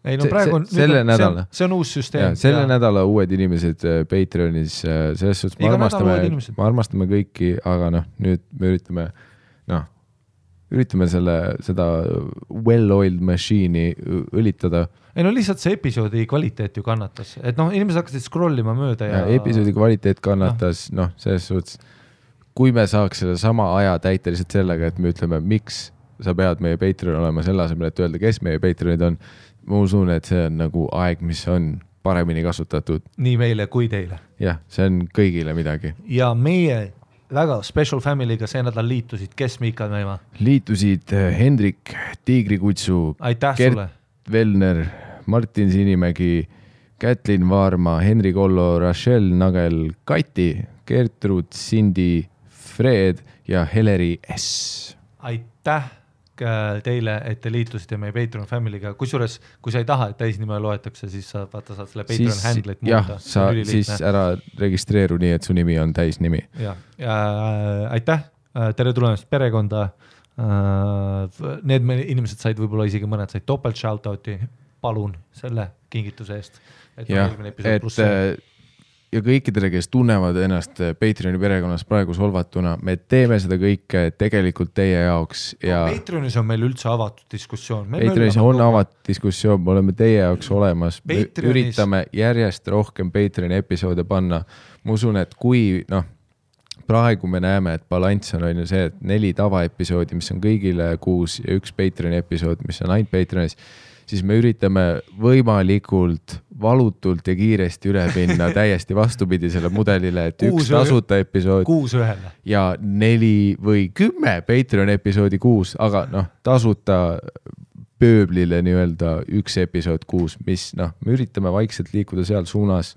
Ei, praegu on, see on uus süsteem. Selle nädala uued inimesed Patreonis, selles suhtes me armastame kõiki, aga nüüd me üritame seda well-oiled machine'i õlitada. Ei lihtsalt see episoodi kvaliteet ju kannatas, et inimesed hakkasid scrollima mööda ja episoodi kvaliteet kannatas, selles suhtes, kui me saaks selle sama aja täita lihtsalt sellega, et me ütleme, miks sa pead meie Patreon olema selle asemel, et öelda, kes meie Patreonid on, ma usun, et see on nagu aeg, mis on paremini kasutatud. Nii meile kui teile. Jah, see on kõigile midagi. Ja meie väga special family'ga see nädal liitusid, kes Miikal Meemaa? Liitusid Hendrik Tiigrikutsu, Gert Velner, Martin Sinimägi, Kätlin Vaarma, Henri Kollo, Rachel Nagel, Kati, Gertrud, Cindy, Fred ja Heleri S. Aitäh teile, et te liitusite meie Patreon family'ga. Kusjuures, kui sa ei taha, et täisnime loetakse, siis saad selle Patreon handle'it muuta. Jah, siis ära registreeru nii, et su nimi on täis nimi. Ja aitäh, tere tulemast perekonda. Need inimesed said võib-olla isegi mõned said topelt shoutouti. Palun selle kingituse eest. Ja kõikidele, kes tunnevad ennast Patreoni perekonnas praegu solvatuna, me teeme seda kõike tegelikult teie jaoks. Patreonis on meil üldse avatud diskussioon. Patreonis on avatud diskussioon, me oleme teie jaoks olemas. Me üritame järjest rohkem Patreoni episoode panna. Ma usun, et kui praegu me näeme, et balanss on see, et 4 tavaepisoodi, mis on kõigile 6 ja 1 Patreoni episood, mis on ainult Patreonis, siis me üritame võimalikult valutult ja kiiresti üle minna täiesti vastupidi selle mudelile, et 1 tasuta episood 6-1 ja 4 või 10 Patreon episoodi 6, aga tasuta pööblile nii-öelda 1 episood 6, mis me üritame vaikselt liikuda seal suunas.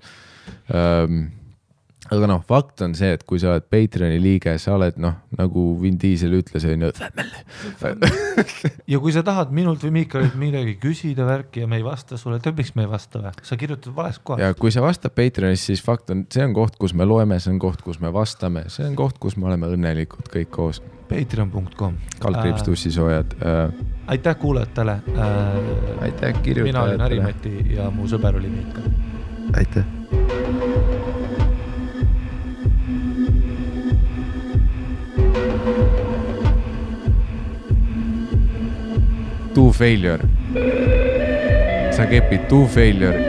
Aga fakt on see, et kui sa oled Patreoni liige, sa oled nagu Vin Diesel ütles, ja kui sa tahad minult või Miikalilt midagi küsida värki ja me ei vasta sulle, miks me ei vasta või? Sa kirjutad vales kohas. Ja kui sa vastad Patreonis, siis fakt on, see on koht, kus me loeme, see on koht, kus me vastame, see on koht, kus me oleme õnnelikud kõik koos. Patreon.com Kaldkriips tussisoojad. Aitäh kuulajatele. Aitäh kirjutajatele. Mina olin Harimati ja mu sõber oli Miikal. Aitäh. To failure. Sa kepid to failure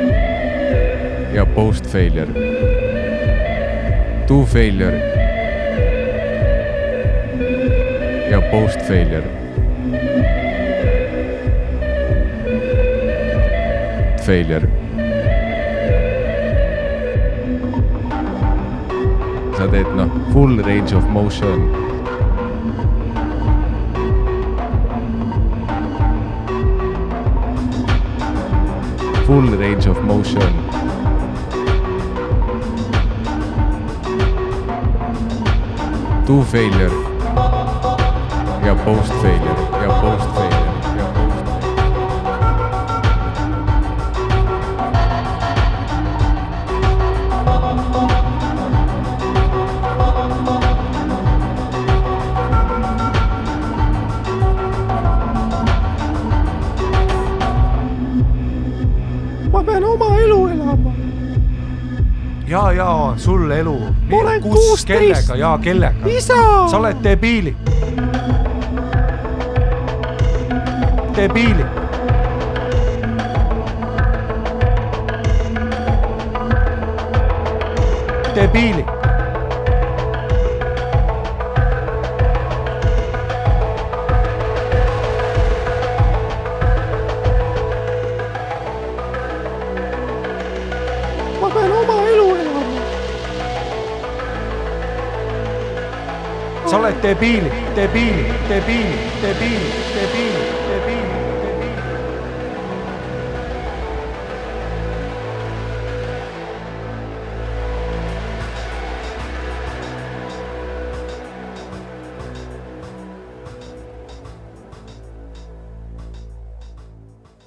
ja post failure. To failure ja post failure. Failure. Sa teed full range of motion. Full range of motion. To failure ja post failure ja post failure ja post Ma pean oma elu elama. Ja, sul elu. Ma olen 16. Kellega, ja kellega? Isa! Sa oled debiili. Debiili. Debiili. Ma pean oma elu elama. Sa oled debiili, debiili, debiili, debiili, debiili, debiili, debiili.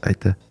Aitäh.